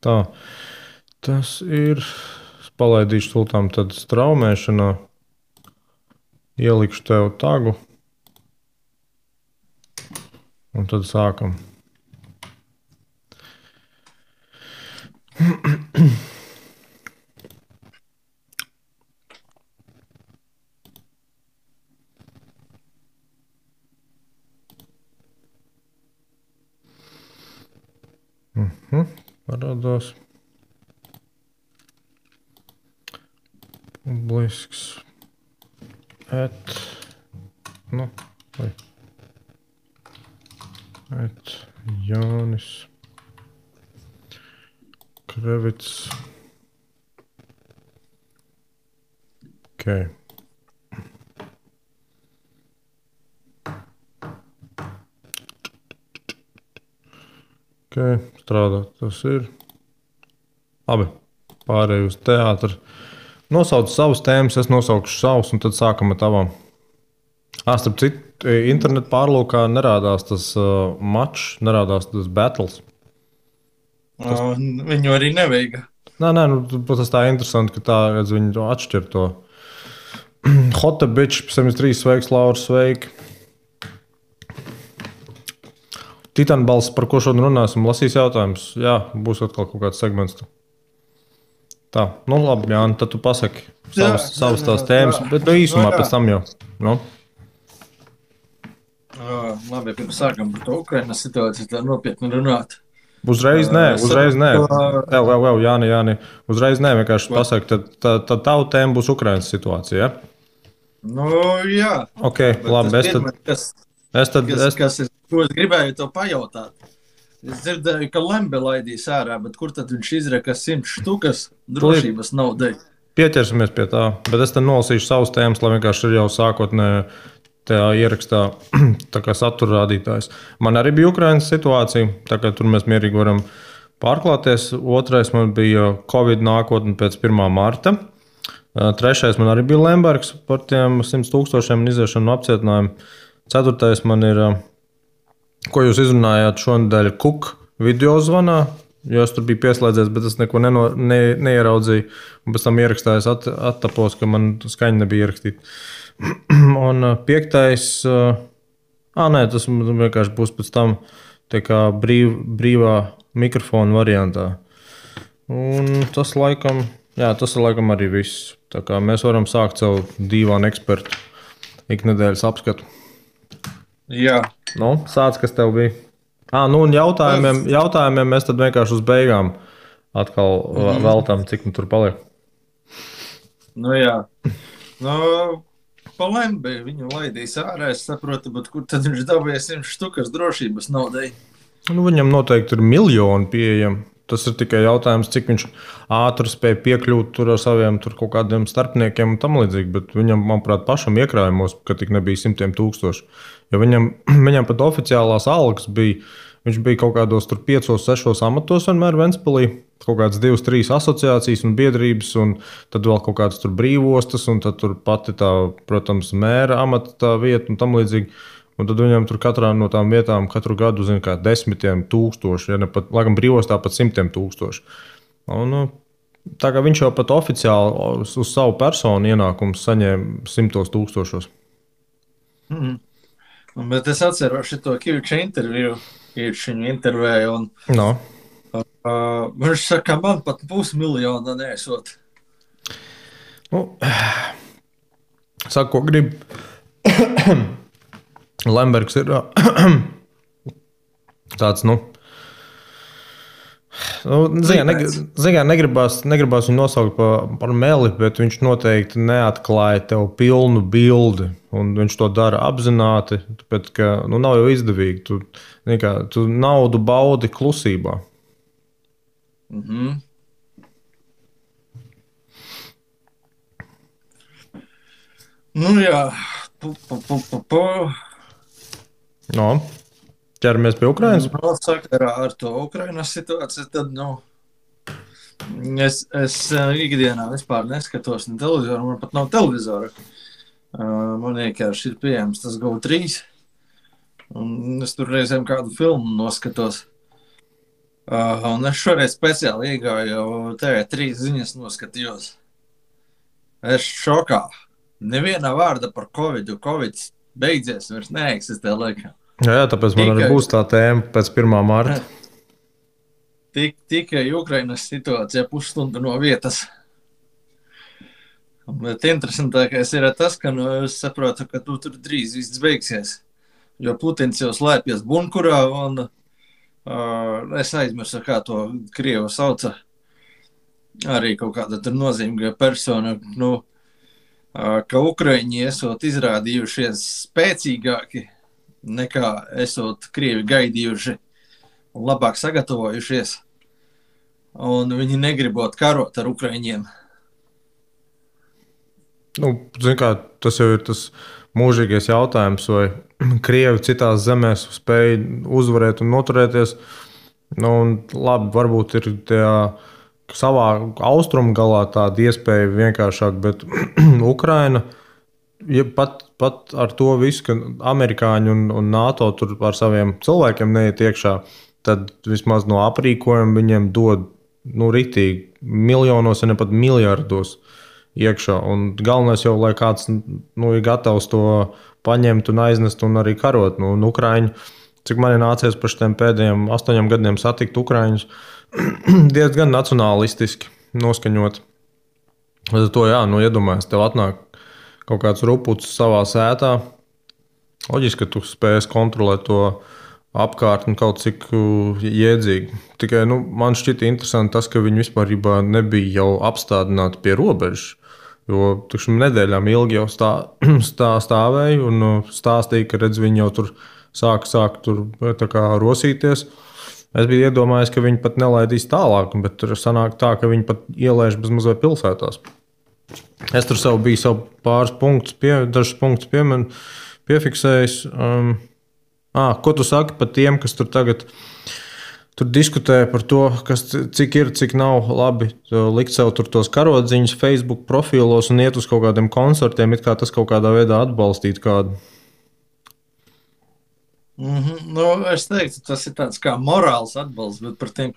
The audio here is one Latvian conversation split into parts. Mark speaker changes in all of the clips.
Speaker 1: Tā, tas ir. Es palaidīšu sultām tad straumēšanā. Ielikšu tev tagu. Un tad sākam. Parādās. Publisks. Nu, vai. Jānis Krevits. Okay. Okay, strādā. Tas ir. Labi. Pārēju uz teātru. Nosauc savus tēmas, es nosaukšu savus, un tad sākam ar tavām. Starp citu, internetu pārlūkā nerādās tas mačs, nerādās tas battles.
Speaker 2: Viņu arī nevajag.
Speaker 1: Nē, tas tā interesanti, ka tā, redz, viņi to atšķir to. Hota bitch, 73, sveiks, Laura, sveiki. Titanbalss, par ko šodien runāsim, lasīs jautājumus. Jā, būs atkal kaut kāds segments. Tā, nu labi, Jāni, tad tu pasaki savas tās tēmas, bet īsumā pēc tam jau. Nu?
Speaker 2: Labi, pirms sākam par to Ukrainas situāciju, tā nopietni runāt.
Speaker 1: Uzreiz nē. Vēl, Jāni. Uzreiz nē, vienkārši pasaki, tad tavu tēmu būs Ukrainas situācija, ja?
Speaker 2: Nu, jā.
Speaker 1: Ok, labi,
Speaker 2: Kas ir, ko es gribēju to pajautāt? Es dzirdēju, ka Lembe laidīs ārā, bet kur tad viņš izreka 100 štukas drošības naudai?
Speaker 1: Pieķersimies pie tā, bet es te nolasīšu savus tēmas, lai vienkārši ir jau sākotnēji tajā ierakstā tā kā satura rādītājs. Man arī bija Ukrainas situācija, tā kā tur mēs mierīgi varam pārklāties. Otrais man bija Covid nākotne pēc 1. marta. Trešais man arī bija Lembergs par tiem 100 000 iziešanu no apcietinājumu. Ceturtais man ir, ko jūs izrunājāt šonadēļ, Kuk video zvanā, jo es tur biju pieslēdzies, bet es neko neieraudzīju. Un pēc tam ierakstājos attapos, ka man skaņa nebija ierakstīta. Un piektais, tas vienkārši būs pēc tam tā kā brīvā mikrofona variantā. Un tas laikam arī viss. Tā kā mēs varam sākt savu dīvānu ekspertu iknedēļas apskatu.
Speaker 2: Jā.
Speaker 1: Nu, sāc, kas tev bija? Un jautājumiem mēs tad vienkārši uz beigām atkal veltām, cik nu tur paliek.
Speaker 2: Nu jā. Pa Lembe viņu laidīs ārā, es saprotu, bet kur tad viņš dabūja 100 štukas drošības naudai?
Speaker 1: Viņam noteikti ir miljoni pieejami. Tas ir tikai jautājums, cik viņš ātri spēja piekļūt tur ar saviem tur kaut kādiem starpniekiem un tam līdzīgi. Bet viņam, manuprāt, pašam iekrājumos, ka tik nebija 100 000. Jo viņam pat oficiālās algas bija. Viņš bija kaut kādos 5, 6 amatos vienmēr Ventspilī. Kaut kādas 2, 3 asociācijas un biedrības, un tad vēl kaut kādas tur brīvostas, un tad tur pati tā, protams, mēra amata tā vieta un tam līdzīgi. Un tad viņam tur katrā no tām vietām katru gadu zina kā 10 000, ja ne pat, laikam brīvostā pat 100 000. Un, tā kā viņš jau pat oficiāli uz savu personu ienākumu saņēma 100 000.
Speaker 2: Bet es atceros šo Kīviča interviju, Kīviča intervēju, un viņš saka, man pat pusmiljona nesot.
Speaker 1: Saka, ko grib. Lembergs ir tāds, negribās viņu nosaukt par meli, bet viņš noteikti neatklāja tev pilnu bildi. Un viņš to dara apzināti, tāpēc, ka nav jau izdevīgi. Tu naudu baudi klusībā.
Speaker 2: Nu jā.
Speaker 1: Ķeramies pie Ukrainas.
Speaker 2: Sakarā ar to Ukrainas situāciju, tad es ikdienā vispār neskatos ne televizoru, man pat nav televizora. Man vienkārši ir pieejams tas GO3. Un es tur reizēm kādu filmu noskatos. Un es šoreiz speciāli iegāju TV3 ziņas noskatījos. Es šokā. Neviena vārda par Covid. Covid beidzies, vairs neeksistē laikam.
Speaker 1: Jā, tāpēc man arī būs tā tēma pēc 1. marta.
Speaker 2: Tikai Ukrainas situācija pusstundu no vietas. Bet interesantākais ir tas, ka es saprotu, ka tur drīz viss beigsies. Jo Putins jau slēpjas bunkurā, un es aizmirsu, kā to Krievu sauca. Arī kaut kāda tur nozīmīga persona, ka Ukraiņi esot izrādījušies spēcīgāki nekā esot Krievi gaidījuši un labāk sagatavojušies. Un viņi negribot karot ar Ukraiņiem.
Speaker 1: Tas jau ir tas mūžīgais jautājums, vai Krievi citās zemēs spēj uzvarēt un noturēties. Labi, varbūt ir savā austrumu galā tāda iespēja vienkāršāk, bet Ukraina, ja pat ar to visu, ka amerikāņi un NATO tur ar saviem cilvēkiem neiet iekšā, tad vismaz no aprīkojuma viņiem dod ritīgi miljonos, ja ne pat miljardos iekšā. Un galvenais jau, lai kāds ir gatavs to paņemt un aiznest un arī karot. Ukraiņi, cik man ir nācies par šiem pēdējiem 8 gadiem satikt Ukraiņus, diezgan nacionālistiski noskaņot. Tad to iedomājies, tev atnāk kaut kāds rupucis savā sētā. Loģiski, ka tu spēsi kontrolēt to apkārtni kaut cik jēdzīgi. Tikai man šķita interesanti tas, ka viņi vispār nebija jau apstādināti pie robežas. Jo nedēļām ilgi jau stāvēja un stāstīja, ka viņi jau tur sāk tur rosīties. Es biju iedomājies, ka viņi pat nelaidīs tālāk, bet tur sanāk tā, ka viņi pat ielaiž bez mazliet pilsētās. Es tur biju pāris punktus, dažus punktus piefiksējis. Ko tu saki par tiem, kas tur tagad diskutē par to, cik ir, cik nav labi likt sev tos karodziņus Facebook profilos un iet uz kaut kādiem koncertiem, it kā tas kaut kādā veidā atbalstīt kādu?
Speaker 2: Es teiktu, tas ir tāds kā morāls atbalsts, bet par tiem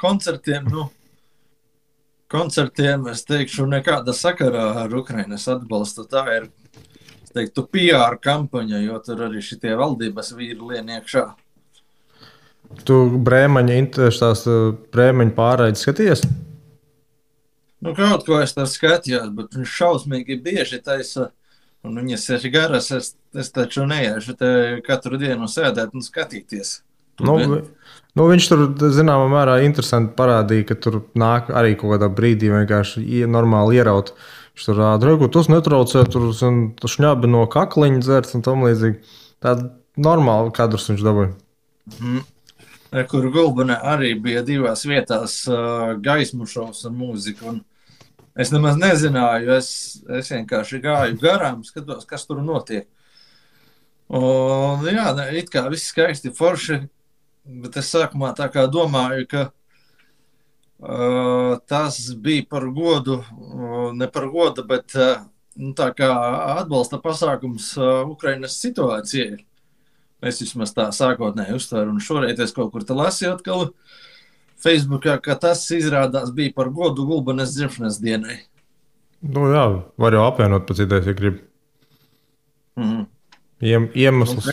Speaker 2: koncertiem es teikšu nekāda sakarā ar Ukrainas atbalstu. Tā ir, es teiktu, PR kampaņa, jo tur arī šitie valdības vīri lien iekšā.
Speaker 1: Tu Brēmeņa pārraides skaties?
Speaker 2: Kaut ko es tā skatījos, bet viņš šausmīgi bieži taisa, un viņas ir garas, es taču neiešu te katru dienu sēdēt un skatīties.
Speaker 1: Viņš tur, zināmā mērā, interesanti parādīja, ka tur nāk arī kaut kādā brīdī vienkārši normāli ieraut. Viņš tur rāda, ka tas netraucē, tur šņabi no kakliņa dzert un tam līdzīgi. Tāda normāla kadrus viņš dabūja.
Speaker 2: Kur Gulbenē arī bija 2 vietās gaismu šovs un mūzika. Un es nemaz nezināju, es vienkārši gāju garām, skatos, kas tur notiek. Un it kā viss skaisti forši, bet es sākumā tā kā domāju, ka tas bija par godu, ne par godu, bet tā kā atbalsta pasākums Ukrainas situācijai. Es vismaz tā sākotnēji uztveru, un šoreiz es kaut kur te lasīju atkal Facebookā, ka tas izrādās bija par godu Gulbenes dzimšanas dienai.
Speaker 1: Var jau apvienot pēc idejas, ja grib. Iemesls.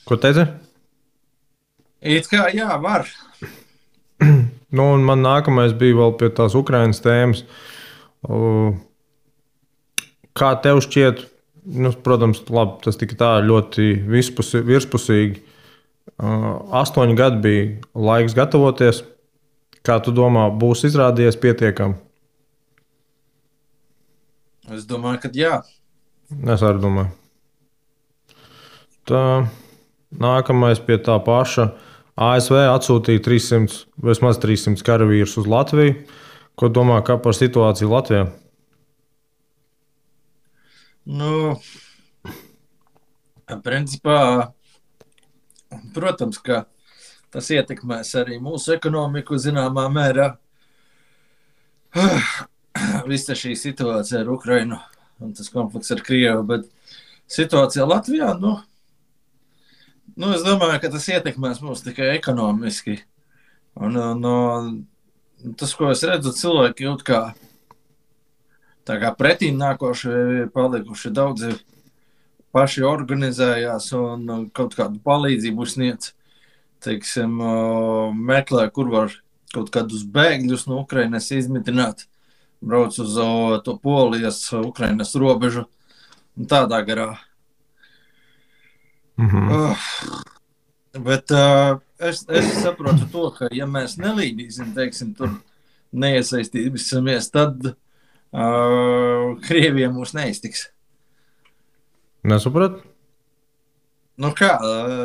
Speaker 1: Ko teici?
Speaker 2: It kā var.
Speaker 1: Un man nākamais bija vēl pie tās Ukrainas tēmas. Kā tev šķiet, protams, labi, tas tika tā ļoti virspusīgi. 8 gadi bija laiks gatavoties. Kā tu domā, būs izrādījies pietiekami?
Speaker 2: Es domāju, ka jā.
Speaker 1: Es arī domāju. Tā, nākamais pie tā paša. ASV atsūtīja vismaz 300 karavīrus uz Latviju. Ko domā par situāciju Latvijā?
Speaker 2: Principā, protams, ka tas ietekmēs arī mūsu ekonomiku zināmā mērā. Visa šī situācija ar Ukrainu un tas konflikts ar Krievu, bet situācija Latvijā, es domāju, ka tas ietekmēs mūs tikai ekonomiski. Un, tas, ko es redzu, cilvēki jūt kā, tā kā pretīm nākoši palikuši daudzi paši organizējās un kaut kādu palīdzību sniedz. Teiksim, meklē, kur var kaut kādus bēgļus no Ukrainas izmitināt, brauc uz to Polijas, Ukrainas robežu un tādā garā. Bet es saprotu to, ka ja mēs nelīdīsim, teiksim, tur neiesaistīsimies, tad Krievija mūs neiztiks.
Speaker 1: Nesapratu?
Speaker 2: Nu kā,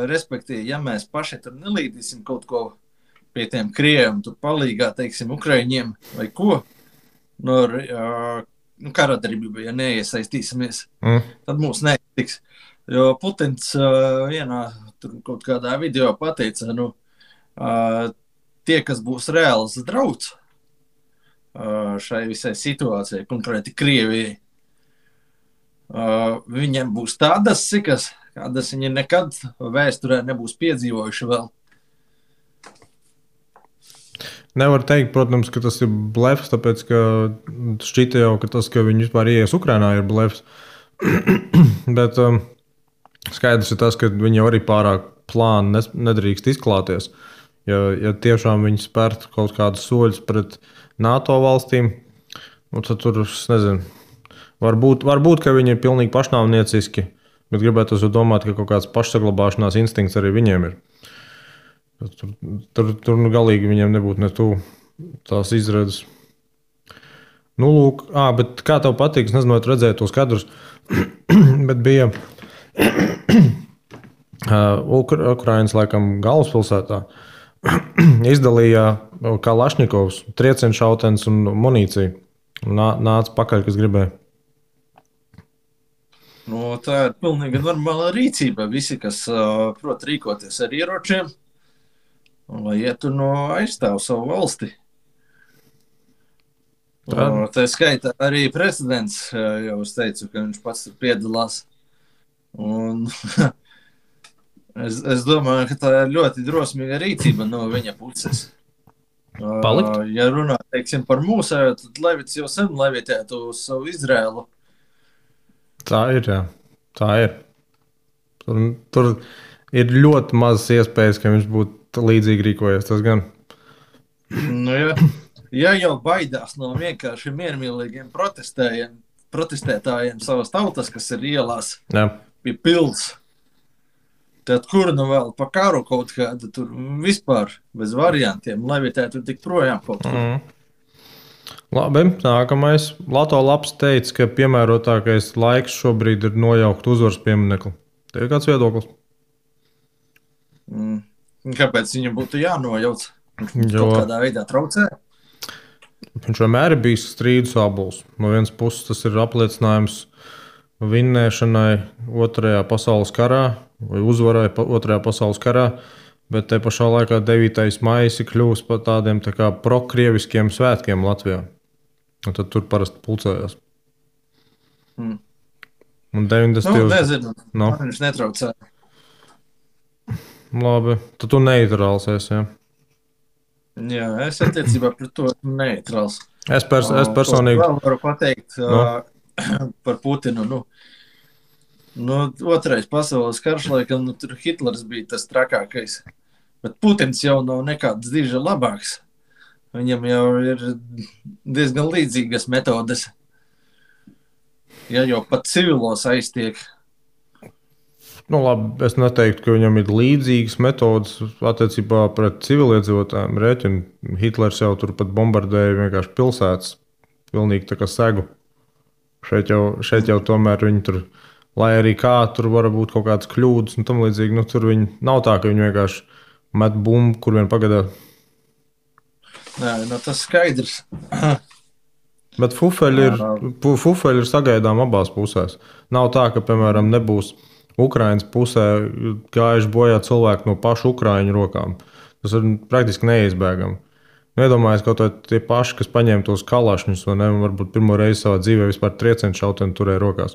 Speaker 2: respektīvi, ja mēs paši tur nelīdīsim kaut ko pie tiem Krieviem, tur palīgā, teiksim, Ukraiņiem vai ko, karadarbība, ja neiesaistīsimies, tad mūs neiztiks. Jo Putins vienā tur kaut kādā video pateica, tie, kas būs reāls drauds šai visai situācijai, konkrēti Krievijai, viņiem būs tādas sikas, kādas viņi nekad vēsturē nebūs piedzīvojuši vēl.
Speaker 1: Nevar teikt, protams, ka tas ir blefs, tāpēc, ka šķita jau, ka tas, ka viņi vispār ieies Ukrainā, ir blefs. Bet skaidrs ir tas, ka viņi jau arī pārāk plāni nedrīkst izklāties. Ja tiešām viņi spērtu kaut kādus soļus pret NATO valstīm, tad tur, es nezinu, varbūt, ka viņi ir pilnīgi pašnāvnieciski, bet gribētu domāt, ka kaut kāds pašsaglabāšanās instinkts arī viņiem ir. Tur galīgi viņiem nebūtu ne tuvu tās izredzes. Lūk, bet kā tev patīk, es nezinu, vai tu redzēji tos kadrus, bet bija Ukrainas, laikam, galvaspilsētā izdalīja Kalašņikovs, triecienšautens un munīciju. Nāca pakaļ, kas gribēja.
Speaker 2: Tā ir pilnīgi normāla rīcība. Visi, kas prot rīkoties ar ieročiem, lai ietu aizstāv savu valsti. Tā skaitā arī prezidents jau es teicu, ka viņš pats tur piedalās. Un es domāju, ka tā ir ļoti drosmīga rīcība no viņa puses.
Speaker 1: Palikt?
Speaker 2: Ja runā, teiksim, par mūsu, tad Levits jau sen levitētu uz savu Izrēlu. Tā
Speaker 1: ir, jā. Tā ir. Tur ir ļoti mazas iespējas, ka viņš būtu līdzīgi rīkojies. Tas gan.
Speaker 2: Ja jau baidās no vienkārši miermīlīgiem protestētājiem savas tautas, kas ir ielās pie pils, tad kur vēl pa karu kaut kāda tur vispār bez variantiem levitētu tik projām kaut kur.
Speaker 1: Labi, nākamais. Lato Labs teica, ka piemērotākais laiks šobrīd ir nojaukt uzvaras pieminekli. Tev ir kāds viedoklis?
Speaker 2: Kāpēc viņam būtu jānojauc? Kaut kādā veidā traucē?
Speaker 1: Viņš vienmēr ir bijis strīdus abols. No vienas puses tas ir apliecinājums vinnēšanai Otrajā pasaules karā vai uzvarai Otrajā pasaules karā, bet te pašā laikā 9. maijs ir kļuvis par tādiem tā kā prokrieviskiem svētkiem Latvijā. Un tad tur parasti pulcējās. Un 90.
Speaker 2: Nezinu, man viņš netraucē.
Speaker 1: Labi, tad tu neitrāls esi, jā?
Speaker 2: Jā, es attiecībā pret to neitrāls.
Speaker 1: Es personīgi
Speaker 2: varu pateikt par Putinu. Otrais pasaules karš, laikam, tur Hitlers bija tas trakākais. Bet Putins jau nav nekāds diži labāks. Viņam jau ir diezgan līdzīgas metodes. Ja jau pat civilos aiztiek.
Speaker 1: Labi, es neteiktu, ka viņam ir līdzīgas metodes attiecībā pret civiliedzīvotājiem. Rēķinu Hitlers jau tur pat bombardēja vienkārši pilsētas. Pilnīgi tā kā segu. Šeit jau tomēr viņi tur, lai arī kā tur var būt kaut kādas kļūdas un tam līdzīgi, tur viņi nav tā, ka viņi vienkārši met bumbu, kur vien pagadā.
Speaker 2: Nē, tas skaidrs.
Speaker 1: Bet fufeļi ir sagaidām abās pusēs. Nav tā, ka, piemēram, nebūs Ukrainas pusē gājuši bojā cilvēki no pašu Ukraiņu rokām. Tas ir praktiski neizbēgami. Iedomājies, kaut tie paši, kas paņēma tos kalašņus, vai ne, varbūt pirmo reizi savā dzīvē vispār triecienšauteni turēja rokās.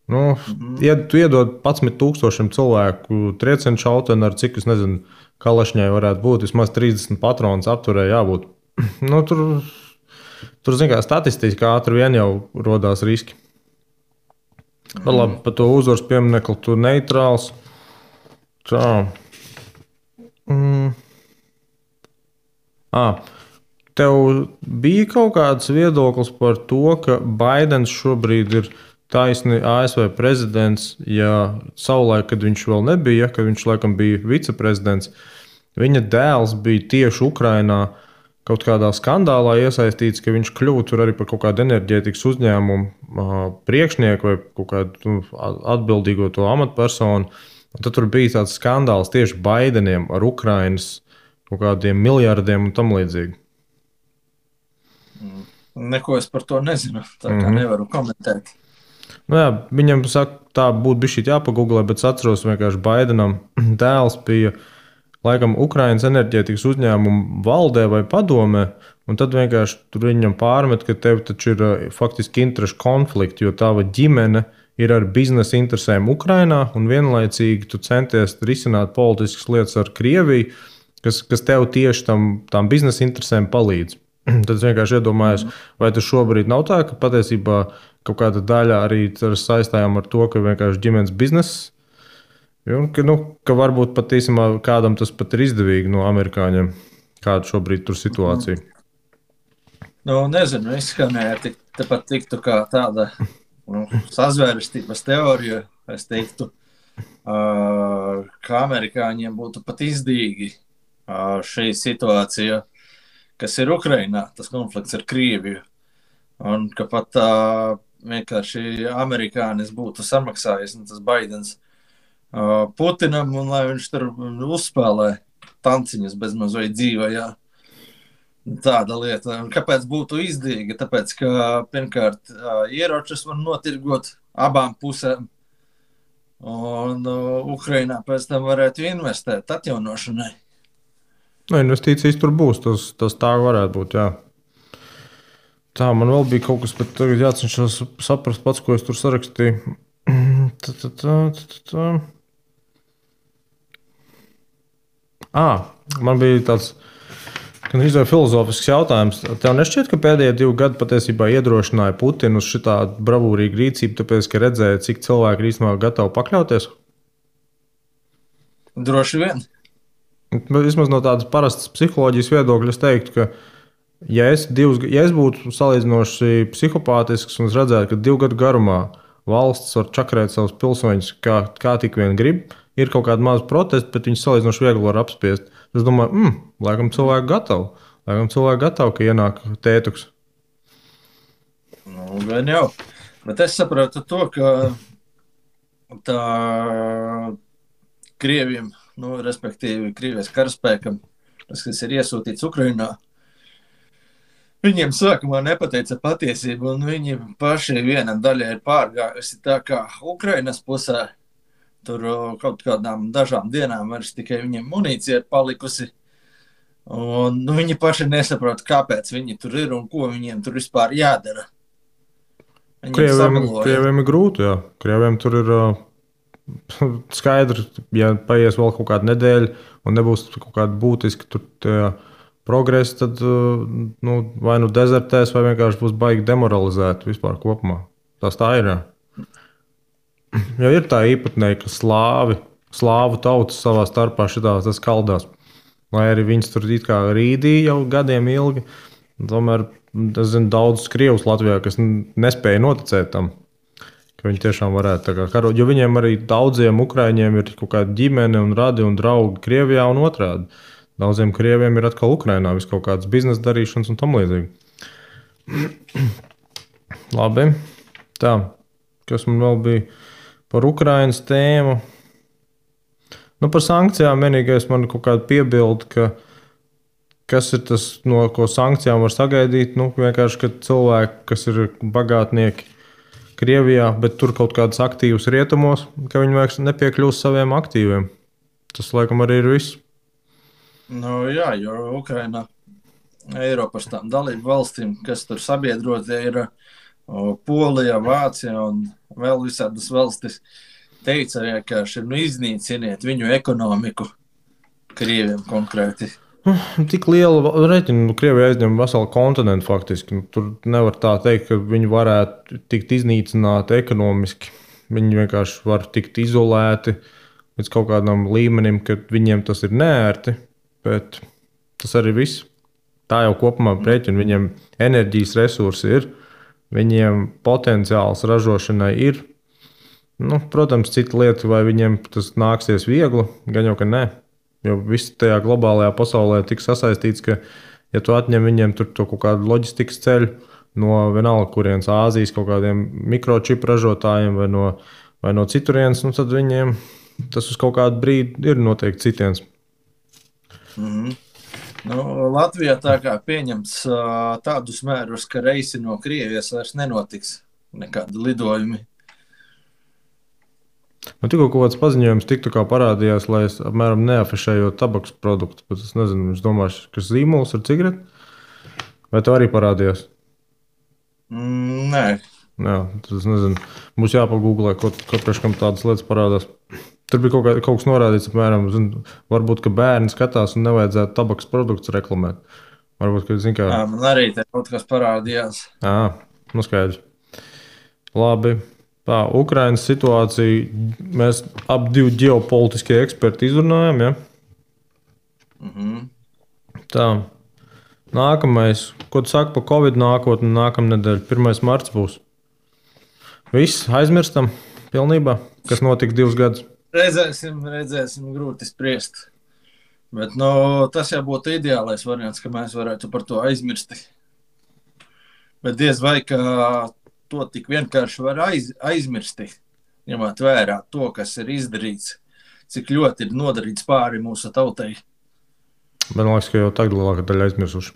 Speaker 1: Nu, ja tu iedod 11,000 cilvēku triecienu šauteni ar cik, es nezinu, kalašņai varētu būt, vismaz 30 patronus apturē jābūt. Nu, tur zin kā, statistiski ātri vien jau rodās riski. Bet labi, par to uzvaras pieminekli tu neitrāls. Tā. Tev bija kaut kāds viedoklis par to, ka Baidens šobrīd ir taisni ASV prezidents, ja savulaik, kad viņš vēl nebija, kad viņš laikam bija viceprezidents, viņa dēls bija tieši Ukrainā kaut kādā skandālā iesaistīts, ka viņš kļuva tur arī par kaut kādu enerģētikas uzņēmumu priekšnieku vai kaut kādu atbildīgo to amatpersonu. Un tad tur bija tāds skandāls tieši Baideniem ar Ukrainas kaut kādiem miljardiem un tam līdzīgi.
Speaker 2: Neko es par to nezinu, tā kā nevaru komentēt.
Speaker 1: Nu jā, viņam saka, tā būtu bišķīt jāpagooglē, bet es atceros vienkārši Baidenam dēls bija laikam Ukrainas enerģētikas uzņēmumu valdē vai padomē, un tad vienkārši tur viņam pārmet, ka tev taču ir faktiski interešu konflikti, jo tava ģimene ir ar biznesa interesēm Ukrainā, un vienlaicīgi tu centies risināt politiskas lietas ar Krieviju, kas tev tieši tām biznesa interesēm palīdz. Tad es vienkārši iedomājos, vai tas šobrīd nav tā, ka patiesībā kaut kāda daļa arī saistājām ar to, ka vienkārši ģimenes bizness, ka varbūt pat īstenībā kādam tas pat ir izdevīgi no amerikāņiem, kāda šobrīd tur situācija.
Speaker 2: Nezinu, izskanēja, tepat tiktu kā tāda sazvērestības teorija, es teiktu, ka amerikāņiem būtu pat izdevīgi šī situācija, kas ir Ukrainā, tas konflikts ar Krieviju, un ka pat vienkārši amerikānis būtu samaksājis, un tas Baidens Putinam, un lai viņš tur uzspēlē tanciņus bezmaz vai dzīvajā. Tāda lieta. Un kāpēc būtu izdevīgi? Tāpēc, ka pirmkārt ieročus var notirgot abām pusēm, un Ukrainā pēc tam varētu investēt atjaunošanai.
Speaker 1: Investīcijas tur būs, tas tā varētu būt, jā. Tā, man vēl bija kaut kas, bet tagad jācenšas saprast pats, ko es tur sarakstīju. Man bija tāds gandrīz filozofisks jautājums. Tev nešķiet, ka pēdējie 2 gadi patiesībā iedrošināja Putinu uz šitādu bravūrīgu rīcību, tāpēc, ka redzēja, cik cilvēki ir īstenībā gatavi pakļauties?
Speaker 2: Droši vien.
Speaker 1: Vismaz no tādas parastas psiholoģijas viedokļa es teiktu, ka ja es būtu salīdzinoši psihopātisks un redzētu, ka 2 gadu garumā valsts var čakarēt savus pilsoņus, kā tik vien grib, ir kaut kāda maza protesta, bet viņus salīdzinoši viegli var apspiest. Es domāju, laikam cilvēki gatavi, ka ienāk tētuks.
Speaker 2: Gan jau. Bet es saprotu to, ka tā Krieviem, respektīvi Krievijas karaspēkam, tas, kas ir iesūtīts Ukrainā, viņiem sākumā nepateica patiesību, un viņi paši viena daļa ir pārgājusi tā kā Ukrainas pusē. Tur kaut kādām dažām dienām vairs tikai viņiem munīcija ir palikusi. Un viņi paši nesaprot, kāpēc viņi tur ir un ko viņiem tur vispār jādara.
Speaker 1: Krieviem ir grūti, jā. Krieviem tur ir skaidrs, ja paies vēl kaut kāda nedēļa un nebūs kaut kāda būtiska progresa, tad vai dezertēs, vai vienkārši būs baigi demoralizēti vispār kopumā. Tas tā ir, jā. Jo ir tā īpatnēja, ka slāvu tautas savā starpā šitās kaldās. Lai arī viņas tur it kā rīdīja jau gadiem ilgi, tomēr es zinu daudzus krievus Latvijā, kas nespēja noticēt tam, ka viņi tiešām varētu tā kā karot. Jo viņiem arī daudziem ukraiņiem ir kaut kāda ģimene un radi un draugi Krievijā un otrādi. Daudziem krieviem ir atkal Ukrainā vis kaut kādas biznesa darīšanas un tam līdzīgi. Labi. Tā, kas man vēl bija par Ukrainas tēmu. Par sankcijām vienīgais man kaut kāda piebilda, ka kas ir tas, no ko sankcijām var sagaidīt. Vienkārši, ka cilvēki, kas ir bagātnieki Krievijā, bet tur kaut kādas aktīvas rietumos, ka viņi vairs nepiekļūst saviem aktīviem. Tas, laikam, arī ir viss.
Speaker 2: Jā, jo Ukraina Eiropas tām dalību valstīm, kas tur sabiedrotie ir, Polija, Vācija un vēl visādas valstis teica vienkārši, iznīciniet viņu ekonomiku, Krieviem konkrēti.
Speaker 1: Tik liela reķina, Krievija aizņem veselu kontinentu faktiski. Tur nevar tā teikt, ka viņi varētu tikt iznīcināti ekonomiski. Viņi vienkārši var tikt izolēti līdz kaut kādam līmenim, kad viņiem tas ir neērti, bet tas arī viss. Tā jau kopumā rēķina, viņiem enerģijas resursi ir, viņiem potenciāls ražošanai ir. Protams, cita lieta, vai viņiem tas nāksies viegli, gan jau, ka nē. Jo viss tajā globālajā pasaulē tik sasaistīts, ka, ja tu atņem viņiem tur to kaut kādu loģistikas ceļu no vienalga, kurienes Āzijas kaut kādiem mikročipu ražotājiem vai no citurienes, tad viņiem tas uz kaut kādu brīdi ir noteikti citiens.
Speaker 2: Latvijā tā kā pieņemts tādus mērus, ka reisi no Krievijas vairs nenotiks nekādi lidojumi.
Speaker 1: Man tikko kaut kāds paziņojums tiktu parādījās, lai es apmēram neafišēju tabakas produktu, bet es nezinu, es domāju, ka zīmols ar cigareti? Vai tev arī parādījās?
Speaker 2: Nē.
Speaker 1: Jā, tad es nezinu. Mums jāpagūglē, ko priekškam tādas lietas parādās. Tur bija kaut kas norādīts, apmēram, varbūt, ka bērni skatās un nevajadzētu tabakas produktus reklamēt. Varbūt, ka, zin kā...
Speaker 2: Jā, man arī te kaut kas parādījās.
Speaker 1: Skaidrs. Labi. Tā, Ukrainas situācija, mēs ap divi ģeopolitiskie eksperti izrunājam, ja? Tā, nākamais, ko tu saki par Covid nākotni nākamnedēļ, 1. marts būs? Viss, aizmirstam pilnībā, kas notika 2 gadus?
Speaker 2: Redzēsim, grūti spriest. Bet tas jau būtu ideālais variants, ka mēs varētu par to aizmirst. Bet diez vai, ka to tik vienkārši var aizmirst, ņemot vērā to, kas ir izdarīts, cik ļoti ir nodarīts pāri mūsu tautai.
Speaker 1: Man liekas, ka jau tagad lielākā daļa aizmirsuši.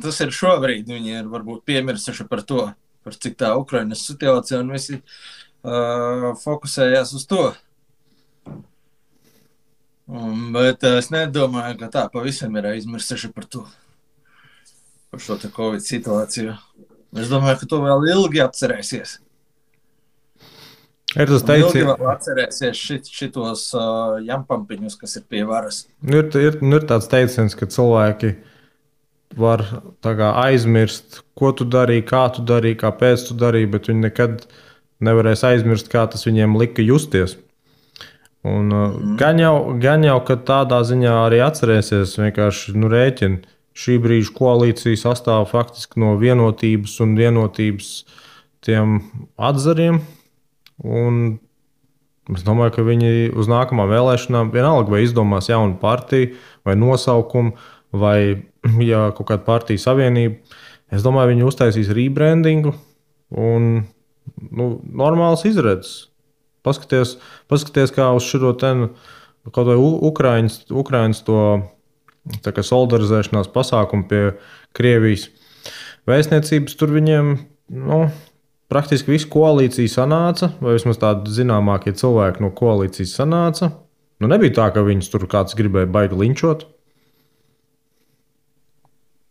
Speaker 2: Tas ir šobrīd. Viņi ir varbūt piemirsuši par to, par cik tā Ukrainas situācija, un visi fokusējās uz to. Bet es nedomāju, ka tā pavisam ir aizmirsuši par to. Par šo te Covid situāciju. Es domāju, ka to vēl ilgi atcerēsies.
Speaker 1: Ir tas teiciens,
Speaker 2: ilgi vēl atcerēsies šitos jampampiņus, kas ir pie varas.
Speaker 1: Ir tāds teiciens, ka cilvēki var aizmirst, ko tu darīji, kā tu darīji, kāpēc tu darīji, bet viņi nekad nevarēs aizmirst, kā tas viņiem lika justies. Un, gan jau, ka tādā ziņā arī atcerēsies, vienkārši rēķina. Šī brīža koalīcija sastāv faktiski no vienotības un vienotības tiem atzariem. Un es domāju, ka viņi uz nākamām vēlēšanām vienalga vai izdomās jaunu partiju vai nosaukumu vai kaut kādu partiju savienību. Es domāju, viņi uztaisīs rebrandingu un normāls izredzes. Paskaties kā uz šo kaut vai Ukrainas to solidarizēšanās pasākumu pie Krievijas vēstniecības. Tur viņiem praktiski visa koalīcija sanāca, vai vismaz tādi zināmākie cilvēki no koalīcijas sanāca. Nebija tā, ka viņus tur kāds gribēja baigi linčot.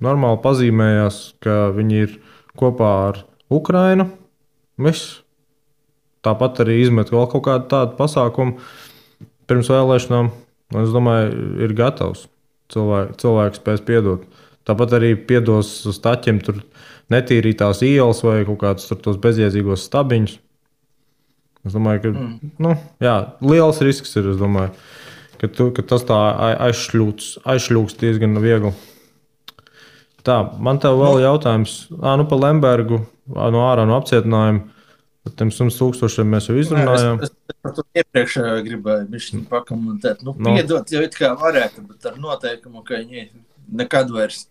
Speaker 1: Normāli pazīmējās, ka viņi ir kopā ar Ukrainu. Viss. Tāpat arī izmet vēl kaut kādu tādu pasākumu pirms vēlēšanām. Es domāju, ir gatavs. Cilvēks spēs piedot. Tāpat arī piedos staķiem tur netīrītās ielas vai kaut kādus tos bezjēdzīgos stabiņus. Es domāju, ka liels risks ir. Es domāju, ka tas tā aizšļūks diezgan viegli. Tā, man tev vēl jautājums. Par Lembergu ārā no apcietinājuma. Par tiem 100,000 mēs jau izrunājām.
Speaker 2: Es par to iepriekš gribēju bišķiņ pakomentēt. Piedot jau it kā varētu, bet ar noteikumu, ka viņi nekad vairs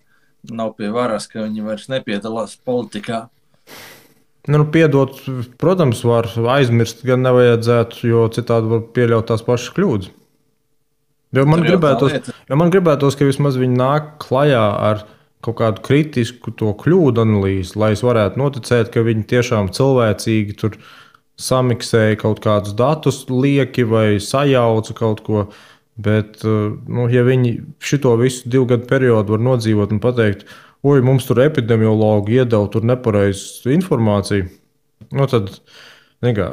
Speaker 2: nav pie varas, ka viņi vairs nepiedalās politikā.
Speaker 1: Piedot, protams, var aizmirst, gan nevajadzētu, jo citādi var pieļaut tās pašas kļūdas. Jo man gribētos, ka vismaz viņi nāk klajā ar kaut kādu kritisku to kļūdu analīzi, lai es varētu noticēt, ka viņi tiešām cilvēcīgi tur samiksēja kaut kādus datus lieki vai sajauca kaut ko. Bet, ja viņi šito visu 2 gadu periodu var nodzīvot un pateikt, oi, mums tur epidemiologi iedeva tur nepareizu informāciju. Nu, tad, nekā,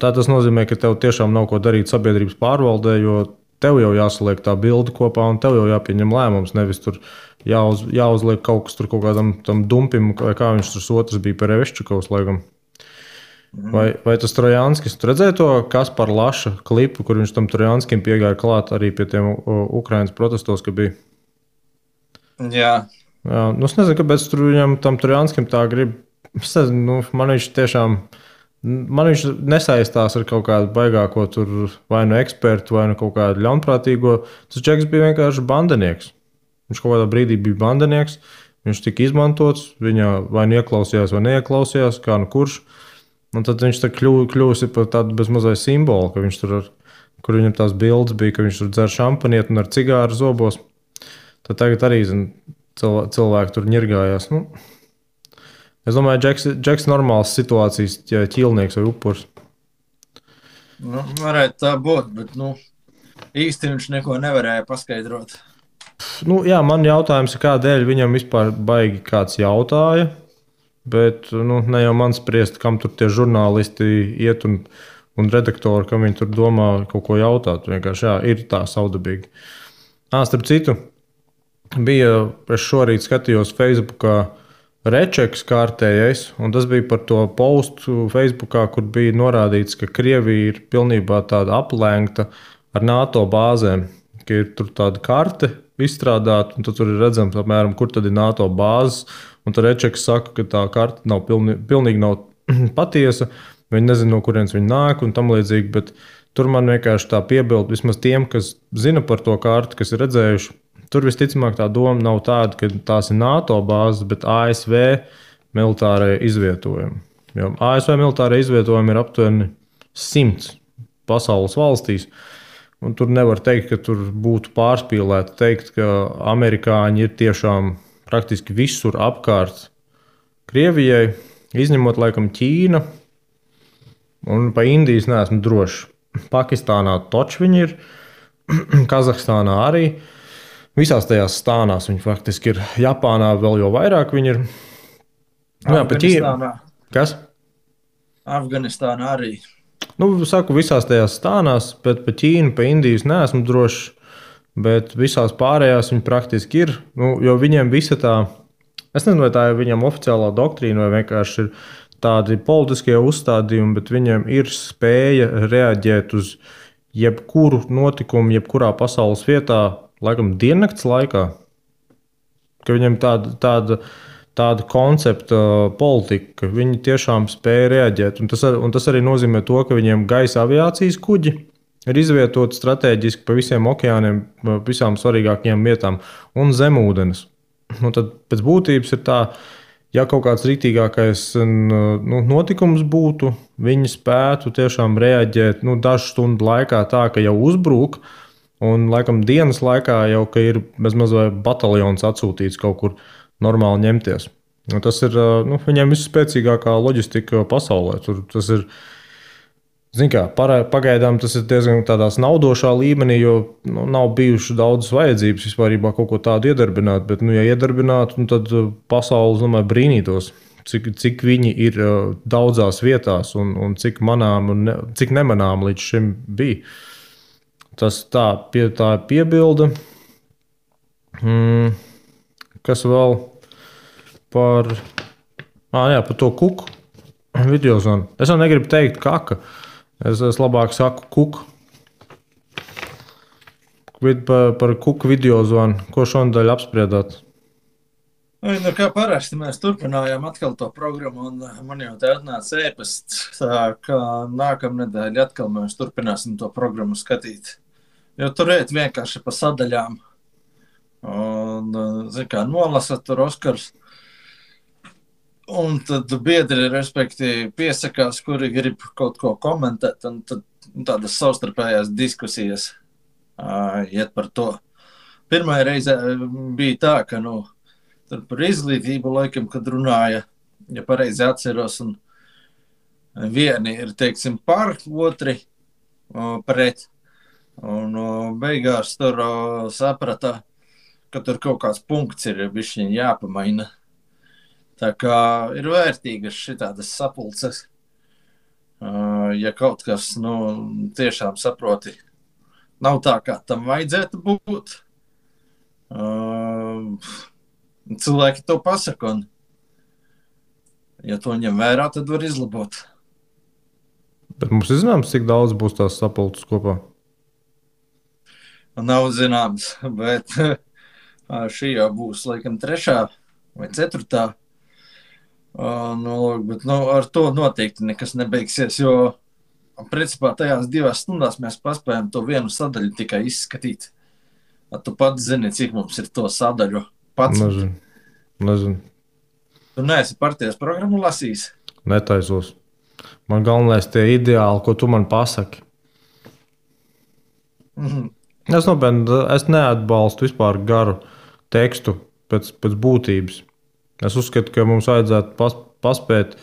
Speaker 1: tas nozīmē, ka tev tiešām nav ko darīt sabiedrības pārvaldē, jo tev jau jāsaliek tā bilde kopā un tev jau jāpieņem lēmums. Nevis tur jāuzliek kaut kas tur kaut kādam tam dumpim, vai kā viņš tur otrs bija par Evešķikovs laikam. Vai tas Trojanskis, tu redzēji to Kaspar Laša klipu, kur viņš tam Trojanskim piegāja klāt arī pie tiem Ukrainas protestos, ka bija?
Speaker 2: Jā.
Speaker 1: Jā, nu es nezinu, kāpēc tur viņam tam Trojanskim tā grib. Es nezinu, man viņš tiešām, man viņš nesaistās ar kaut kādu baigāko tur vai nu ekspertu, vai nu kaut kādu ļaunprātīgo. Tas čeks bija vienkārši bandinieks. Viņš kaut kādā brīdī bija bandinieks, viņš tika izmantots, viņa vai nu ieklausījās, vai neieklausījās, kā nu kurš. Un tad viņš kļūsi par tādu bezmazliet simbolu, ka viņš tur, kur viņam tās bildes bija, ka viņš tur dzer šampanieti un ar cigāru zobos. Tad tagad arī cilvēki tur ņirgājās. Nu, es domāju, Džeks normāls situācijas ķīlnieks vai upurs.
Speaker 2: Nu, varētu tā būt, bet īsti viņš neko nevarēja paskaidrot.
Speaker 1: Nu, jā, man jautājums ir, kādēļ viņam vispār baigi kāds jautāja. Bet ne jau man spriest, kam tur tie žurnālisti iet un redaktori, kam viņi tur domā kaut ko jautāt. Vienkārši jā, ir tā saudabīgi. Starp citu, es šorīt skatījos Facebookā rečeks kārtējais, un tas bija par to postu Facebookā, kur bija norādīts, ka Krievija ir pilnībā tāda aplēgta ar NATO bāzēm, ka ir tur tāda karte izstrādāta, un tad tur ir redzams, apmēram, kur tad ir NATO bāzes. Un tad Rečeks saka, ka tā karte nav pilnīgi nav patiesa. Viņi nezina, no kurienes viņi nāk un tam līdzīgi. Bet tur man vienkārši tā piebilda, vismaz tiem, kas zina par to karti, kas ir redzējuši. Tur visticamāk tā doma nav tāda, ka tās ir NATO bāzes, bet ASV militārai izvietojumi. Jo ASV militārai izvietojumi ir aptuveni 100 pasaules valstīs. Un tur nevar teikt, ka tur būtu pārspīlēti teikt, ka amerikāņi ir tiešām praktiski visur apkārt Krievijai, izņemot laikam Ķīna, un pa Indijas neesmu drošs. Pakistānā toči viņi ir, Kazahstānā arī. Visās tajās stānās viņi faktiski ir. Japānā vēl jau vairāk viņi ir. Jā, pa Ķīna. Kas?
Speaker 2: Afganistānā arī.
Speaker 1: Saku, visās tajās stānās, bet pa Ķīnu, pa Indijas neesmu drošs. Bet visās pārējās viņi praktiski ir. Jo viņiem visa tā, es nezinu, vai tā ir viņam oficiālā doktrīna, vai vienkārši ir tādi politiskie uzstādījumi, bet viņiem ir spēja reaģēt uz jebkuru notikumu, jebkurā pasaules vietā, laikam diennakts laikā. Ka viņiem tāda koncepta politika, ka viņi tiešām spēja reaģēt. Un tas arī nozīmē to, ka viņiem gaisa aviācijas kuģi ir izvietoti strateģiski pa visiem okeāniem, visām svarīgākajām vietām un zemūdens. Tad pēc būtības ir tā, ja kaut kāds rītīgākais notikums būtu, viņi spētu tiešām reaģēt dažu stundu laikā tā, ka jau uzbruk, un laikam dienas laikā jau ir bezmaz vai bataljons atsūtīts kaut kur normāli ņemties. Tas ir viņiem visspēcīgākā loģistika pasaulē. Tas ir, pagaidām tas ir diezgan tādā naudošā līmenī, jo nav bijuši daudzas vajadzības vispārībā kaut ko tādu iedarbināt. Bet, ja iedarbinātu, tad pasaule, domāju, brīnītos, cik viņi ir daudzās vietās un cik manām un cik nemanām līdz šim bija. Tas tā piebilda. Kas vēl par to kuku videozonu? Es jau negribu teikt kaka. Es labāk saku kuku. Par kuku videozonu. Ko šonadēļ apspriedāt?
Speaker 2: Kā parasti mēs turpinājām atkal to programmu, un man jau te atnāca ēpasts, ka nākamnedēļ atkal mēs turpināsim to programmu skatīt. Jo tur iet vienkārši pa sadaļām. Un, nolasat tur Oskars. Un tad biedri, respektīvi, piesakās, kuri grib kaut ko komentēt, un tad tādas savstarpējās diskusijas iet par to. Pirmā reize bija tā, ka tur par izglītību laikam, kad runāja, ja pareizi atceros, un vieni ir, teiksim, par, otri pret. Un beigās tur saprata, ka tur kaut kāds punkts ir bišķiņ jāpamaina. Tā kā ir vērtīgas šitādas sapulces. Ja kaut kas, tiešām saproti, nav tā, kā tam vajadzētu būt. Cilvēki to pasaka, un ja to ņem vērā, tad var izlabot.
Speaker 1: Bet mums ir zināms, cik daudz būs tās sapulces kopā?
Speaker 2: Nav zināms, bet šī jau būs laikam 3. vai 4. Bet ar to noteikti nekas nebeigsies, jo principā tajās 2 stundās mēs paspējam to vienu sadaļu tikai izskatīt. Tu pats zini, cik mums ir to sadaļu pats.
Speaker 1: Nezinu.
Speaker 2: Tu neesi partijas programmu lasījis?
Speaker 1: Netaisos. Man galvenais tie ideāli, ko tu man pasaki. Es neatbalstu vispār garu tekstu pēc būtības. Es uzskatu, ka mums vajadzētu paspēt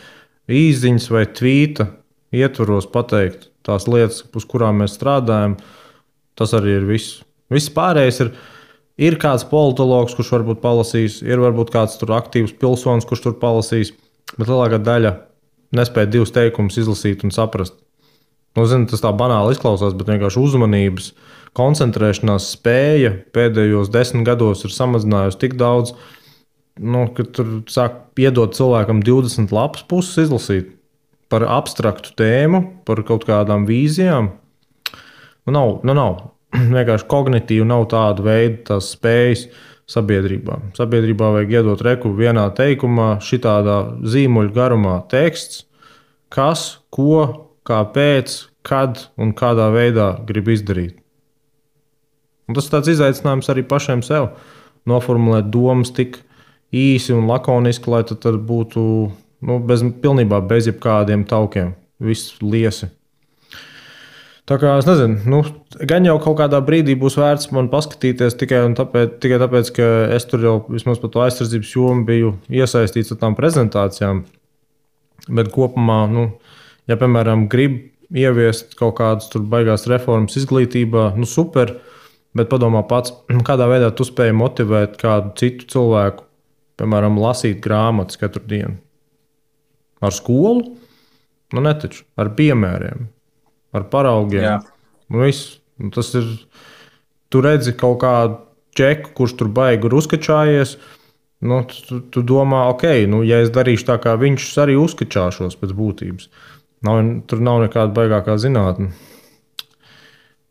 Speaker 1: īsziņas vai tvīta ietvaros pateikt tās lietas, uz kurām mēs strādājam. Tas arī ir viss. Viss pārējais ir kāds politologs, kurš varbūt palasīs, ir varbūt kāds tur aktīvs pilsonis, kurš tur palasīs, bet lielākā daļa nespēja 2 teikumus izlasīt un saprast. Zinu, tas tā banāli izklausās, bet vienkārši uzmanības, koncentrēšanās spēja pēdējos 10 gados ir samazinājusi tik daudz, ka tur sāk piedot cilvēkam 20 lapas puses izlasīt par abstraktu tēmu, par kaut kādām vīzijām. Nav. Vienkārši kognitīvi nav tāda veida tās spējas sabiedrībā. Sabiedrībā vajag iedot reku vienā teikumā, šitādā zīmuļu garumā teksts, kas, ko, kāpēc, kad un kādā veidā grib izdarīt. Un tas ir tāds izaicinājums arī pašiem sev. Noformulēt domas tik īsi un lakoniski, lai tad būtu pilnībā bez jebkādiem taukiem. Viss liesi. Tā kā es nezinu, gan jau kaut kādā brīdī būs vērts man paskatīties tikai tāpēc, ka es tur jau vismaz par to aizsardzības jomu biju iesaistīts ar tām prezentācijām. Bet kopumā, ja, piemēram, grib ieviest kaut kādas tur baigās reformas izglītībā, super, bet padomā pats, kādā veidā tu spēj motivēt kādu citu cilvēku, piemēram, lasīt grāmatas katru dienu. Ar skolu? Netaču, ar piemēriem. Ar paraugiem. Viss. Tas ir. Tu redzi kaut kādu čeku, kurš tur baigi ir uzkačājies. Tu domā, ja es darīšu tā, kā viņš arī uzkačāšos pēc būtības. Tur nav nekāda baigākā zinātne.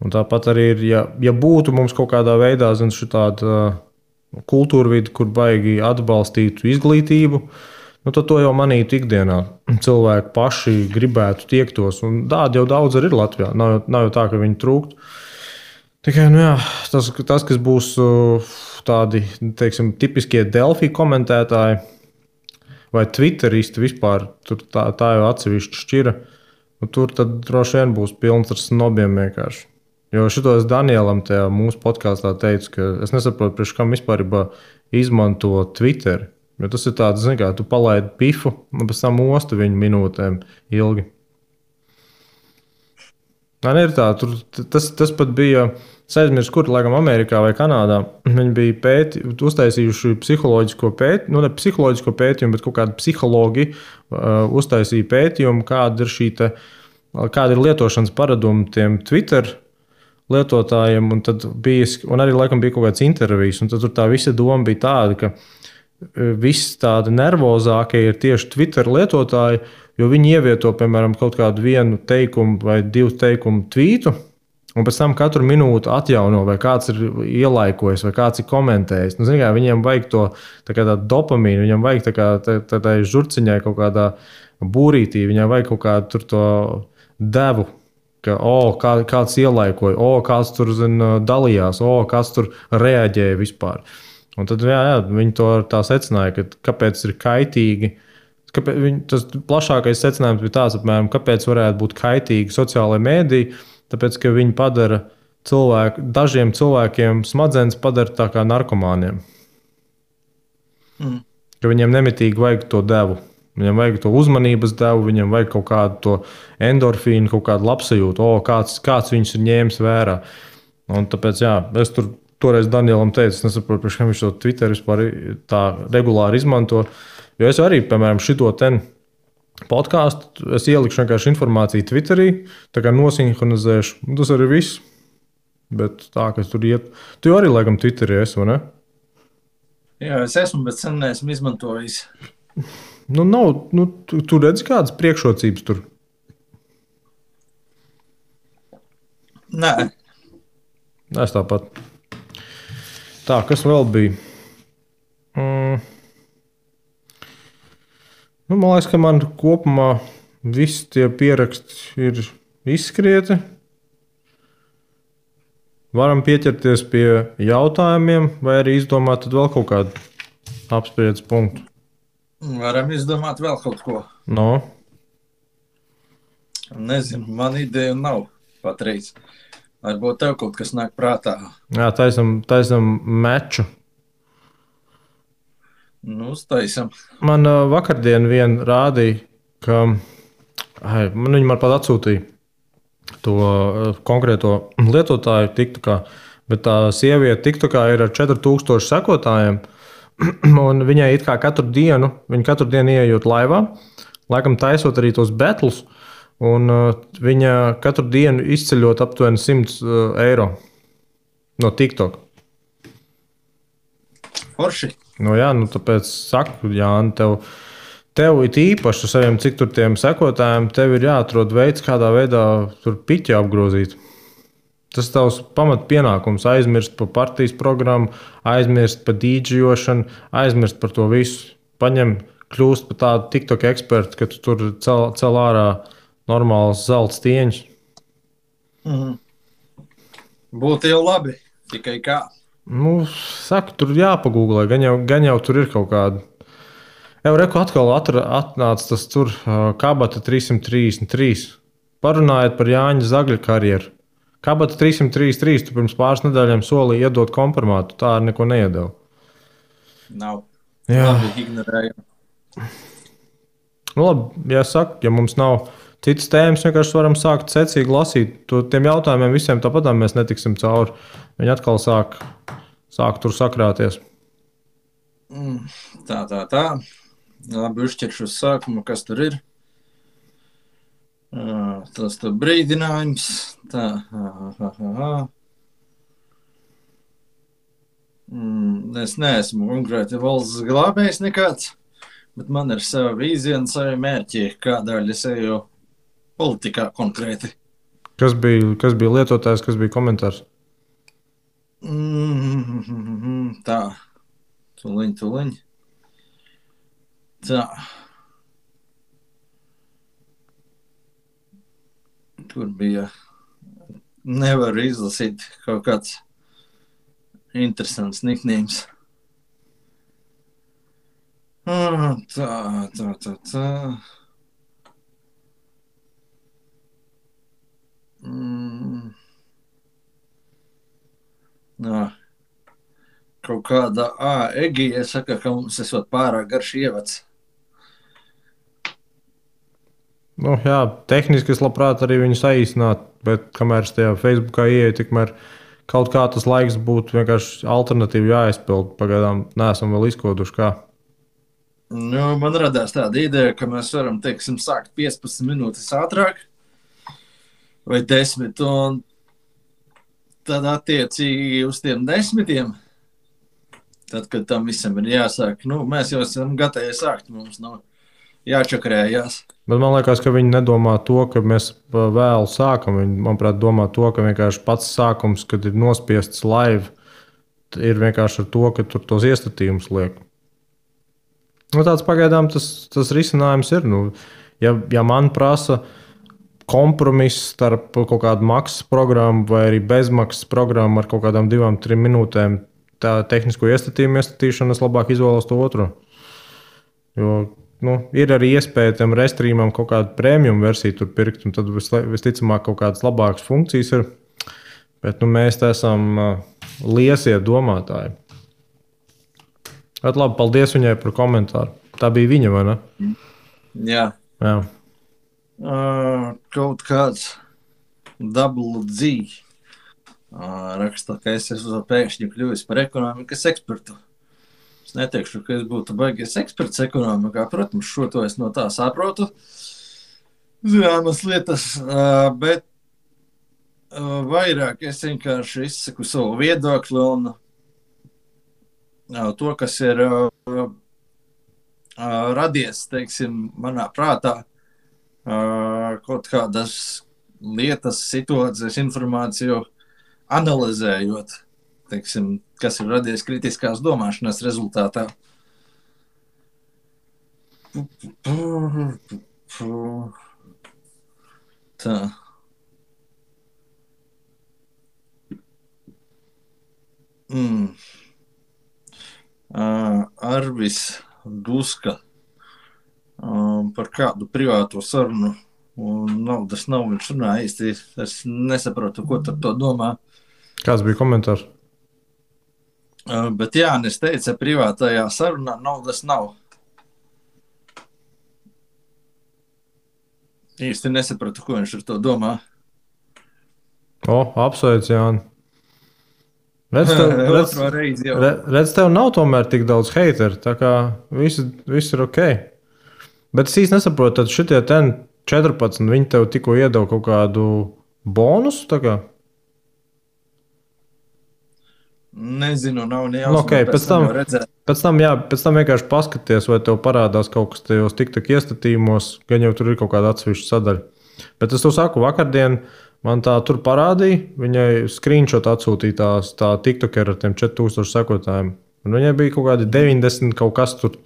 Speaker 1: Un tāpat arī ir, ja būtu mums kaut kādā veidā tāda kultūra vide, kur baigi atbalstītu izglītību, tad to jau manītu ikdienā. Cilvēki paši gribētu tiektos, un tādi jau daudz arī ir Latvijā. Nav jau tā, ka viņi trūktu. Tikai tas, kas būs tādi, teiksim, tipiskie Delfi komentētāji vai Twitteristi vispār, tur tā jau atsevišķi šķira. Tur tad droši vien būs pilns ar snobiem vienkārši. Jo šito es Danielam tajā mūsu podkāstā teicu, ka es nesaprotu, priekš kam vispār izmanto Twitteri. Jo tas ir tāds, kā tu palaidi pifu un pēc tam ostu viņu minūtēm ilgi. Ir tā, tas pat bija, es aizmirsu, kur, laikam, Amerikā vai Kanādā. Viņi bija uztaisījuši psiholoģisko pētījumu, ne psiholoģisko pētījumu, bet kaut kādi psihologi uztaisīja pētījumu, kāda ir lietošanas paradumi tiem Twitter lietotājiem. Un arī, laikam, bija kaut kāds intervijas, un tad tur tā visa doma bija tāda, ka viss tādi nervozākie ir tieši Twitter lietotāji, jo viņi ievieto, piemēram, kaut kādu vienu teikumu vai 2 teikumu tvītu, un pēc tam katru minūtu atjauno, vai kāds ir ielaikojis, vai kāds ir komentējis. Viņiem vajag to tādu dopamīnu, viņam vajag tādai žurciņai kaut kādā būrītī, viņam vajag kaut kādu tur to devu, ka kāds ielaikoja, kāds tur dalījās, kāds tur reaģēja vispār. Un tad viņi to tā secināja, ka kāpēc ir kaitīgi. Tas plašākais secinājums bija tāds, apmēram, kāpēc varētu būt kaitīgi sociālajie mēdīji, tāpēc, ka viņi padara dažiem cilvēkiem smadzenes padara tā kā narkomāniem. Ka viņiem nemitīgi vajag to devu. Viņam vajag to uzmanības devu, viņam vajag kaut kādu to endorfīnu, kaut kādu labsajūtu, kāds viņus ir ņēmis vērā. Un tāpēc, es tur toreiz Danielam teicu, es nesaprotu, priekš kam viņš to Twitter vispār tā regulāri izmanto. Jo es arī, piemēram, šito ten podkāstu, es ielikšu vienkārši informāciju Twitterī, tā kā nosinhronizēšu. Tas arī viss. Bet tā, ka tur iet. Tu jau arī, laikam, Twitterī esi, vai ne?
Speaker 2: Jā, es esmu, bet sen neesmu izmantojis.
Speaker 1: Nu, nav, tu redzi kādas priekšrocības tur?
Speaker 2: Nē.
Speaker 1: Es tāpat. Tā, kas vēl bija? Nu, man liekas, ka man kopumā visi tie pieraksti ir izskrieti. Varam pieķerties pie jautājumiem, vai arī izdomāt vēl kaut kādu apspriedzes punktu.
Speaker 2: Varam izdomāt vēl kaut ko.
Speaker 1: No.
Speaker 2: Nezinu, man ideja nav patreiz. Varbūt tev kaut kas nāk prātā.
Speaker 1: Jā, taisam meču.
Speaker 2: Nu, uztaisam.
Speaker 1: Man vakardien vien rādīja, ka viņi man pat atsūtīja to konkrēto lietotāju TikTokā, bet tā sieviete TikTokā ir ar 4000 sekotājiem, un viņai it kā katru dienu ieejot laivā, laikam taisot arī tos betlus, un viņa katru dienu izceļot aptuveni 100 eiro no TikTok.
Speaker 2: Forši.
Speaker 1: Nu jā, tāpēc saku, Jāni, tev ir īpaši ar saviem cik tur tiem sekotājiem, tev ir jāatrod veids, kādā veidā tur piķi apgrozīt. Tas tavs pamat pienākums, aizmirst par partijas programmu, aizmirst par dīdžošanu, aizmirst par to visu. Paņem, kļūst par tādu TikTok ekspertu, ka tu tur cel ārā normāls zelta stieņš.
Speaker 2: Būtu jau labi, tikai kā.
Speaker 1: Nu, saku, tur jāpagūglē, gan jau tur ir kaut kāda. Jau reku atkal atnāca tas tur Kabata 333. Parunājiet par Jāņa Zagļa karjeru. Kabata 333, tu pirms pāris nedēļām solīja iedot kompromātu, tā ar neko neiedeva.
Speaker 2: Nav.
Speaker 1: Jā.
Speaker 2: Labi, ignorējam.
Speaker 1: Nu labi, ja mums nav citas tēmas, vienkārši varam sākt secīgi lasīt. Tiem jautājumiem visiem tāpatām mēs netiksim cauri. Viņi atkal sāk tur sakrāties.
Speaker 2: Tā. Labi, uzķeršu uz sākumu, kas tur ir. Tas tur brīdinājums. Tā. Es neesmu konkrēti valsts glābējs nekāds, bet man ir sava vīzija un savi mērķi, kādēļ es eju politikā konkrēti.
Speaker 1: Kas bija lietotājs, kas bija komentārs?
Speaker 2: Tā. Tuliņ. Tā. Tur bija, nevaru izlasīt kaut kāds interesants nicknames. Tā. Kaut kāda Egija saka, ka mums esot pārāk garš ievads.
Speaker 1: Nu, jā, tehniski es labprāt arī viņu saīsinātu, bet kamēr es tajā Facebookā ieeju, tikmēr kaut kā tas laiks būtu vienkārši alternatīvi jāizpild. Pagaidām neesam vēl izkoduši kā.
Speaker 2: Nu, man radās tāda ideja, ka mēs varam, teiksim, sākt 15 minūtes ātrāk vai 10, un tad attiecīgi uz tiem 10, tad, kad tam visam ir jāsāk, mēs jau esam gatavi sākt, mums jāčakrējās.
Speaker 1: Bet man liekas, ka viņi nedomā to, ka mēs vēlu sākam. Viņi, manuprāt, domā to, ka vienkārši pats sākums, kad ir nospiests live, ir vienkārši ar to, ka tur tos iestatījumus liek. Nu, tāds pagaidām tas risinājums ir. Ja man prasa kompromiss starp kaut kādu maksas programmu vai arī bezmaksas programmu ar kaut kādām 2-3 minūtēm, tā tehnisko iestatījumu iestatīšanu, es labāk izvēlos to otro. Jo ir arī iespēja tam restreamam kaut kādu premium versiju tur pirkt, un tad visticamāk kaut kādas labākas funkcijas ir. Bet mēs te esam liesie domātāji. Bet labi, paldies viņai par komentāru. Tā bija viņa, vai ne?
Speaker 2: Jā.
Speaker 1: Jā.
Speaker 2: Kaut kāds double Z. Raksta, ka es esmu pēkšņi kļuvis par ekonomikas ekspertu. Es neteikšu, ka es būtu baigies eksperts ekonomikā. Protams, šo to es no tā saprotu. Zināmas lietas, bet vairāk es vienkārši izsaku savu viedokli un to, kas ir radies, teiksim, manā prātā, kaut kādas lietas, situācijas, informāciju analizējot, teiksim, kas ir radies kritiskās domāšanas rezultātā. Tā. Arvis Duska par kādu privāto sarunu un naudas nav. Viņš runā īsti. Es nesaprotu, ko ar to domā.
Speaker 1: Kāds bija komentārs?
Speaker 2: Bet Jānis teica, privātajā sarunā naudas nav. Īsti nesapratu, ko viņš ar to domā.
Speaker 1: Apsveic, Jāni. Redz, tev nav tomēr tik daudz hateru, tā kā viss ir ok. Bet es īsti nesaprotu, tad šitie 14, viņi tev tikko iedeva kaut kādu bonusu, tā kā?
Speaker 2: Nezinu, nav nejausmas.
Speaker 1: Okay, pēc tam vienkārši paskaties, vai tev parādās kaut kas tajos TikTok iestatījumos, gan jau tur ir kaut kāda atsevišķa sadaļa. Bet es to saku, vakardien man tā tur parādīja, viņai screenshot atsūtītās tā TikToker ar tiem 4000 sekotājiem. Un viņai bija kaut kādi 90 kaut kas tur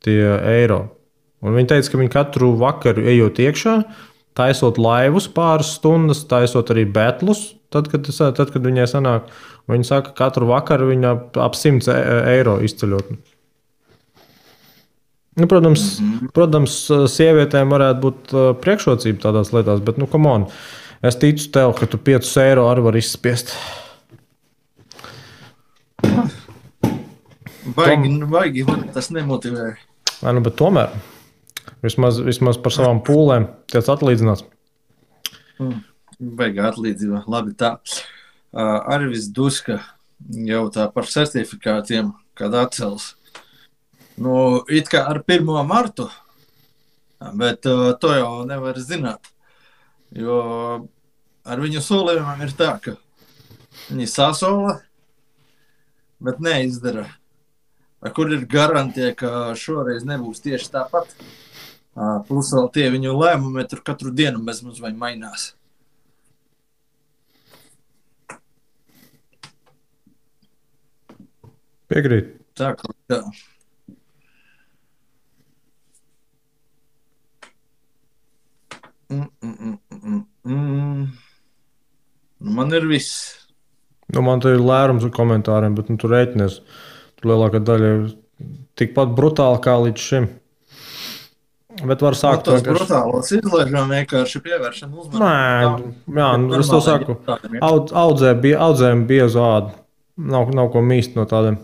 Speaker 1: tie eiro. Un viņa teica, ka viņa katru vakaru ejot iekšā, taisot laivus pāris stundas, taisot arī betlus, tad, kad viņai sanāk. Viņa saka, ka katru vakaru viņa ap 100 eiro izceļot. Nu, protams, sievietēm varētu būt priekšrocība tādās lietās, bet, come on, es ticu tev, ka tu 5 eiro arī var izspiest.
Speaker 2: Baigi, tas nemotivē.
Speaker 1: Bet tomēr, vismaz par savām pūlēm tiec atlīdzināts.
Speaker 2: Baigā atlīdzība, labi tā. Arvis Duska jautā par certifikātiem, kad atcels. It kā ar 1. martu, bet to jau nevar zināt. Jo ar viņu solījumiem ir tā, ka viņi sasola, bet neizdara. Kur ir garantija, ka šoreiz nebūs tieši tāpat? Plus vēl tie viņu lēmumi tur katru dienu bezmaz vai mainās.
Speaker 1: Piekrīt.
Speaker 2: Tā kā tā. Man ir viss.
Speaker 1: Man te ir lērums ar komentāriem, bet tu rēķinies. Tur lielākā daļa ir tikpat brutāli kā līdz šim. Bet var sākt
Speaker 2: tos brutālos izlaižam vienkārši pievēršam uzmanību.
Speaker 1: Nē, es to saku. Audzējam biezu ādu. Nav ko mīst no tādiem.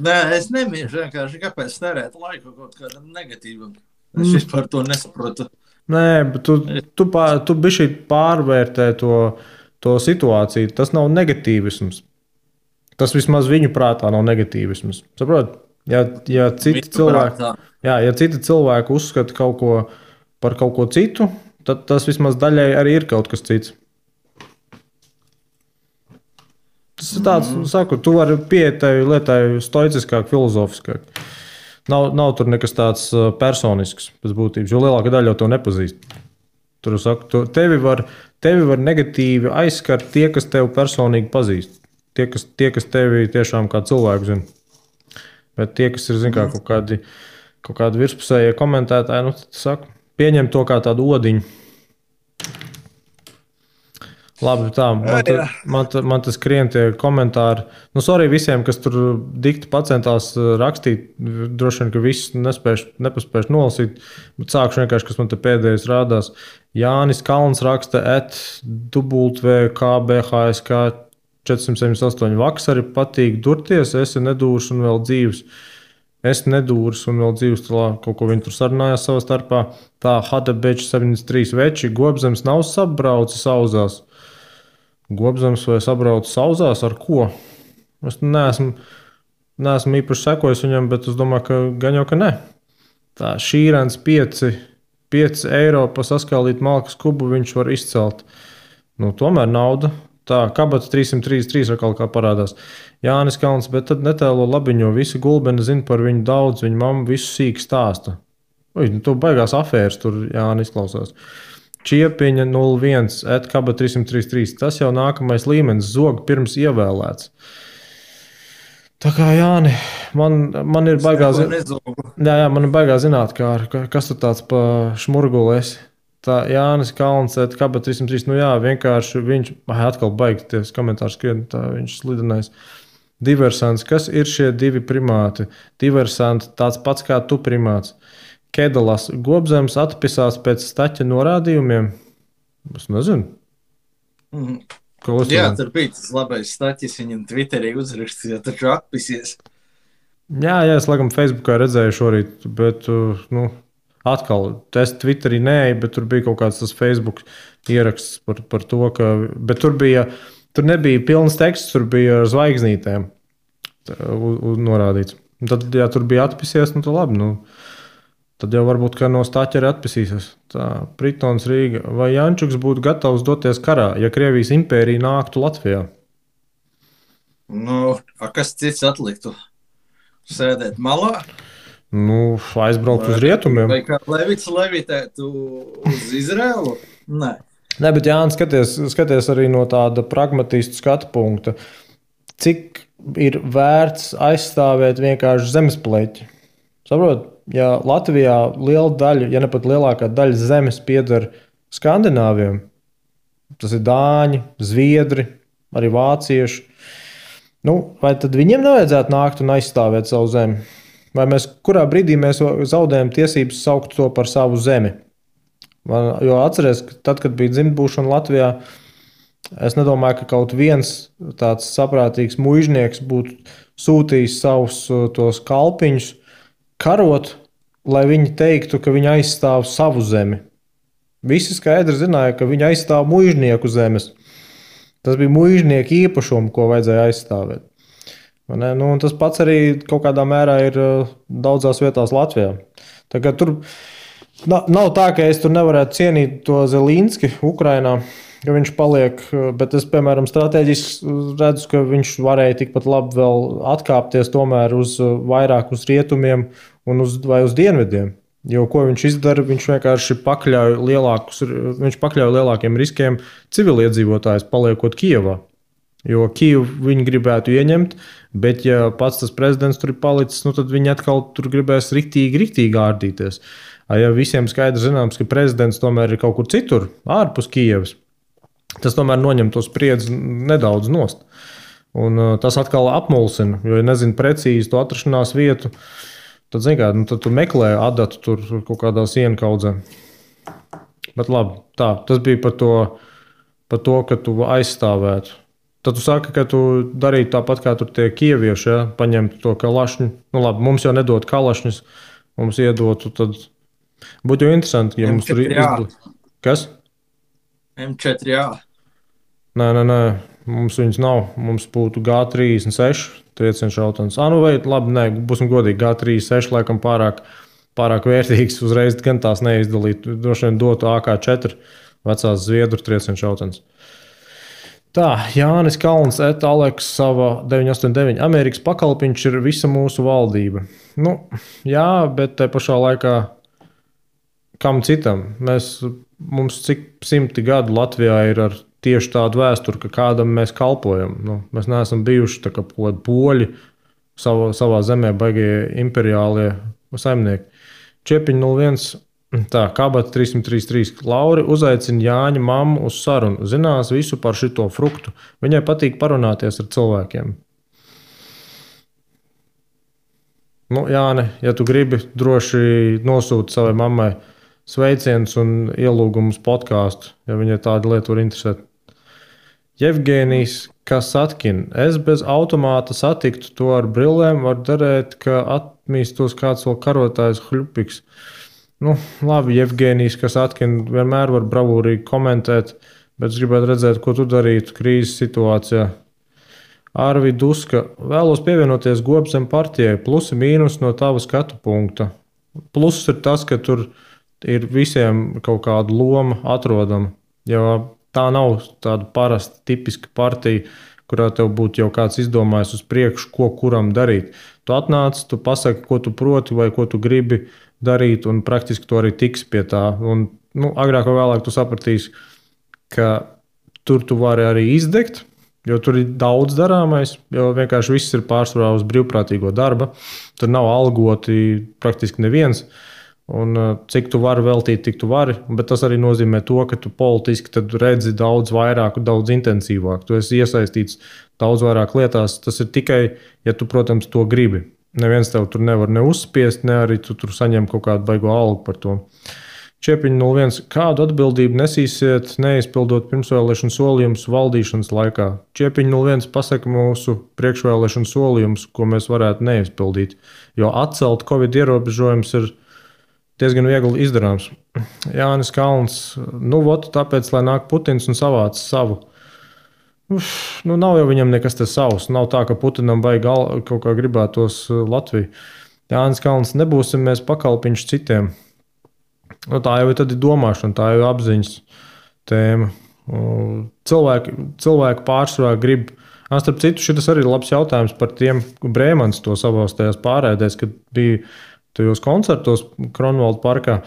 Speaker 2: Nē, es nemīšu vienkārši, kāpēc terēt laiku kaut kādam negatīvam. Es vispār to nesaprotu.
Speaker 1: Nē, bet tu bišķi pārvērtē to situāciju. Tas nav negatīvisms. Tas vismaz viņu prātā nav negatīvisms. Saprot? Ja citi cilvēki uzskata kaut ko par kaut ko citu, tad tas vismaz daļai arī ir kaut kas cits. Tas ir tāds, saku, tu vari pieiet tai lietai stoiciskāk, filozofiskāk. Nav tur nekas tāds personisks pēc būtības, jo lielākā daļa jau to nepazīst. Tur saku, tevi var negatīvi aizskart tie, kas tevi personīgi pazīst. Tie, kas tevi tiešām kā cilvēku zina. Bet tie, kas ir, kaut kādi virspusējie komentētāji, tad saku, pieņem to kā tādu odiņu. Labi, tā, man tas skrien tie komentāri. Sorry visiem, kas tur dikti pacentās rakstīt. Droši vien, ka viss nepaspēšu nolasīt. Bet sākšu vienkārši, kas man te pēdējais rādās. Jānis Kalns raksta @WKBHSK 478. Vakar patīk durties, esi nedūrs un vēl dzīves. Es nedūrs un vēl dzīves, kaut ko viņi tur sarunājās savā starpā. Tā, Hadebečs 73 veči, Gobzems nav sabraucis auzās. Gobzems vai sabrauc sauzās ar ko? Es neesmu īpaši sekojis viņam, bet es domāju, ka gan jau ka ne. Tā šīrens 5 eiro pa saskālīt malkas kubu viņš var izcelt. Nu, tomēr nauda. Tā kabata 333 atkal kā parādās. Jānis Kalns, bet tad netēlo labiņo. Visi gulbeni zina par viņu daudz, viņa mamma visu sīk stāsta. Nu, tu baigās afēras tur Jānis izklausās. Čiepiņa 01, kabata 333. Tas jau nākamais līmenis, zog pirms ievēlēts. Tā kā Jāni, man ir baigā man ir baigā zināt, kas tu tāds pa šmurguli esi. Tā Jānis Kalns, kabata 303, nu jā, vienkārši viņš, atkal baigties komentārs skrien, tā viņš slidenais. Diversants, kas ir šie divi primāti? Diversanti, tāds pats kā tu primāts. Kedalas, Gobzems atpisās pēc staķa norādījumiem? Es nezinu.
Speaker 2: Jā, tur bija tas labais staķis, viņam Twitterī uzrakstīja, taču atpisies.
Speaker 1: Jā, es laikam Facebookā redzēju šorīt, bet, nu, atkal, es Twitterī neeju, bet tur bija kaut kāds tas Facebook ieraksts par to, ka, bet tur nebija pilns teksts, tur bija ar zvaigznītēm norādīts. Tad, ja tur bija atpisies, nu, tad labi, nu, tad jau varbūt, ka no staķa arī atpisīsies. Tā, Pritons Rīga. Vai Jančuks būtu gatavs doties karā, ja Krievijas impērija nāktu Latvijā?
Speaker 2: Nu, kas cits atliktu? Sēdēt malā?
Speaker 1: Nu, aizbraukt uz rietumiem.
Speaker 2: Vai kā Levits levitētu uz Izraelu? Nē.
Speaker 1: Nē, bet Jānis, skaties arī no tāda pragmatistu skatu punkta. Cik ir vērts aizstāvēt vienkārši zemespleķi? Saprot, ja Latvijā liela daļa, ja ne pat lielākā daļa zemes pieder skandināviem, tas ir dāņi, zviedri, arī vācieši, nu, vai tad viņiem nevajadzētu nākt un aizstāvēt savu zemi? Vai kurā brīdī mēs zaudējam tiesības saukt to par savu zemi? Jo atceries, ka tad, kad bija dzimtbūšana Latvijā, es nedomāju, ka kaut viens tāds saprātīgs muižnieks būtu sūtījis savus tos kalpiņus karot, lai viņi teiktu, ka viņi aizstāv savu zemi. Visi skaidri zināja, ka viņi aizstāv muižnieku zemes. Tas bija muižnieku īpašumu, ko vajadzēja aizstāvēt. Nu, tas pats arī kaut kādā mērā ir daudzās vietās Latvijā. Tagad tur nav tā, ka es tur nevarētu cienīt to Zelinski Ukrainā, ka viņš paliek, bet es, piemēram, strateģiski redzu, ka viņš varēja tikpat labi vēl atkāpties tomēr vairāk uz rietumiem un vai uz dienvidiem. Jo ko viņš izdara, viņš vienkārši pakļauj lielākiem riskiem civiliedzīvotājus paliekot Kijevā. Jo Kijevu viņi gribētu ieņemt, bet ja pats tas prezidents tur ir palicis, nu tad viņi atkal tur gribēs riktīgi ārdīties. Ja visiem skaidrs zināms, ka prezidents tomēr ir kaut kur citur, ārpus Kijevas, tas tomēr noņem to spriedzi nedaudz nost. Un tas atkal apmulsina, jo, ja nezinu precīzi to atrašanās vietu, tad, zin kā, nu, tad tu meklē adatu tur kaut kādā sienu kaudzē. Bet labi, tā, tas bija par to, ka tu aizstāvētu. Tad tu saki, ka tu darītu tāpat, kā tur tie kievieši, ja? Paņemtu to kalašņu. Nu labi, mums jau nedod kalašņus, mums iedotu, tad būtu jau interesanti, ja mums tur izdod. Kas?
Speaker 2: M4A.
Speaker 1: Nē, mums viņas nav. Mums būtu G36 triecienu šautavas. Nu vai labi, nē, būsim godīgi, G36 laikam pārāk vērtīgs, uzreiz gan tās neizdalīt. Droši vien dotu AK4 vecās Zviedru triecienu šautavas. Tā, Jānis Kalns, Aleks, sava 989. Amerikas pakalpiņš ir visa mūsu valdība. Nu, jā, bet te pašā laikā kam citam? Mums cik 100 gadu Latvijā ir ar tieši tādu vēsturi, ka kādam mēs kalpojam. Nu, mēs neesam bijuši tā kā poļi savā zemē baigie imperiālie saimnieki. Čiepiņ 01. Tā, kabata 333. Lauri uzaicina Jāņa mammu uz sarunu. Zinās visu par šito fruktu. Viņai patīk parunāties ar cilvēkiem. Nu, Jāni, ja tu gribi, droši nosūti savai mammai sveicienus un ielūgumus podkāstu, ja viņai tāda lieta var interesēt. Jevgenijs Kasatkin. Es bez automāta satiktu to ar brillēm, var darēt, ka atmīstos kāds vēl karotājs hļupiks. Nu, labi, Jevgenijs, kas atkina vienmēr var bravūrīgi komentēt, Bet es gribētu redzēt, ko tu darītu krīzes situācijā. Arvi Duska, vēlos pievienoties Gobzem partijai, plusi mīnus no tava skatu punkta. Pluss ir tas, ka tur ir visiem kaut kāda loma atrodama, jo tā nav tāda parasta, tipiska partija, kurā tev būtu jau kāds izdomājis uz priekšu, ko kuram darīt. Tu atnāc, tu pasaki, ko tu proti vai ko tu gribi darīt, un praktiski tu arī tiksi pie tā. Un, agrāk vai vēlāk tu sapratīsi, ka tur tu vari arī izdegt, jo tur ir daudz darāmais, jo vienkārši viss ir pārsvarā uz brīvprātīgo darba. Tur nav algoti praktiski neviens. Un cik tu vari veltīt, tik tu vari, bet tas arī nozīmē to, ka tu politiski redzi daudz vairāk, daudz intensīvāk. Tu esi iesaistīts daudz vairāk lietās. Tas ir tikai, ja tu, protams, to gribi. Neviens tev tur nevar ne uzspiest, ne arī tu tur saņem kaut kādu baigo algu par to. Čiepiņa 01. Kādu atbildību nesīsiet, neizpildot pirmsvēlēšanu solījumus valdīšanas laikā? Čiepiņa 01. pasaka mūsu priekšvēlēšanu solījumus, ko mēs varētu neizpildīt. Jo atcelt Covid ierobežojumus ir diezgan viegli izdarāms. Jānis Kalns. Tāpēc, lai nāk Putins un savāc savu. Nav jau viņam nekas te savs. Nav tā, ka Putinam vajag kaut kā gribētos Latviju. Jānis Kalns. Nebūsim mēs pakalpiņš citiem. Tā jau ir domāšana, tā jau ir apziņas tēma. Cilvēki pārsvarā grib. Starp citu, šis arī ir labs jautājums par tiem, Brēmans to savās tajās pārēdēs, kad bija tajos koncertos Kronvalda parkā.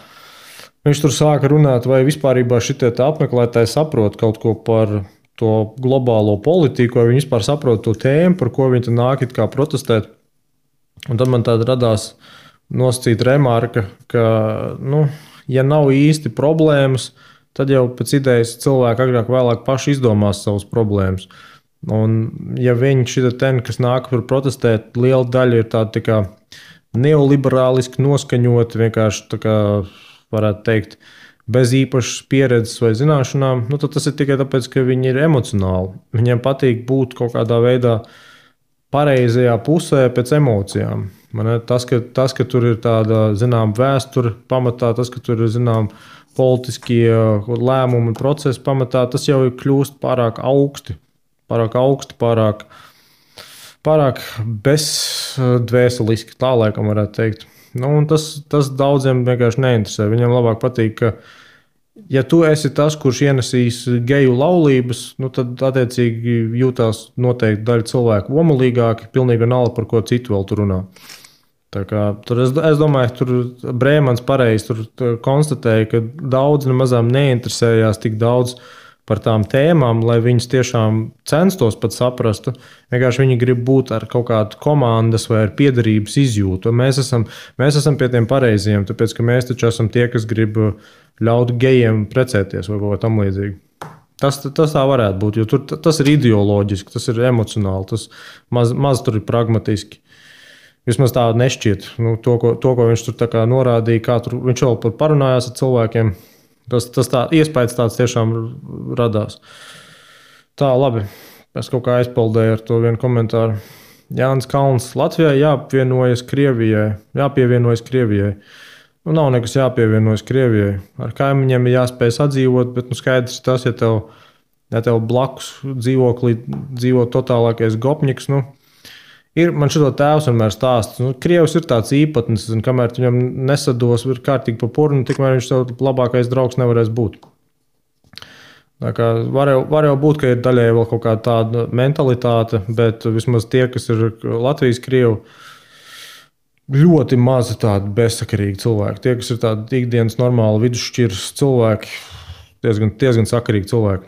Speaker 1: Viņš tur sāka runāt, vai vispārībā šitie apmeklētāji saprot kaut ko par to globālo politiku, vai viņi vispār saprot to tēmu, par ko viņi nāk it kā protestēt. Un tad man tāda radās nosacīta remarka, ka, ja nav īsti problēmas, tad jau pēc idejas cilvēki agrāk vēlāk paši izdomās savas problēmas. Un ja viņi kas nāk par protestēt, liela daļa ir tāda tā kā neoliberāliski noskaņoti, vienkārši tā kā varētu teikt, bez īpašas pieredzes vai zināšanām, tad tas ir tikai tāpēc, ka viņi ir emocionāli. Viņiem patīk būt kaut kādā veidā pareizajā pusē pēc emocijām. Tas, ka tur ir tāda, vēsture pamatā, tas, ka tur ir, politiskie lēmumi un procesi pamatā, tas jau ir kļūst pārāk augsti, pārāk bezdvēseliski, tā laikam varētu teikt. Tas daudziem vienkārši neinteresē. Viņam labāk patīk, ka, ja tu esi tas, kurš ienesīs geju laulības, tad attiecīgi jūtās noteikti daļa cilvēku omulīgāki, pilnīgi vienalga, par ko citu vēl tur runā. Es domāju, ka tur Brēmans pareizi konstatēja, ka daudz nemazām neinteresējās tik daudz par tām tēmām, lai viņas tiešām censtos pat saprastu. Vienkārši viņi grib būt ar kaut kādu komandas vai ar piederības izjūtu. Mēs esam pie tiem pareiziem, tāpēc, ka mēs taču esam tie, kas grib ļaut gejiem precēties vai kaut kā tam līdzīgi. Tas tā varētu būt, jo tas ir ideoloģiski, tas ir emocionāli, tas maz tur ir pragmatiski. Vismaz tā nešķiet. To, ko viņš tur tā kā norādīja, viņš vēl parunājās ar cilvēkiem. Tas iespējas tāds tiešām radās. Tā, labi. Es kaut kā aizpildēju ar to vienu komentāru. Jānis Kalns. Latvijai jāpievienojas Krievijai. Nav nekas jāpievienojas Krievijai. Ar kaimiņiem ir jāspēj sadzīvot, bet skaidrs tas, ja tev blakus dzīvoklī dzīvo totālākais gopņiks, man šito tēvs vienmēr stāsta. Krievs ir tāds īpatnis, kamēr viņam nesados, ir kārtīgi pa purnu, tikmēr viņš tev labākais draugs nevarēs būt. Var jau būt, ka ir daļai vēl kaut kāda tāda mentalitāte, bet vismaz tie, kas ir Latvijas krievi, ļoti mazi tādi bezsakarīgi cilvēki. Tie, kas ir tādi ikdienas normāli vidusšķiras cilvēki, diezgan sakarīgi cilvēki.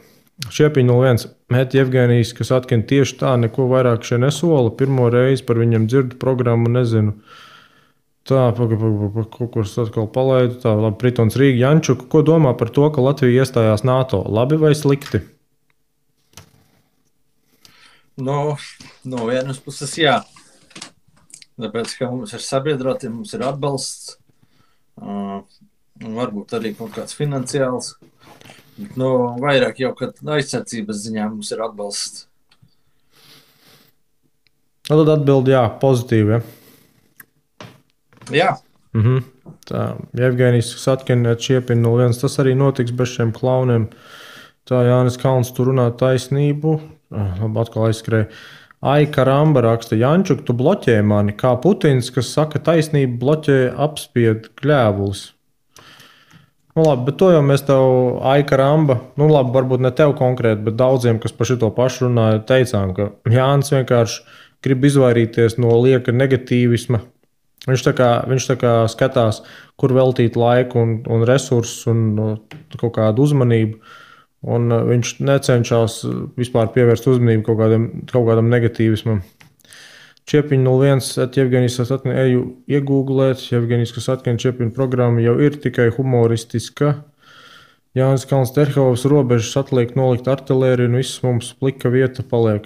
Speaker 1: Šiepiņa 01. Meti Jevgenijs, kas atkina tieši tā, neko vairāk šeit nesola. Pirmo reizi par viņam dzirdu programmu, nezinu. Tā, kaut kur atkal palaidu. Tā, labi, Pritons Rīga Jančuka. Ko domā par to, ka Latvija iestājās NATO? Labi vai slikti?
Speaker 2: No vienas puses jā. Tāpēc, ka mums ir sabiedroti, mums ir atbalsts. Varbūt arī kaut kāds finansiāls. Vairāk jau, kad aizsardzības ziņā mums ir atbalsts.
Speaker 1: Tad atbildi jā, pozitīvi,
Speaker 2: Jā.
Speaker 1: Tā, Jevgenijs Satkina Čiepiņa 01. Tas arī notiks bez šiem klauniem. Tā Jānis Kalns tur runā taisnību. Labi, atkal aizskrēja. Ai, karamba raksta, Jančuk, tu bloķē mani, kā Putins, kas saka taisnību, bloķē apspied kļēvulis. Nu, labi, bet to jau mēs tev, ai, karamba, nu labi, varbūt ne tev konkrēti, bet daudziem, kas par šito pašu runāja, teicām, ka Jānis vienkārši grib izvairīties no lieka negatīvisma. Viņš tā kā skatās, kur veltīt laiku un resursus un kaut kādu uzmanību. Un viņš necenšas vispār pievērst uzmanību kaut kādam negatīvismam. Čiepiņš 01, Jevgenijs Kasatkin, eju iegūglēt. Jevgenijs Kasatkin, Čiepiņa programma jau ir tikai humoristiska. Jānis Kalns Terhovs robežas atliek nolikt artilēriju un viss mums plika vieta paliek.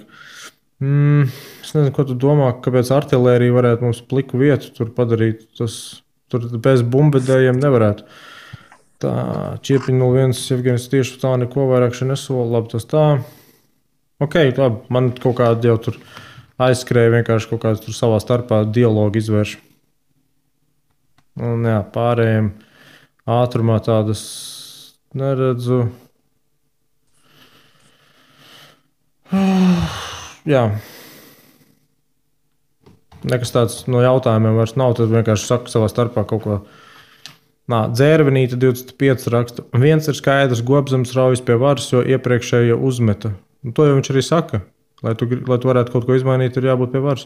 Speaker 1: Es nezinu, ko tu domā, kāpēc artilērija varētu mums pliku vietu tur padarīt. Tur bez bumbedējiem nevarētu. Tā, Čiepiņa 01, Jevgenijs tieši tā neko vairāk še nesola. Labi, tas tā. Ok, labi, man kaut kādi jau tur aizskrēja vienkārši kaut kāds tur savā starpā dialogu izvērš. Un jā, pārējiem ātrumā tādas neredzu. Jā. Nekas tāds no jautājumiem vairs nav, tad vienkārši saka savā starpā kaut ko. Dzērvenīte 25 raksta. Viens ir skaidrs, Gobzems raujas pie varas, jo iepriekšējo uzmeta. To jau viņš arī saka. Lai tu varētu kaut ko izmainīt, ir jābūt pie varas.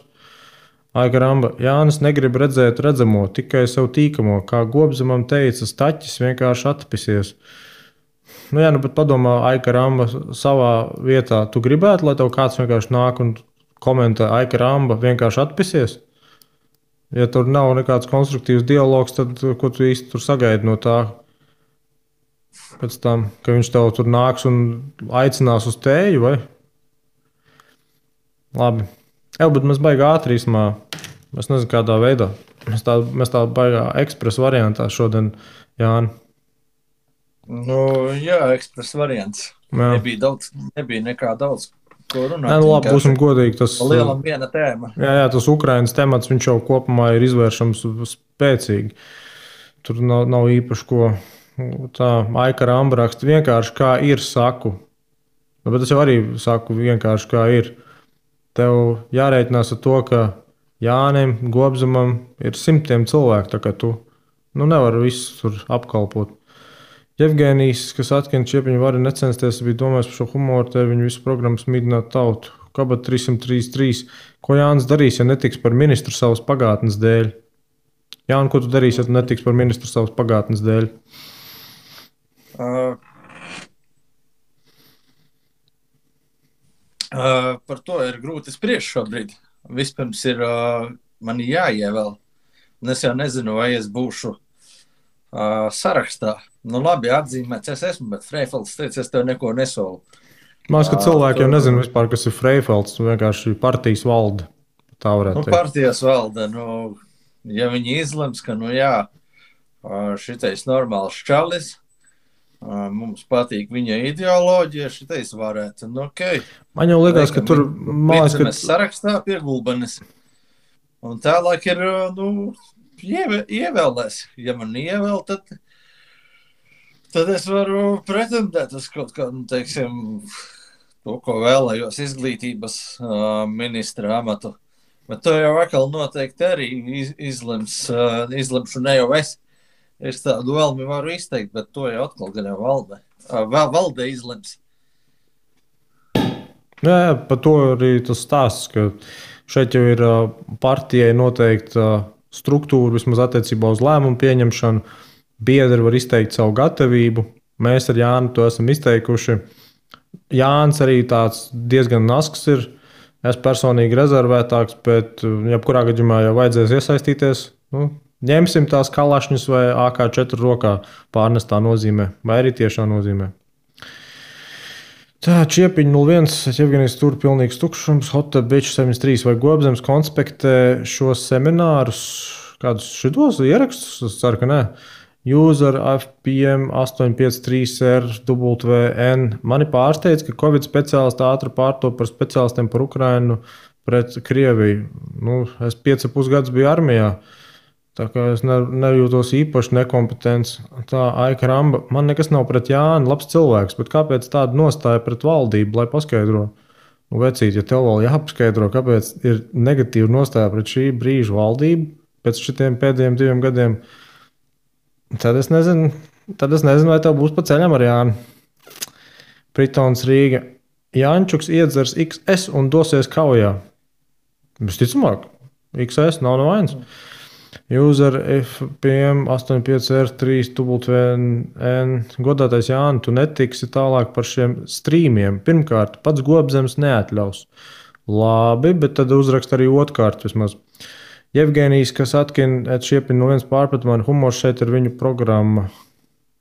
Speaker 1: Aiga Ramba. Jānis negrib redzēt redzamo, tikai sev tīkamo. Kā Gobzemam teica, staķis vienkārši atpisies. Nu jā, bet padomā, Aiga Ramba savā vietā. Tu gribētu, lai tev kāds vienkārši nāk un komentē, Aiga Ramba vienkārši atpisies? Ja tur nav nekāds konstruktīvs dialogs, tad ko tu īsti tur sagaidi no tā? Pēc tam, ka viņš tev tur nāks un aicinās uz tēju, vai? Labi. Bet mēs baigā ātri īsumā. Es nezinu, kādā veidā. Mēs tā baigā ekspresa variantā šodien, Jāni.
Speaker 2: Nu, jā, ekspresa variants. Jā. Nebija nekā daudz.
Speaker 1: Nē, labi, būsim godīgi. Tas
Speaker 2: lielam viena tēma.
Speaker 1: Jā, tas Ukrainas temats, viņš jau kopumā ir izvēršams spēcīgi. Tur nav īpaši ko. Tā Aika Ramba raksta vienkārši kā ir saku. Bet es jau arī saku vienkārši kā ir. Tev jārēķinās ar to, ka Jānim, Gobzemam ir simtiem cilvēku, tā kā tu nevari visus tur apkalpot. Jevgenijs, kas atkina Čiepiņu vari necensties, bija domājis par šo humoru, te viņu visu programmu smīdināt tautu. Kabat 333. Ko Jānis darīs, ja netiks par ministru savas pagātnes dēļ? Jāni, ko tu darīsi, ja tu netiks par ministru savas pagātnes dēļ?
Speaker 2: Par to ir grūti spriest šobrīd. Vispirms ir man jāievēl. Un es jau nezinu, vai es būšu sarakstā. Nu labi, atzīmēts es esmu, bet Freifelds teica, es tev neko nesolu.
Speaker 1: Man liekas, ka cilvēki jau nezinu vispār, kas ir Freifelds. Vienkārši partijas valde. Tā varētu teikt.
Speaker 2: Partijas valde, ja viņi izlems, ka šitais normāls čalis, mums patīk viņa ideoloģija, šitais varētu. Okay.
Speaker 1: Man jau liekas, ka tur
Speaker 2: mēs sarakstā pie Gulbenes. Un tālāk ir, ievēlēs. Ja man ievēl, tad es varu pretendēt uz kaut kādu, teiksim, to, ko vēlējos izglītības ministra amatu. Bet to jau atkal noteikti arī izlemšu ne jau es. Es tādu vēlmi varu izteikt, bet to jau atkal gan jau valde izlems.
Speaker 1: Jā, par to arī tas stāsts, ka šeit jau ir partijai noteikta struktūra, vismaz attiecībā uz lēmumu pieņemšanu. Biedri var izteikt savu gatavību. Mēs ar Jāni to esam izteikuši. Jānis arī tāds diezgan nasks ir. Es personīgi rezervētāks, bet jebkurā gadījumā jau vajadzēs iesaistīties. Ņemsim tās kalašņus vai AK4 rokā pārnestā nozīmē, vai arī tiešā nozīmē. Tā, Čiepiņa 01, Jevgenijs tur pilnīgs tukšums, Hotep Beach 73 vai Gobzems konspektē šos seminārus, kādus šitos ierakstus, es ceru, ka nē. User FPM 853RWN. Mani pārsteidz, ka Covid speciālisti ātri pārtop par speciālistiem par Ukrainu pret Krieviju. Es 5,5 gadus biju armijā. Tā kā es nejūtos īpaši nekompetents. Tā Aika Ramba, man nekas nav pret Jāni, labs cilvēks, bet kāpēc tāda nostāja pret valdību, lai paskaidro? Nu, vecīt, ja tev vēl jāpaskaidro, kāpēc ir negatīva nostāja pret šī brīža valdību pēc šitiem pēdējiem 2 gadiem, tad es nezinu, vai tev būs pa ceļam ar Jāni. Pritons Rīga. Jāņčuks iedzers XS un dosies kaujā. Visticamāk, XS nav no vainas. User FPM 85R3 WN. Godātais Jāni, tu netiksi tālāk par šiem strīmiem. Pirmkārt, pats Gobzems neatļaus. Labi, bet tad uzrakst arī otrkārt vismaz. Jevgenijs, kas atkina šiepin no viens pārpratumā, humors šeit ir viņu programma.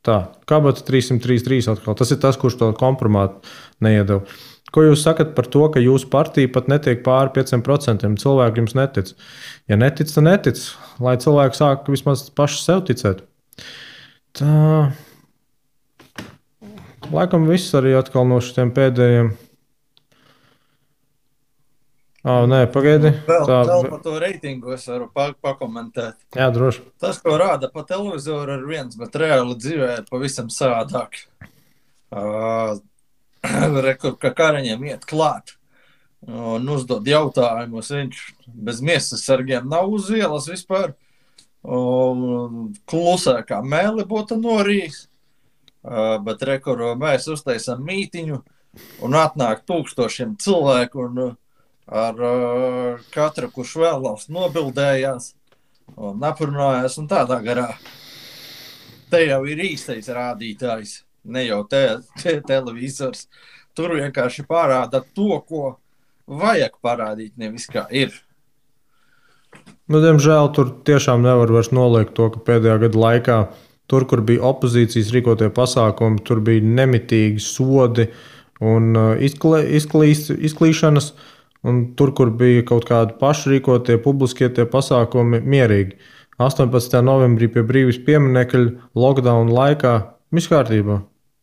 Speaker 1: Tā, Kabata 333 atkal. Tas ir tas, kurš to kompromātu neiedeva. Ko jūs sakat par to, ka jūsu partija pat netiek pāri 5%? Cilvēki jums netic. Ja netic, tad netic. Lai cilvēki sāk vismaz paši sev ticēt. Tā. Laikam viss arī atkal no šiem pēdējiem. Nē, pagaidi.
Speaker 2: Vēl par to reitingu es varu pakomentēt.
Speaker 1: Jā, droši.
Speaker 2: Tas, ko rāda pa televizoru, ir viens, bet reāli dzīvē ir pavisam savādāk. Rekur, ka Kariņam iet klāt un uzdod jautājumus. Viņš bez miesas sargiem nav uz ielas vispār. Klusē kā mēli būtu norījis. Bet rekur, mēs uztaisam mītiņu un atnāk 1000 cilvēku un ar katru, kurš vēlās, nobildējās un aprunājās un tādā garā. Te jau ir īstais rādītājs, ne jau televizors. Tur vienkārši parāda to, ko vajag parādīt, nevis kā ir.
Speaker 1: Nu, diemžēl tur tiešām nevar vairs noliegt to, ka pēdējā gada laikā tur, kur bija opozīcijas rīkotie pasākumi, tur bija nemitīgi sodi un izklīšanas. Un tur, kur bija kaut kādi pašrīkotie, publiskie tie pasākumi, mierīgi. 18. novembrī pie Brīvības pieminekļa lockdown laikā viss kārtībā.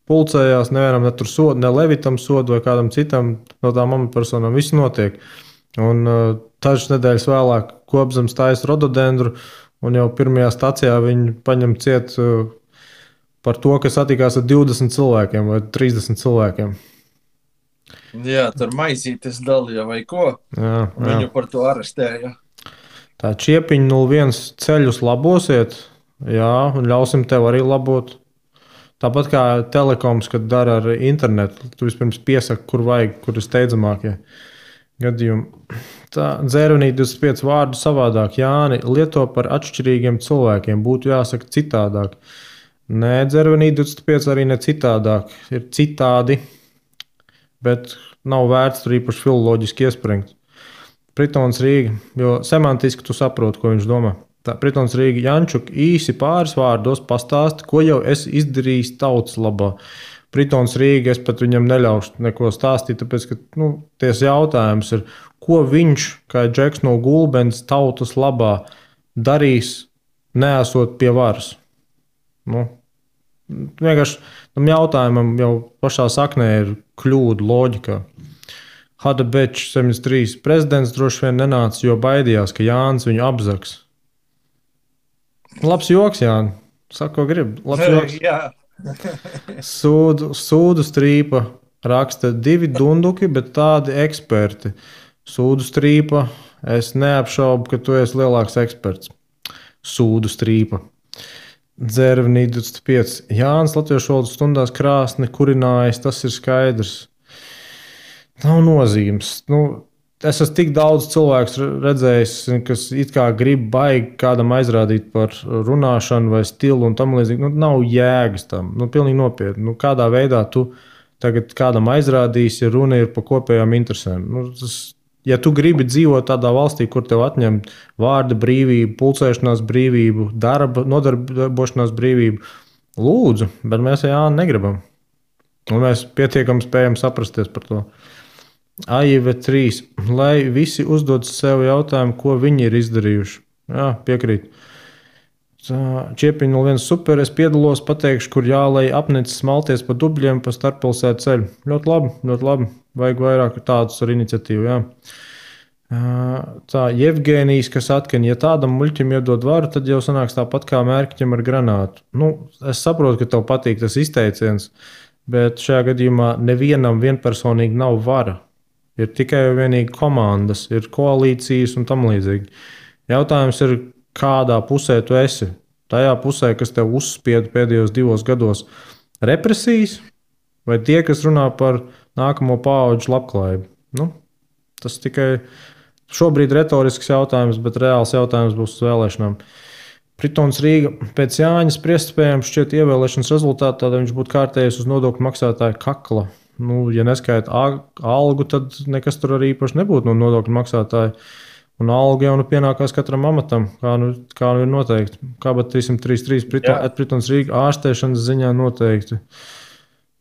Speaker 1: Pulcējās, nevienam ne tur sodu, ne Levitam sodu vai kādam citam no tām amatpersonām. Viss notiek. Un dažas nedēļas vēlāk Gobzems taisa rododendru un jau pirmajā stacijā viņi paņem ciet par to, ka satikās ar 20 cilvēkiem vai 30 cilvēkiem.
Speaker 2: Jā, tur maizītes dalīja vai ko.
Speaker 1: Jā.
Speaker 2: Viņu par to arestēja.
Speaker 1: Tā Čiepiņa 01 ceļus labosiet, jā, un ļausim tev arī labot. Tāpat kā telekoms, kad dara ar internetu, tu vispirms piesaki, kur vajag, kur ir steidzamākie gadījumi. Tā Dzērvenī 25 vārdu savādāk. Jāni, lieto par atšķirīgiem cilvēkiem, būtu jāsaka citādāk. Nē, Dzērvenī 25 arī ne citādāk, ir citādi. Bet nav vērts tur īpaši filoloģiski iespringt. Pritons Rīga, jo semantiski tu saproti, ko viņš domā. Tā Pritons Rīga, Jančuk, īsi pāris vārdos pastāsti, ko jau esi izdarījis tautas labā. Pritons Rīga, es pat viņam neļaušu neko stāstīt, tāpēc, ka ties jautājums ir, ko viņš, kā Džeks no Gulbens, tautas labā darīs, neesot pie varas. Vienkārši tam jautājumam jau pašā saknē ir kļūda loģikā. Hada Bečs 73. Prezidents droši vien nenāca, jo baidījās, ka Jānis viņu apzaks. Labs joks, Jāni. Saka, ko grib. Labs joks.
Speaker 2: Jā.
Speaker 1: Sūdu strīpa raksta 2 dunduki, bet tādi eksperti. Sūdu strīpa, es neapšaubu, ka tu esi lielāks eksperts. Sūdu strīpa. Dzērvenī 25. Jānis latviešu valodas stundās krāsni kurinājis, tas ir skaidrs. Nav nozīmes. Es esmu tik daudz cilvēku redzējis, kas it kā grib baigi kādam aizrādīt par runāšanu vai stilu un tam līdzīgi. Nav jēgas tam. Pilnīgi nopietni. Kādā veidā tu tagad kādam aizrādīsi, ja runa ir par kopējām interesēm? Ja tu gribi dzīvot tādā valstī, kur tev atņem vārda brīvību, pulcēšanās brīvību, nodarbošanās brīvību, lūdzu, bet mēs Jāni negribam. Un mēs pietiekami spējam saprasties par to. AIV 3. Lai visi uzdod sev jautājumu, ko viņi ir izdarījuši. Jā, piekrīt. Čiepiņa 01 super, es piedalos, pateikšu, kur jālai apnicis smalties pa dubļiem pa starppilsētu ceļu. Ļoti labi, ļoti labi. Vajag vairāk tādus ar iniciatīvu, jā. Tā Jevgenijs, kas atkal, ja tādam muļķim iedod varu, tad jau sanāks tāpat kā mērķim ar granātu. Nu, es saprotu, ka tev patīk tas izteiciens, bet šajā gadījumā nevienam vienpersonīgi nav vara. Ir tikai vienīgi komandas, ir koalīcijas un tam līdzīgi. Jautājums ir, kādā pusē tu esi? Tajā pusē, kas tev uzspieda pēdējos 2 gados represijas, vai tie, kas runā par nākamo paudžu labklājību? Nu, tas tikai šobrīd retorisks jautājums, bet reāls jautājums būs uz vēlēšanām. Pritons Rīga pēc Jāņa spriestspējām šķiet ievēlēšanas rezultātā, tad viņš būtu kārtējies uz nodokļu maksātāju kakla. Nu, ja neskaita algu, tad nekas tur arī īpaši nebūtu no nodokļu maksātāja. Un alga jau pienākās katram amatam, kā nu ir noteikti. Kāpat 333 Pritons Rīga ārstēšanas ziņā noteikti.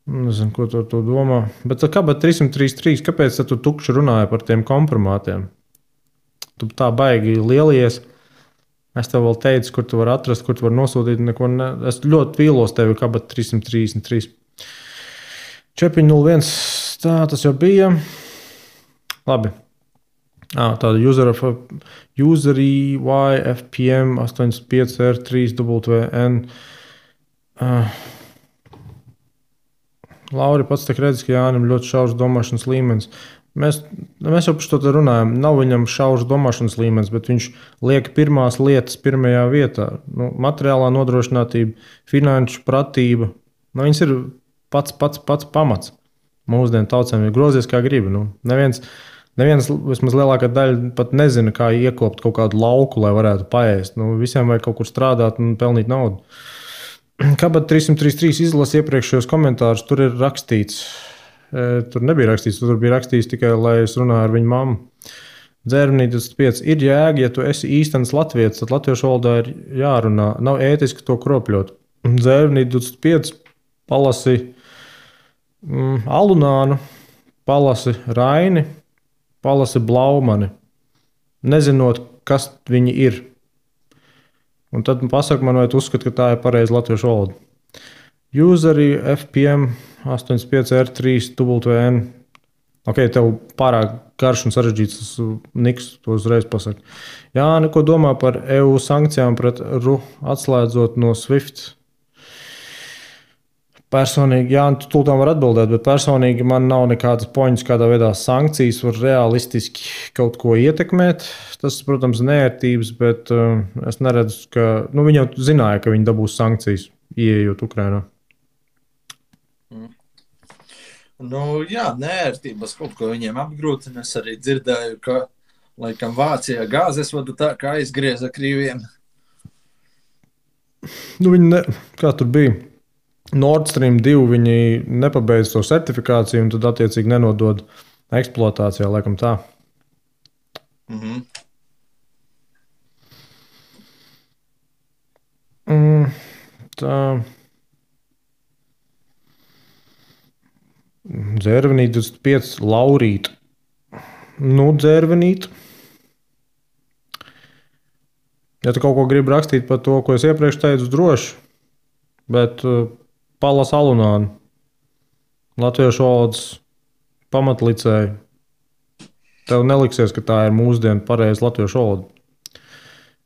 Speaker 1: Nezinu, ko tu domā. Bet kāpat 333, kāpēc tu tukši runāji par tiem kompromātiem? Tu tā baigi lielies. Es tev vēl teicu, kur tu vari atrast, kur tu vari nosūtīt. Es ļoti vīlos tevi, kāpat 333. 401, tā tas jau bija. Labi. Tāda userī YFPM 85R3WN. Lauri pats tak redz, ka Jānim ļoti šaurs domāšanas līmenis. Mēs jau par to runājam. Nav viņam šaurs domāšanas līmenis, bet viņš liek pirmās lietas pirmajā vietā. Nu, materiālā nodrošinātība, finanšu pratība. Nu, viņas ir pats pamats. Mūsdienu tautsēm ir grozies kā gribi. Nu, neviens, vismaz lielākā daļa pat nezina, kā iekopt kaut kādu lauku, lai varētu paēst. Nu, visiem vajag kaut kur strādāt un pelnīt naudu. Kāpat 333 izlasa iepriekšējos komentārus, tur ir rakstīts. Tur nebija rakstīts, tur bija rakstīts tikai, lai es runāju ar viņu mammu. Dzērvenī 25. Ir jēga, ja tu esi īstenis latvietis, tad latviešu valodā ir jārunā. Nav ētiski to kropļot. Dzērvenī 25. Palasi Alunānu, palasi Raini, palasi Blaumani, nezinot, kas viņi ir. Un tad pasaka man, vai tu uzskati, ka tā ir pareiza latviešu valoda. Userī FPM 85R3WN. Ok, tev pārāk garš un sarežģīts tas niks, to uzreiz pasaka. Jā, neko domā par EU sankcijām pret RU atslēdzot no SWIFT. Personīgi, jā, tu tūlīt var atbildēt, bet personīgi man nav nekādas poņas, kādā veidā sankcijas var realistiski kaut ko ietekmēt. Tas, protams, nērtības, bet es neredzu, ka viņi jau zināja, ka viņi dabūs sankcijas, ieejot Ukrainā.
Speaker 2: Nu, jā, nērtības kaut ko viņiem apgrūtina. Es arī dzirdēju, ka laikam Vācijā gāzes vada tā, kā aizgrieza Krieviem.
Speaker 1: Nu, kā tur bija? Nord Stream 2 viņi nepabeidz to certifikāciju un tad attiecīgi nenodod eksploatācijā, laikam tā. Tā. Dzērvenīt 25 Laurīt. Nu, dzērvenīt. Ja tu kaut ko gribi rakstīt par to, ko es iepriekš teicu, droši, bet Palas Alunānu, latviešu valodas pamatlicēju. Tev neliksies, ka tā ir mūsdienu pareiza latviešu valoda.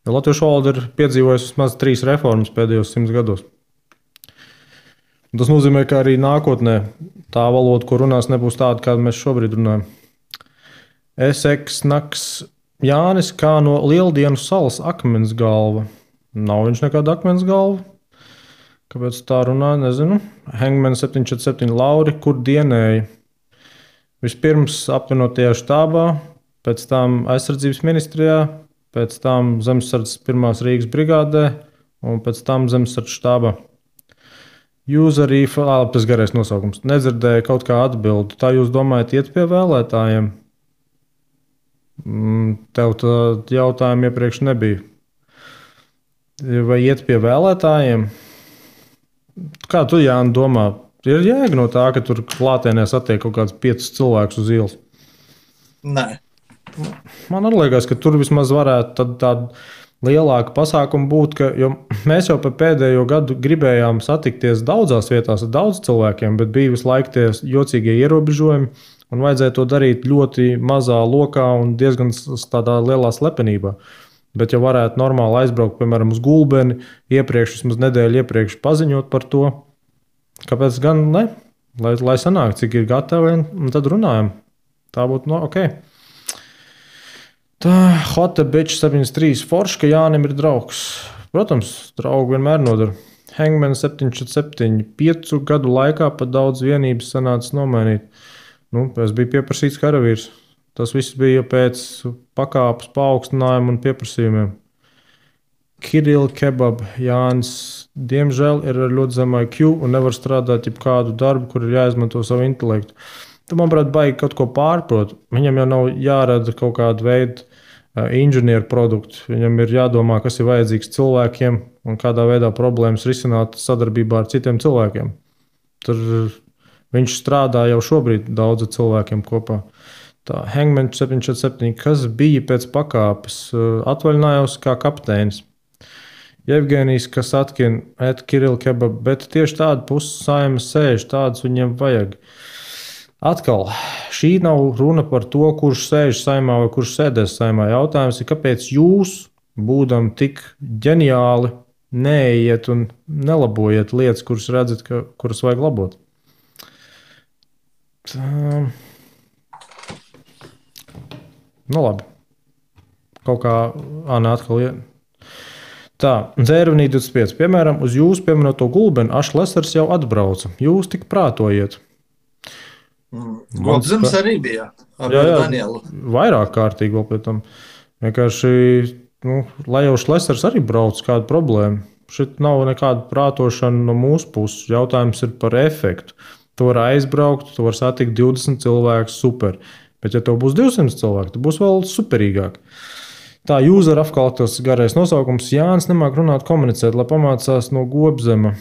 Speaker 1: Jo latviešu valoda ir piedzīvojusi vismaz 3 reformas pēdējos 100 gados. Tas nozīmē, ka arī nākotnē tā valoda, ko runās, nebūs tāda, kāda mēs šobrīd runājam. Naks Jānis kā no Lieldienu salas akmens galva. Nav viņš nekāda akmens galva. Kāpēc tā runā, nezinu. Hangman 747 Lauri, kur dienēja? Vispirms apvienotajā štābā, pēc tam aizsardzības ministrijā, pēc tam zemesardzes 1. Rīgas brigādē un pēc tam zemesardzes štābā. Userī, tas garais nosaukums, nedzirdēja kaut kā atbildi. Tā jūs domājat iet pie vēlētājiem? Tev tā jautājuma iepriekš nebija. Vai iet pie vēlētājiem? Kā tu, Jāni, domā? Ir jēga no tā, ka tur klātienē satiek kaut kāds 5 cilvēkus uz ielas?
Speaker 2: Nē.
Speaker 1: Man liekas, ka tur vismaz varētu tāda lielāka pasākuma būt, jo mēs jau pēdējo gadu gribējām satikties daudzās vietās ar daudz cilvēkiem, bet bija visu laiku tie jocīgie ierobežojumi, Un vajadzēja to darīt ļoti mazā lokā un diezgan tādā lielā slepenībā. Bet, ja varētu normāli aizbraukt, piemēram, uz Gulbeni, vismaz nedēļu iepriekš paziņot par to, kāpēc gan ne? Lai sanāk, cik ir gatavi, un tad runājam. Tā būtu ok. Tā, Hota Bitch 73, forši, ka Jānim ir draugs. Protams, draugi vienmēr nodara. Hangman 747, 5 gadu laikā pat daudz vienības sanāca nomainīt. Es biju pieprasīts karavīrs. Tas viss bija pēc pakāpes paaugstinājuma un pieprasījumiem. Kirill Kebab Jānis, diemžēl, ir ar ļoti zemu IQ un nevar strādāt jebkādu darbu, kur ir jāizmanto savu intelektu. Tam, manuprāt, baigi kaut ko pārprot. Viņam jau nav jārada kaut kādu veidu inženieru produktu. Viņam ir jādomā, kas ir vajadzīgs cilvēkiem un kādā veidā problēmas risināt sadarbībā ar citiem cilvēkiem. Tur viņš strādā jau šobrīd daudzu cilvēkiem kopā. Tā Hangman 747, kas bija pēc pakāpes, atvaļinājos kā kapteinis. Jevgenijs Kasatkin, Kirill Kebab, bet tieši tāda puses saimas sēž, tādas viņiem vajag. Atkal, šī nav runa par to, kurš sēž saimā vai kurš sēdēs saimā. Jautājums ir, kāpēc jūs, būdam tik ģeniāli, neiet un nelabojiet lietas, kuras redzat, kuras vajag labot. Labi. Kaut kā atkal iet. Tā, Dzērvenī 25. Piemēram, uz jūsu pieminēto Gulbeni Ašlesers jau atbrauca. Jūs tik prātojiet.
Speaker 2: Gobzems arī bija ar Danielu.
Speaker 1: Vairāk kārtīgi vēl pie tam. Vienkārši, lai jau Šlesers arī brauc, kāda problēma. Šeit nav nekāda prātošana no mūsu puses. Jautājums ir par efektu. Tu vari aizbraukt, tu vari satikt 20 cilvēkus, super. Bet, ja tev būs 200 cilvēki, tad būs vēl superīgāk. Tā user apkalptos garais nosaukums Jānis nemāk runāt, komunicēt, lai pamācās no Gobzema.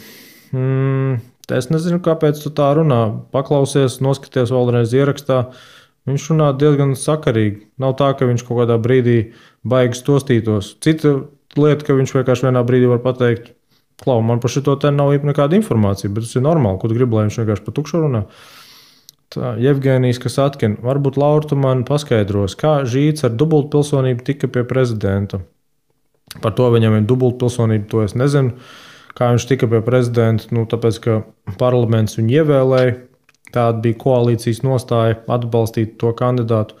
Speaker 1: Es nezinu, kāpēc tu tā runā. Paklausies, noskaties vēlreiz ierakstā. Viņš runā diezgan sakarīgi. Nav tā, ka viņš kaut kādā brīdī baigi stostītos. Cita lieta, ka viņš vienkārši vienā brīdī var pateikt, klau, man par šito te nav nekāda informācija, bet tas ir normāli, ko tu gribi, lai viņš vienkārši pa tukšu runā. Tā, Jevgenijs Kasatkin, varbūt Laura tu man paskaidros, kā Žīts ar dubultpilsonību tika pie prezidenta. Par to viņam ir dubultpilsonība, to es nezinu. Kā viņš tika pie prezidenta, tāpēc, ka parlaments viņu ievēlēja, tāda bija koalīcijas nostāja atbalstīt to kandidātu.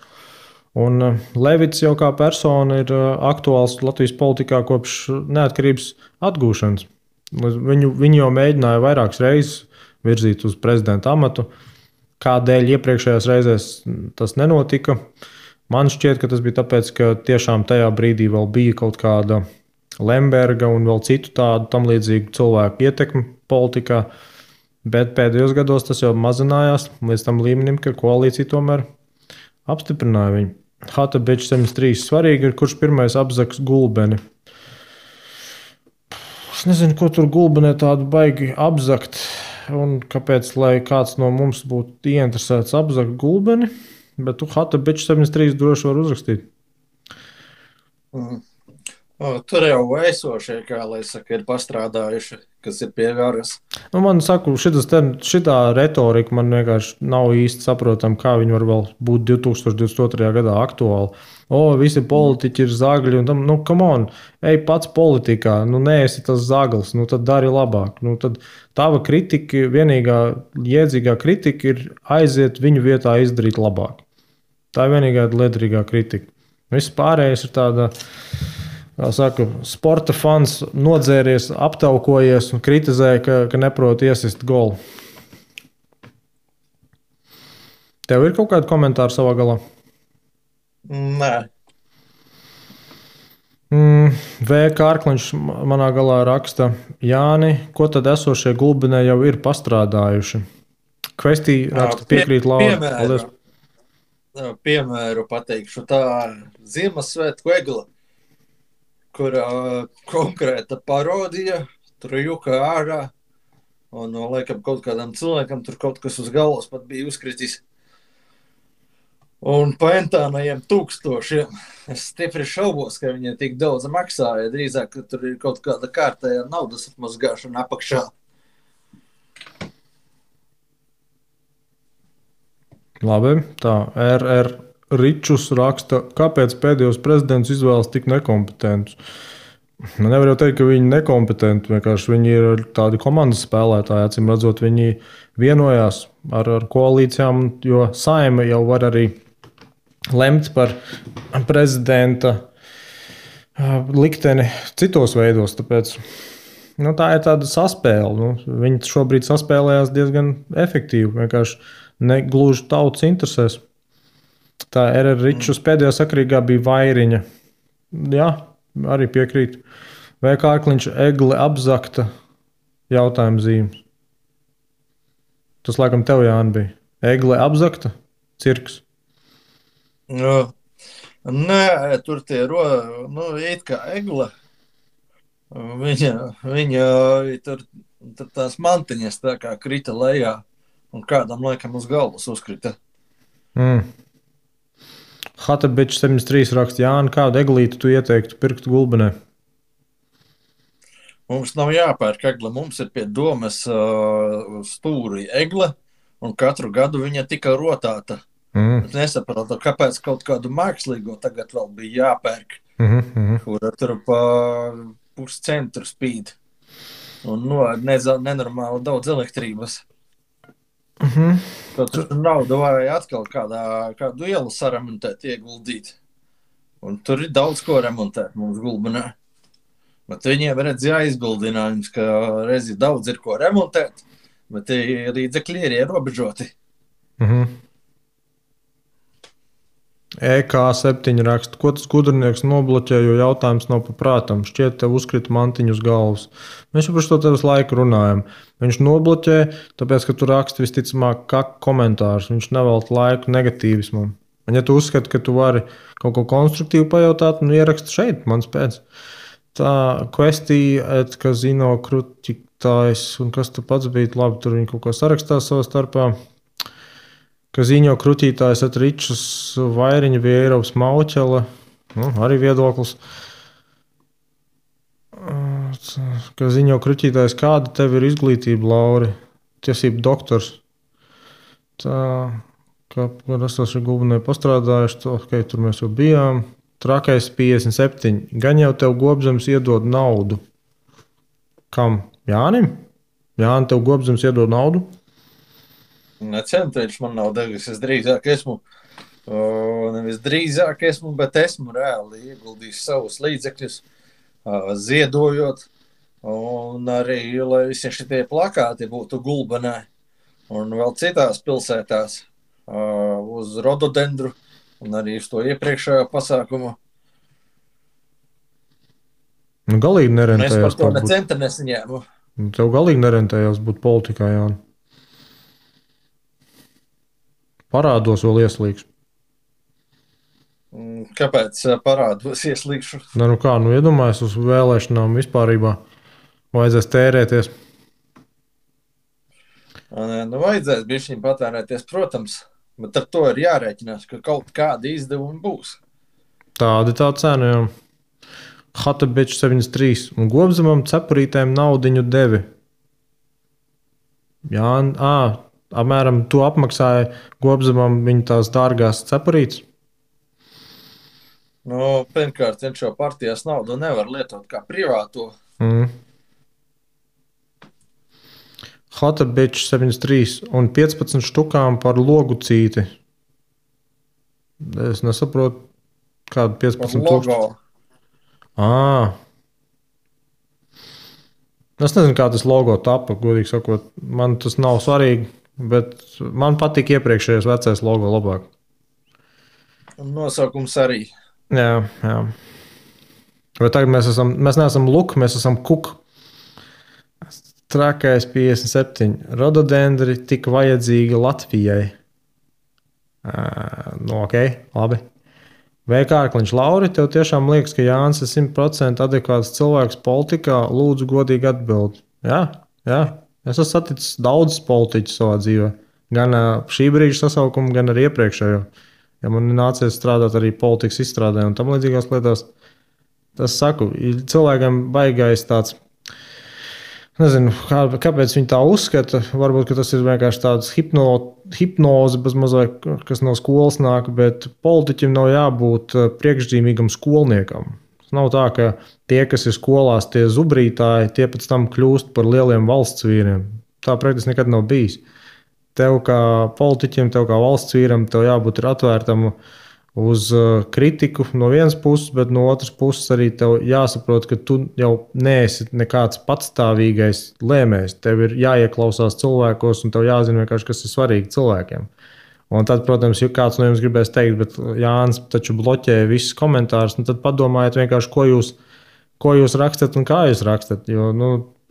Speaker 1: Un Levits jau kā persona ir aktuāls Latvijas politikā kopš neatkarības atgūšanas. Viņu jau mēģināja vairākas reizes virzīt uz prezidenta amatu. Kādēļ iepriekšējās reizēs tas nenotika? Man šķiet, ka tas bija tāpēc, ka tiešām tajā brīdī vēl bija kaut kāda Lemberga un vēl citu tādu tam līdzīgu cilvēku ietekmi politikā. Bet pēdējos gados tas jau mazinājās līdz tam līmenim, ka koalīcija tomēr apstiprināja viņu. Hota Bitch 73 svarīgi ir, kurš pirmais apzaks Gulbeni. Es nezinu, ko tur Gulbenē tādu baigi apzakt. Un kāpēc, lai kāds no mums būtu ieinteresēts apzakt Gulbeni, bet tu Hota Bitch 73 droši var uzrakstīt.
Speaker 2: Tur jau esošie, kā lai saka, ir pastrādājuši, kas ir pie varas.
Speaker 1: Man saku, šitā retorika man vienkārši nav īsti saprotama, kā viņi var vēl būt 2022. gadā aktuāli. Visi politiķi ir zagļi, un tam, come on, ej pats politikā, neesi tas zaglis, tad dari labāk. Tad tava kritika, vienīgā jēdzīgā kritika ir aiziet viņu vietā izdarīt labāk. Tā ir vienīgā liederīgā kritika. Viss pārējais ir tāda, kā saka, sporta fans nodzēries, aptaukojies un kritizē, ka neprot iesist golu. Tev ir kaut kādi komentāri savā galā?
Speaker 2: Nē.
Speaker 1: V. Kārkliņš manā galā raksta, Jāni, ko tad esošie Gulbenē jau ir pastrādājuši? Kvestī raksta piekrīt Laura.
Speaker 2: Piemēru pateikšu, tā Ziemassvētku egla, kur konkrēta parodija, tur juka ārā, un laikam kaut kādam cilvēkam tur kaut kas uz galvas pat bija uzkritis. Un paentānajiem 1000. Es stipri šaubos, ka viņi tik daudz maksāja. Drīzāk, ka tur ir kaut kāda kārtējā naudas atmazgāšana apakšā.
Speaker 1: Labi, tā RR Ričus raksta, kāpēc pēdējos prezidents izvēlas tik nekompetentus. Nu, nevar jau teikt, ka viņi ir nekompetenti. Vienkārši viņi ir tādi komandas spēlētāji. Acīm redzot, viņi vienojās ar koalīcijām, jo Saeima jau var arī lemt par prezidenta likteni citos veidos. Tāpēc tā ir tāda saspēle. Viņi šobrīd saspēlējās diezgan efektīvi. Vienkārši ne gluži tautas interesēs. Tā RR Ričus pēdējā sakarīgā bija Vairiņa. Jā, arī piekrīt. Vai Kārkliņš egle apzakta jautājuma zīmes? Tas laikam tev, Jāni, bija. Egle apzakta? Cirks?
Speaker 2: Nē, tur tie it kā egle. Viņa tur tās mantiņas tā kā krita lejā un kādam laikam uz galvas uzkrita.
Speaker 1: Hatabičs 73 raksta, Jāni, kādu eglīti tu ieteiktu pirkt Gulbenē?
Speaker 2: Mums nav jāpērk egle, mums ir pie domes stūri egle, un katru gadu viņa tika rotāta. Es nesaprotu, kāpēc kaut kādu mākslīgo tagad vēl bija jāpērk, kura tur pa puscentru spīd. Un nenormāli daudz elektrības. Tur naudu vajag atkal kādu ielu saremontēt, ieguldīt. Un tur ir daudz ko remontēt mums Gulbenē. Bet viņiem redz jāizbildinājums, ka reizi daudz ir ko remontēt, bet līdzekļi ir ierobežoti.
Speaker 1: EK7 raksta, ko tas gudrinieks nobloķē, jo jautājums nav paprātam. Šķiet, tev uzkrita mantiņu uz galvas. Mēs jau par to tev laiku runājam. Viņš nobloķē, tāpēc, ka tu raksti visticamāk kā komentārus. Viņš nevelta laiku negatīvismam. Un ja tu uzskati, ka tu vari kaut ko konstruktīvu pajautāt, ieraksti šeit, mans pēc. Tā Questija, Kazino krutiktājs, un kas tu pats bija, labi, tur viņi kaut ko sarakstās savā starpā. Kazino krutītājs Ričus Vairiņa Vieirovs Mauķela, arī viedoklis. Kazino krutītājs, kāda tev ir izglītība, Lauri? Tiesību doktors. Tā, kā es esmu Gulbenē pastrādājuši, tur mēs jau bijām. Trakais 57. Gan jau tev Gobzems iedod naudu. Kam? Jānim? Jāni, tev Gobzems iedod naudu?
Speaker 2: Necenu, man nav devis. Es drīzāk esmu, nevis drīzāk esmu, bet esmu reāli ieguldījis savus līdzekļus, ziedojot. Un arī, lai visi šitie plakāti būtu Gulbenē un vēl citās pilsētās uz rododendru. Un arī uz to iepriekšējo pasākumu.
Speaker 1: Galīgi nerentējās.
Speaker 2: Es par to necenta nesaņēmu.
Speaker 1: Tev galīgi nerentējās būt politikā, Jāni. Parādos vēl ieslīgšu.
Speaker 2: Kāpēc parādos ieslīgšu?
Speaker 1: Iedomājies uz vēlēšanām vispārībā. Vajadzēs tērēties.
Speaker 2: Vajadzēs bišķiņ patērēties, protams. Bet ar to ir jārēķinās, ka kaut kādi izdevumi būs.
Speaker 1: Tāda tā cena, jā. Hatabičs 73. Un Gobzemam cepurītēm naudiņu devi. Jā, apmēram to apmaksāja Gobzemam viņa tās dārgās cepurītes.
Speaker 2: Pirmkārt, viņš jau partijas naudu nevar lietot kā privāto.
Speaker 1: Hatabičs 73 un 15 štukām par logu cīti. Es nesaprotu, kādu 15 tūkstoši. Es nezinu, kā tas logo tapa, godīgi sakot. Man tas nav svarīgi, bet man patīk iepriekšējais vecais logo labāk.
Speaker 2: Un nosaukums arī.
Speaker 1: Jā. Bet tagad mēs neesam luk, mēs esam kuk. Trakais 57. Rododendri tik vajadzīga Latvijai. Ok, labi. Vai Kārkliņš, Lauri, tev tiešām liekas, ka Jānis ir 100% adekvāts cilvēks politikā? Lūdzu, godīgi atbild. Jā. Es esmu saticis daudzus politiķus savā dzīvē. Gan šī brīža sasaukumu, gan arī iepriekšējo. Ja man nācies strādāt arī politikas izstrādē un tam līdzīgās lietās, tas saku, cilvēkam baigais tāds Nezinu, kāpēc viņi tā uzskata. Varbūt tas ir vienkārši tāds hipnoze, mazliet, kas no skolas nāk, bet politiķim nav jābūt priekšzīmīgam skolniekam. Tas nav tā, ka tie, kas ir skolās, tie zubrītāji, tie pēc tam kļūst par lieliem valsts vīriem. Tā praktiski nekad nav bijis. Tev kā politiķim, tev kā valsts vīram, tev jābūt atvērtam uz kritiku no vienas puses, bet no otras puses arī tev jāsaprot, ka tu jau neesi nekāds patstāvīgais lēmējs. Tev ir jāieklausās cilvēkos, un tev jāzina vienkārši, kas ir svarīgi cilvēkiem. Un tad, protams, ja kāds no jums gribēs teikt, bet Jānis taču bloķē visus komentārus, tad padomājiet vienkārši, ko jūs rakstat un kā jūs rakstat. Jo,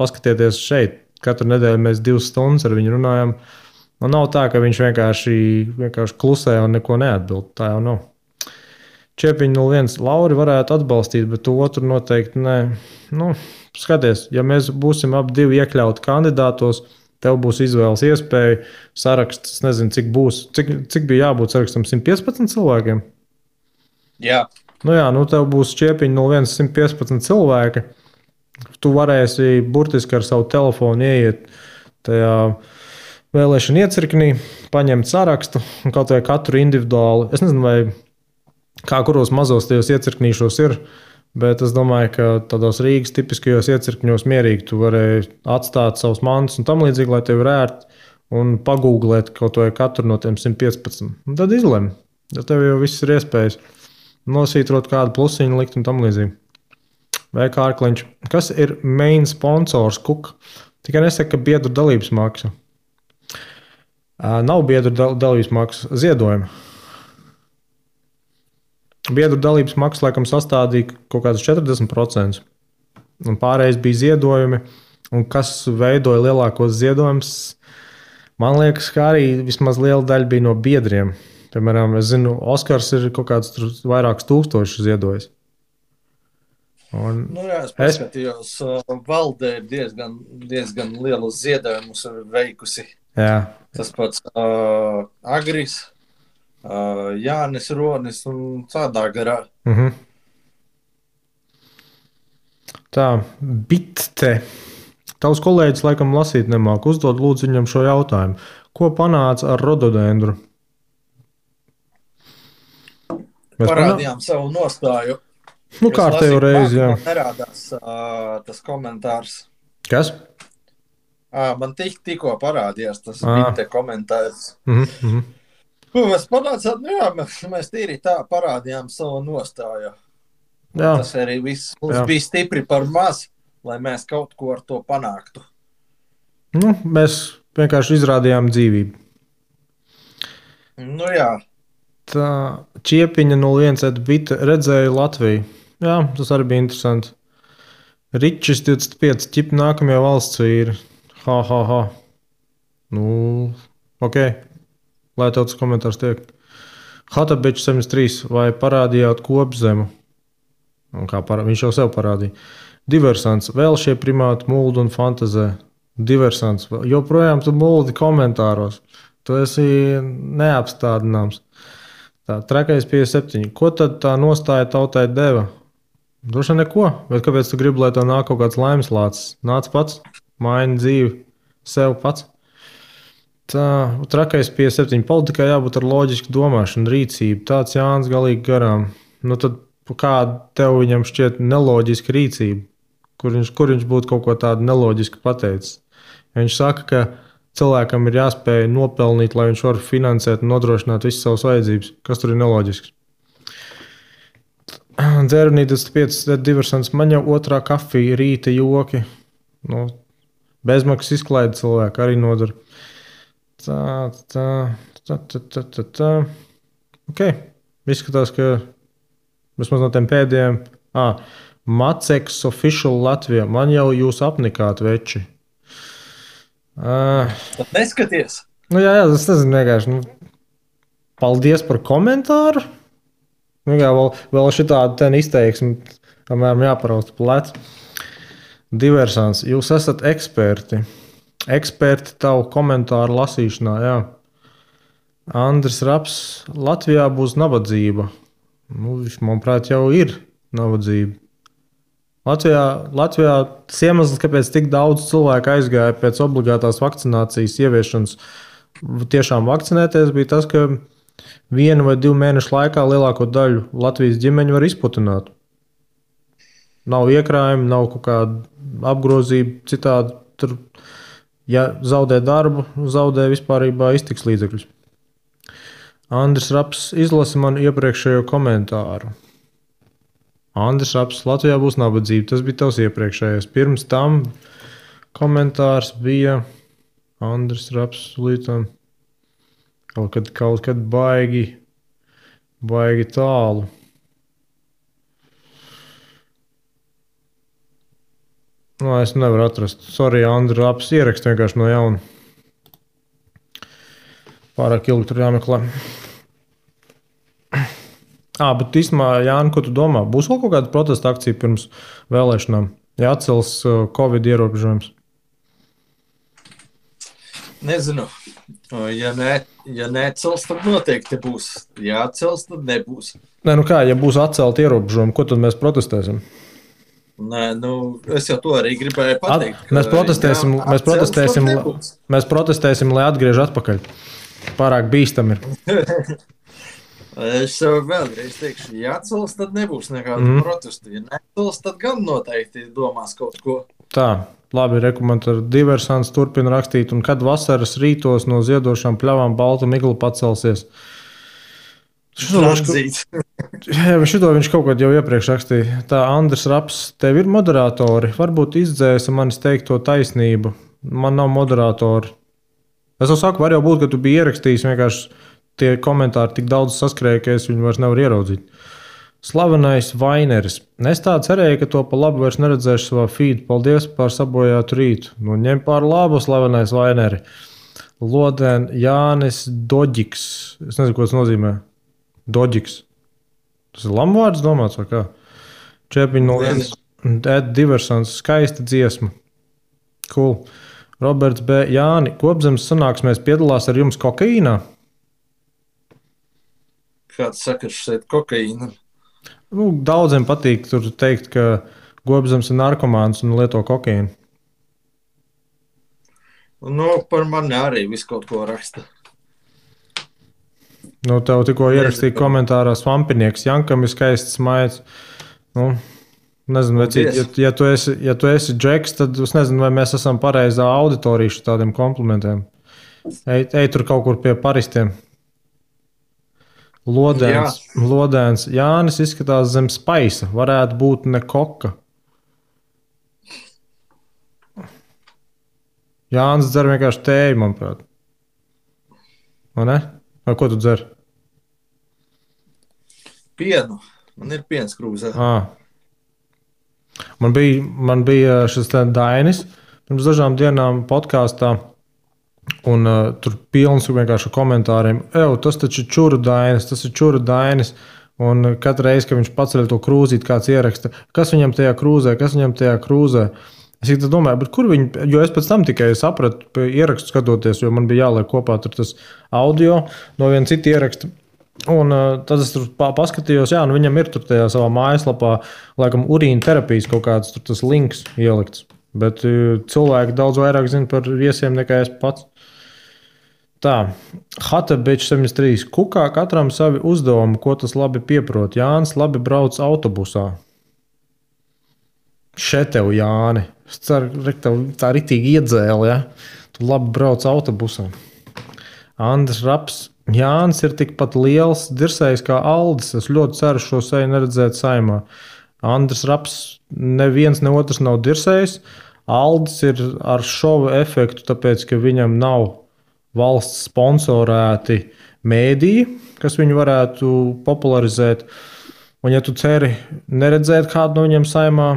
Speaker 1: paskatieties šeit, katru nedēļu mēs 2 stundas ar viņu runājam. Un nav tā, ka viņš vienkārši klusē un neko neatbild. Tā jau nav. Čepiņa 01. Lauri varētu atbalstīt, bet otru noteikti nē. Skaties, ja mēs būsim ap 2 iekļauti kandidātos, tev būs izvēles iespēja. Saraksts, es nezinu, cik būs. Cik bija jābūt sarakstam? 115 cilvēkiem?
Speaker 2: Jā.
Speaker 1: Tev būs Čepiņa 01. 115 cilvēki. Tu varēsi burtiski ar savu telefonu ieiet tajā vēlēšana iecirknī, paņemt sarakstu un kaut vai katru individuāli. Es nezinu, vai kā kuros mazos tajos iecirknīšos ir, bet es domāju, ka tādos Rīgas tipiskajos iecirkņos mierīgi tu vari atstāt savus mantus un tam līdzīgi, lai tev ir ērti un pagūglēt kaut vai katru no tiem 115. Un tad izlem, ja tev jau viss ir iespējas nosītrot kādu plusiņu likt un tam līdzīgi. Vai Kārkliņš, kas ir main sponsors Kuka? Tikai nesaka, ka biedru dalības maksa. Nav biedru dalības maksa, ziedojuma. Biedru dalības maksa laikam sastādīja kaut kādus 40%. Un pārējais bija ziedojumi. Un kas veidoja lielākos ziedojumus? Man liekas, ka arī vismaz liela daļa bija no biedriem. Piemēram, es zinu, Oskars ir kaut kāds vairākus tūkstošus ziedojis.
Speaker 2: Es paskatījos, valdē ir diezgan lielus ziedojumus veikusi.
Speaker 1: Jā.
Speaker 2: Tas pats Agris, Jānis Ronis un tādā garā.
Speaker 1: Tā, Bitte. Tavs kolēģis laikam lasīt nemāk. Uzdod lūdzu viņam šo jautājumu. Ko panāca ar rododendru?
Speaker 2: Parādījām savu nostāju.
Speaker 1: Kārtējo reizi, jā.
Speaker 2: Nerādās tas komentārs.
Speaker 1: Kas?
Speaker 2: Man tikko parādījās tas Bitte komentārs. Mēs panācām, mēs tīri tā parādījām savu nostāju. Jā. Tas arī viss mums bija stipri par maz, lai mēs kaut ko ar to panāktu.
Speaker 1: Mēs vienkārši izrādījām dzīvību.
Speaker 2: Jā.
Speaker 1: Tā Čiepiņa 01. Bitte redzēja Latviju. Jā, tas arī bija interesanti. Ričis 25. Ķip nākamie valsts vīri. Ha. Ok. Lai tev tas komentārs tiek. Hatabičs 73. Vai parādījāt Kopzemu? Viņš jau sev parādīja. Diversants. Vēl šie primāti muldi un fantazē. Diversants. Joprojām tu muldi komentāros. Tu esi neapstādināms. Tā, Trakais 57. Ko tad tā nostāja tautai deva? Droši neko. Bet kāpēc tu gribi, lai tev nāk kaut kāds laimes lācis? Nāc pats, maini dzīvi sev pats. Tā, Trakais 57. Politikā jābūt ar loģisku domāšanu, rīcību. Tāds Jānis galīgi garām. Tad kāda tev viņam šķiet neloģiska rīcība? Kur viņš būtu kaut ko tādu neloģisku pateicis? Ja viņš saka, ka cilvēkam ir jāspēj nopelnīt, lai viņš var finansēt un nodrošināt visas savas vajadzības. Kas tur ir neloģisks? Dzērnītas 5. Diversants. Man jau otrā kafija, rīta joki. Bezmaksas izklaide cilvēku arī nodara. Tā. Ok. Izskatās, ka vismaz no tiem pēdējiem. Maceks official Latvijā. Man jau jūs apnikāt, veči.
Speaker 2: Neskaties.
Speaker 1: Jā, tas nezinu vienkārši. Paldies par komentāru. Vēl šitādu ten izteiksmi, apmēram jāparausta plecu. Diversants. Jūs esat eksperti. Eksperti tavu komentāru lasīšanā, jā. Andris Raps. Latvijā būs nabadzība. Viņš, manuprāt, jau ir nabadzība. Latvijā tas iemesls, kāpēc tik daudz cilvēku aizgāja pēc obligātās vakcinācijas ieviešanas, tiešām vakcinēties, bija tas, ka 1 vai 2 mēnešu laikā lielāko daļu Latvijas ģimeņu var izputināt. Nav iekrājumi, nav kaut kāda apgrozība citādi. Tur, ja zaudē darbu, zaudē vispārībā iztiks līdzekļus. Andris Raps izlasa man iepriekšējo komentāru. Andris Raps, Latvijā būs nabadzība. Tas bija tavs iepriekšējais. Pirms tam komentārs bija Andris Raps līdz kaut kad baigi tālu. No, es nevaru atrast. Sorry, Andris Raps ierakst vienkārši no jauna. Pārāk ilgi tur jāmeklē. Bet īstenībā, Jāni, ko tu domā? Būs vēl kaut kāda protesta akcija pirms vēlēšanām? Ja atcels Covid ierobežojums?
Speaker 2: Nezinu. Ja neatcels, tad noteikti būs. Ja atcels, tad nebūs.
Speaker 1: Nē, ja būs atcelti ierobežojumi, ko tad mēs protestēsim?
Speaker 2: Nē, es jau to arī gribēju pateikt.
Speaker 1: Mēs protestēsim, lai atgriež atpakaļ. Pārāk bīstami ir.
Speaker 2: Es jau vēlreiz teikšu, ja atcels, tad nebūs nekāda protesta. Ja neatcels, tad gan noteikti domās kaut ko.
Speaker 1: Tā, labi, rekomendāri Diversants turpina rakstīt, un kad vasaras rītos no ziedošām pļavām balta migla pacelsies. Šito viņš kaut kad jau iepriekš rakstīja. Tā, Andris Raps, tev ir moderatori. Varbūt izdzēsa manis teikto taisnību. Man nav moderatori. Es jau saku, var jau būt, ka tu biji ierakstījis, vienkārši tie komentāri tik daudz saskrēja, ka es viņu vairs nevaru ieraudzīt. Slavenais Vaineris. Es tā cerēju, ka to pa labu vairs neredzēšu savā feed. Paldies par sabojātu rītu. Ņem pār labu, Slavenais Vaineri. Lodēn Jānis Doģiks. Es nezinu, ko tas nozīmē. Doģiks. Tas ir lamvārds domāts vai kā? Čepiņ no Diversants. Skaista dziesma. Cool. Roberts B. Jāni. Kopzemes sanāksmēs piedalās ar jums kokaīnā?
Speaker 2: Kāds sakars šeit kokaīna?
Speaker 1: Daudziem patīk tur teikt, ka Kopzemes ir narkomāns un lieto kokaīnu.
Speaker 2: Par mani arī visu kaut ko raksta.
Speaker 1: Tev tikko ierakstīja komentārā Svampinieks. Jankam ir skaists maids. Nezinu, ja tu esi Džeks, tad es nezinu, vai mēs esam pareizā auditorija tādiem komplimentiem. Ej tur kaut kur pie paristiem. Lodēns. Jānis izskatās zem spaisa. Varētu būt ne koka. Jānis dzer vienkārši tēju, manuprāt. Vai ne? Vai ko tu dzer?
Speaker 2: Pienu. Man ir piens krūzē.
Speaker 1: Man bija šis Dainis pirms dažām dienām podkāstā. Un tur pilns vienkārši komentāriem. Tas taču ir čuru Dainis. Un katru reizi, kad viņš paceļ to krūzīti, kāds ieraksta, kas viņam tajā krūzē. Es domāju, bet kur viņi, jo es pēc tam tikai sapratu, ierakstu skatoties, jo man bija jāliek kopā tur tas audio no viena cita ieraksta. Un tad es tur paskatījos, viņam ir tur tajā savā mājaslapā, laikam, urīna terapijas kaut kāds tur tas links ielikts. Bet cilvēki daudz vairāk zina par viesiem nekā es pats. Tā, Hatebičs 73. Kukā katram savi uzdevumi, ko tas labi pieprot. Jānis labi brauc autobusā. Šeit tev, Jāni. Es ceru, tev tā ritīgi iedzēli, ja? Tu labi brauc autobusā. Andris Raps. Jānis ir tikpat liels dirsējs kā Aldis. Es ļoti ceru šo seju neredzēt saimā. Andris Raps neviens ne otrs nav dirsējs. Aldis ir ar šovu efektu, tāpēc, ka viņam nav valsts sponsorēti mēdīji, kas viņu varētu popularizēt. Un ja tu ceri neredzēt kādu no viņiem saimā,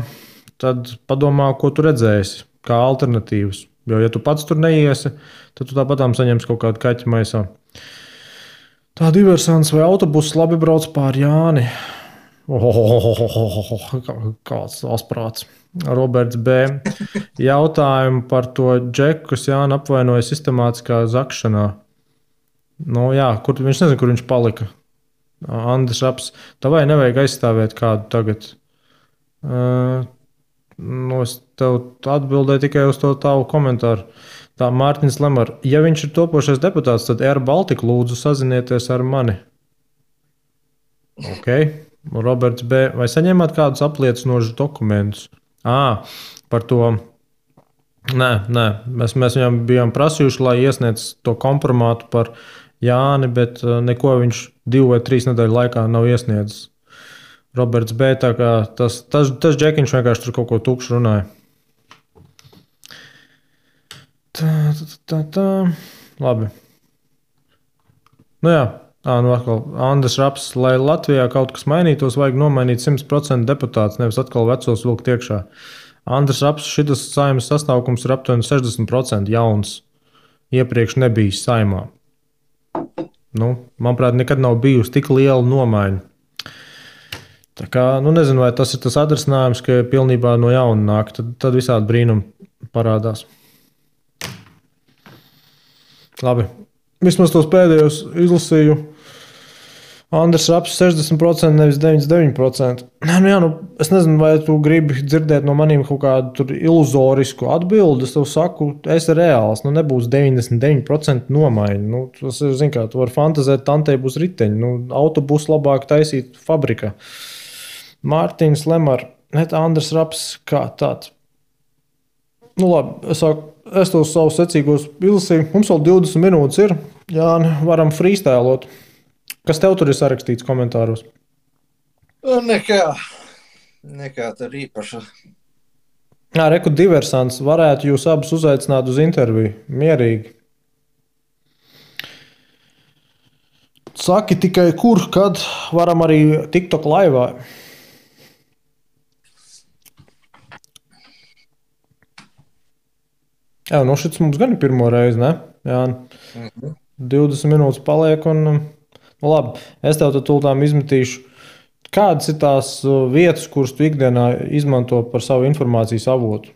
Speaker 1: tad padomā, ko tu redzēsi, kā alternatīvas. Jo, ja tu pats tur neiesi, tad tu tāpatām saņemsi kaut kādu kaķi maisā. Tā Diversants vai autobuss labi brauc pār Jāni. Kāds asprāts. Roberts B. Jautājumu par to Džeku, kas Jāni apvainoja sistemātiskā zakšanā. Viņš nezina, kur viņš palika. Andris Raps. Tavai nevajag aizstāvēt kādu tagad. Nu, es tev atbildēju tikai uz to tavu komentāru. Tā Mārtiņš Lemar, ja viņš ir topošais deputāts, tad Air Baltica lūdzu sazinieties ar mani. Ok. Roberts B. Vai saņēmāt kādus apliecinošus dokumentus? Par to. Nē. Mēs viņam bijām prasījuši, lai iesniedz to kompromātu par Jāni, bet neko viņš 2 vai 3 nedēļu laikā nav iesniedzis. Roberts B. Tā kā tas džekiņš vienkārši tur kaut ko tukšu runāja. Tā. Labi. Nu jā. Nu atkal Andris Raps, lai Latvijā kaut kas mainītos, vajag nomainīt 100% deputātus, nevis atkal vecos vilkt iekšā. Andris Raps, šitas Saeimas sastāvkums ir aptuveni 60% jauns. Iepriekš nebijis Saeimā. Nu, manuprāt, nekad nav bijusi tik liela nomaiņa. Tā kā, nezinu, vai tas ir tas atrisinājums, ka pilnībā no jauna nāk, tad visādi brīnumi parādās. Labi. Vismaz tos pēdējos izlasīju. Andris Raps 60%, nevis 99%. Es nezinu, vai tu gribi dzirdēt no maniem kaut kādu iluzorisku atbildi. Es tev saku, es esmu reāls. Nebūs 99% nomaiņa. Tas ir, zin kā, tu vari fantazēt, tantei būs riteņi. Autobusu labāk taisīt fabrikā. Mārtiņš Lemar, Andris Raps, kā tāds. Labi, es tos savus secīgos izlasīju. Mums vēl 20 minūtes ir. Jā, varam freestylot. Kas tev tur ir sarakstīts komentāros?
Speaker 2: Nekā tur īpaša.
Speaker 1: Reku diversants. Varētu jūs abus uzaicināt uz interviju. Mierīgi. Saki tikai kur, kad varam arī TikTok laivā. Jā, šis mums gan ir pirmo reizi, ne? Jā, 20 minūtes paliek un... labi, es tev tūlīt izmetīšu. Kādas ir tās vietas, kuras tu ikdienā izmanto par savu informācijas avotu?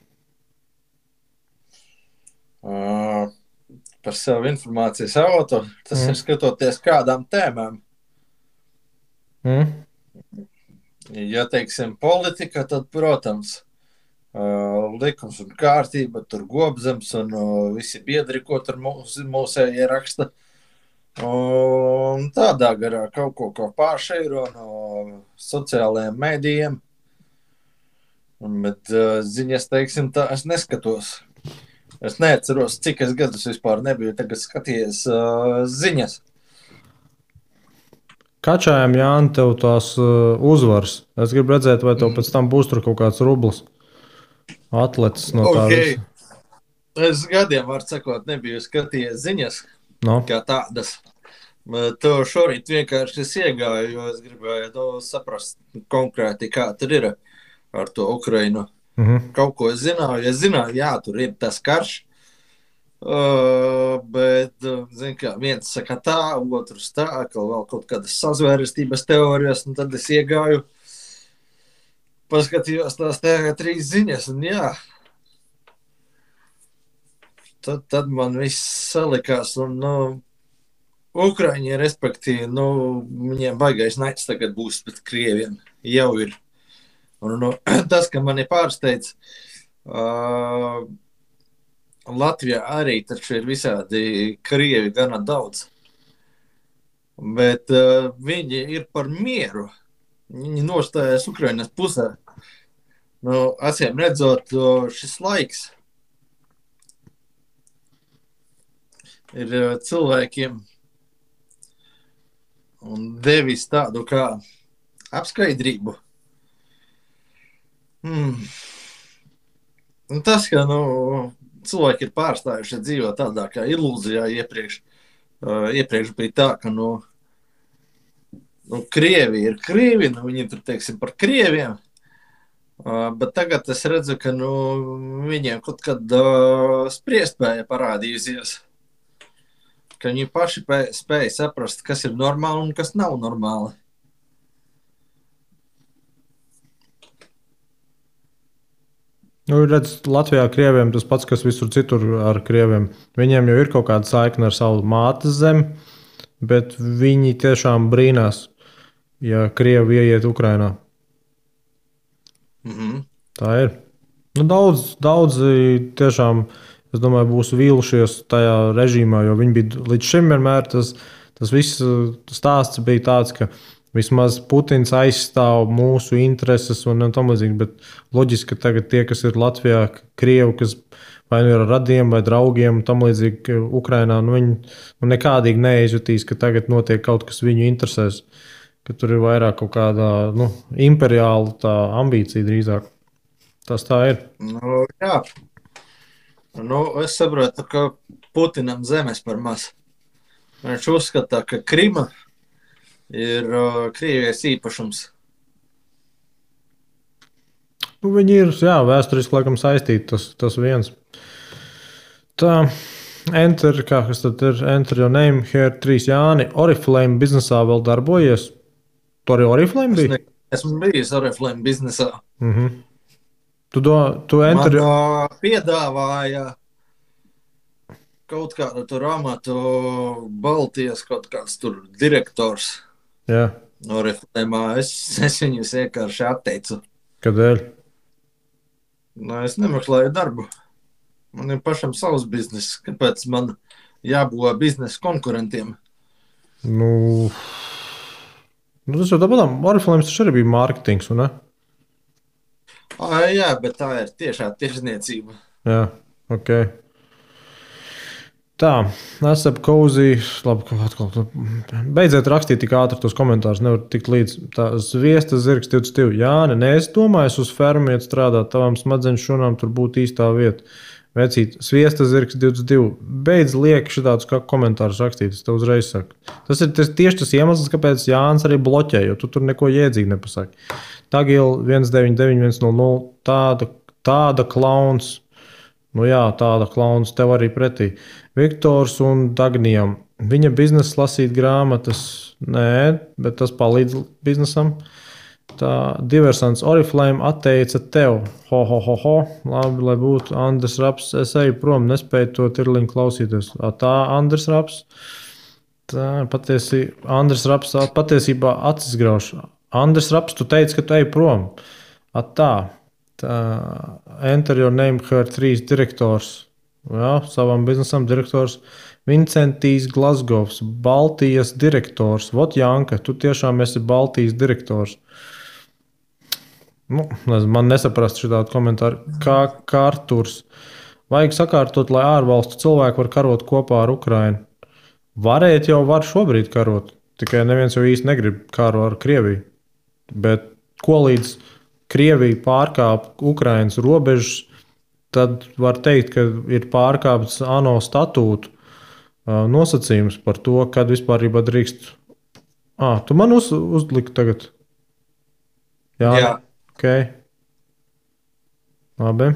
Speaker 2: Par savu informācijas avotu? Tas ir skatoties kādām tēmām. Ja teiksim politika, tad, protams, likums un kārtība, tur Gobzems un visi biedri, ko tur mūsējie raksta. Un tādā garā kaut ko pāršeiro no sociālajiem mēdījiem. Bet ziņas, teiksim, tā es neskatos. Es neatceros, cik es gadus vispār nebiju tagad skatījies ziņas.
Speaker 1: Kačājam, Jāni, tev tās uzvaras. Es gribu redzēt, vai tev pēc tam būs tur kaut kāds rublis atlecis no tā visa.
Speaker 2: Es gadiem, var sakot, nebiju skatījies ziņas. Kā tādas. To šorīt vienkārši es iegāju, jo es gribēju saprast konkrēti, kā tur ir ar to Ukrainu. Kaut ko es zināju. Es zināju, jā, tur ir tas karš, bet, zin kā, viens saka tā, otrs tā, ka vēl kaut kādas sazvērestības teorijas, un tad es iegāju, paskatījos tās 3 ziņas, un jā, tad man viss salikās, un, Ukraiņi, respektīvi, viņiem baigais naids tagad būs pret Krieviem, jau ir. Un, tas, ka mani pārsteidz, Latvijā arī taču ir visādi Krievi gana daudz, bet viņi ir par mieru. Viņi nostājas Ukrainas pusē. Acīm redzot, šis laiks ir cilvēkiem un devis tādu kā apskaidrību. Un tas, ka cilvēki ir pārstājuši dzīvot tādā kā ilūzijā iepriekš. Iepriekš bija tā, ka Krievi ir Krievi, viņi tur, teiksim, par Krieviem, bet tagad es redzu, ka viņiem kaut kad spriestspēja parādījusies, ka viņi paši spēja saprast, kas ir normāli un kas nav normāli.
Speaker 1: Redz, Latvijā Krieviem tas pats, kas visur citur ar Krieviem. Viņiem jau ir kaut kāda saikne ar savu mātes zemi, bet viņi tiešām brīnās, ja Krievi ieiet Ukrainā. Tā ir. Nu, daudzi tiešām, es domāju, būs vīlušies tajā režīmā, jo viņi bija līdz šim vienmēr tas viss stāsts bija tāds, ka vismaz Putins aizstāv mūsu intereses un tam līdzīgi. Bet loģiski, ka tagad tie, kas ir Latvijā, Krievi, kas vai nu ir ar radiem vai draugiem, tam līdzīgi Ukrainā, nu viņi nekādīgi neizjutīs, ka tagad notiek kaut kas viņu interesēs, ka tur ir vairāk kaut kāda imperiāla tā ambīcija drīzāk. Tas tā ir.
Speaker 2: Nu, jā. Nu, es saprotu, ka Putinam zemes par maz. Viņš uzskata, ka Krima ir Krievijas īpašums.
Speaker 1: Nu, viņi ir vēsturiski laikam saistīti. Tas viens. Tā, kas tad ir? Enter your name, here 3 Jāni. Oriflame biznesā vēl darbojies. Tu arī Oriflame bija?
Speaker 2: Esmu bijis Oriflame biznesā.
Speaker 1: Tu enter...
Speaker 2: Man piedāvāja kaut kādu tur amatu Baltijas kaut kāds tur direktors.
Speaker 1: Jā.
Speaker 2: Oriflame. Es viņus vienkārši atteicu.
Speaker 1: Kādēļ?
Speaker 2: Nu, es nemeklēju darbu. Man ir pašam savs biznes. Kāpēc man jābūt biznesa konkurentiem?
Speaker 1: Tas jau tāpat. Oriflame taču arī bija mārketings, un ne?
Speaker 2: Jā, bet tā ir tiešā tirzniecība.
Speaker 1: Jā, ok. Tā, esam Cozy. Labi, atkal. Beidziet rakstīt tik ātri tos komentārus, nevar tikt līdz. Tā, Zviesta zirgs 22. Jāni, es domāju, uz fermu iet strādāt, tavām smadzeņu šūnām tur būtu īstā vieta. Vecīt, Sviesta zirgs 22. Beidz lieki šitādus komentārus rakstīt, es tev uzreiz saku. Tas ir tieši tas iemesls, kāpēc Jānis arī bloķē, jo tu tur neko iedzīgi nepasaki. Tagil 199-100, tāda klauns. Nu jā, tāda klauns tev arī pretī. Viktors un Dagnijam. Viņa biznesa lasīt grāmatas. Nē, bet tas palīdz biznesam. Tā diversants Oriflame atteica tev. Ho. Labi, lai būtu Andris Raps. Es eju prom, nespēju to tirliņu klausīties. Tā Andris Raps. Tā Andris Raps patiesībā acis grauž. Andris Raps, tu teici, ka tu eji prom. Tā Enter your name, her 3 direktors. Jā, savam biznesam direktors. Vincentijs Glasgovs, Baltijas direktors. Vot Janka, tu tiešām esi Baltijas direktors. Man nesaprast šitādu komentāru. Kā Arturs. Vajag sakārtot, lai ārvalstu cilvēki var karot kopā ar Ukrainu. Varēt jau var šobrīd karot. Tikai neviens jau īsti negrib karu ar Krieviju. Bet ko līdz Krievija pārkāp Ukrainas robežas, tad var teikt, ka ir pārkāpts ANO statūtu nosacījums par to, kad vispār drīkst. Tu man uzliki tagad? Jā. Okay. Labi.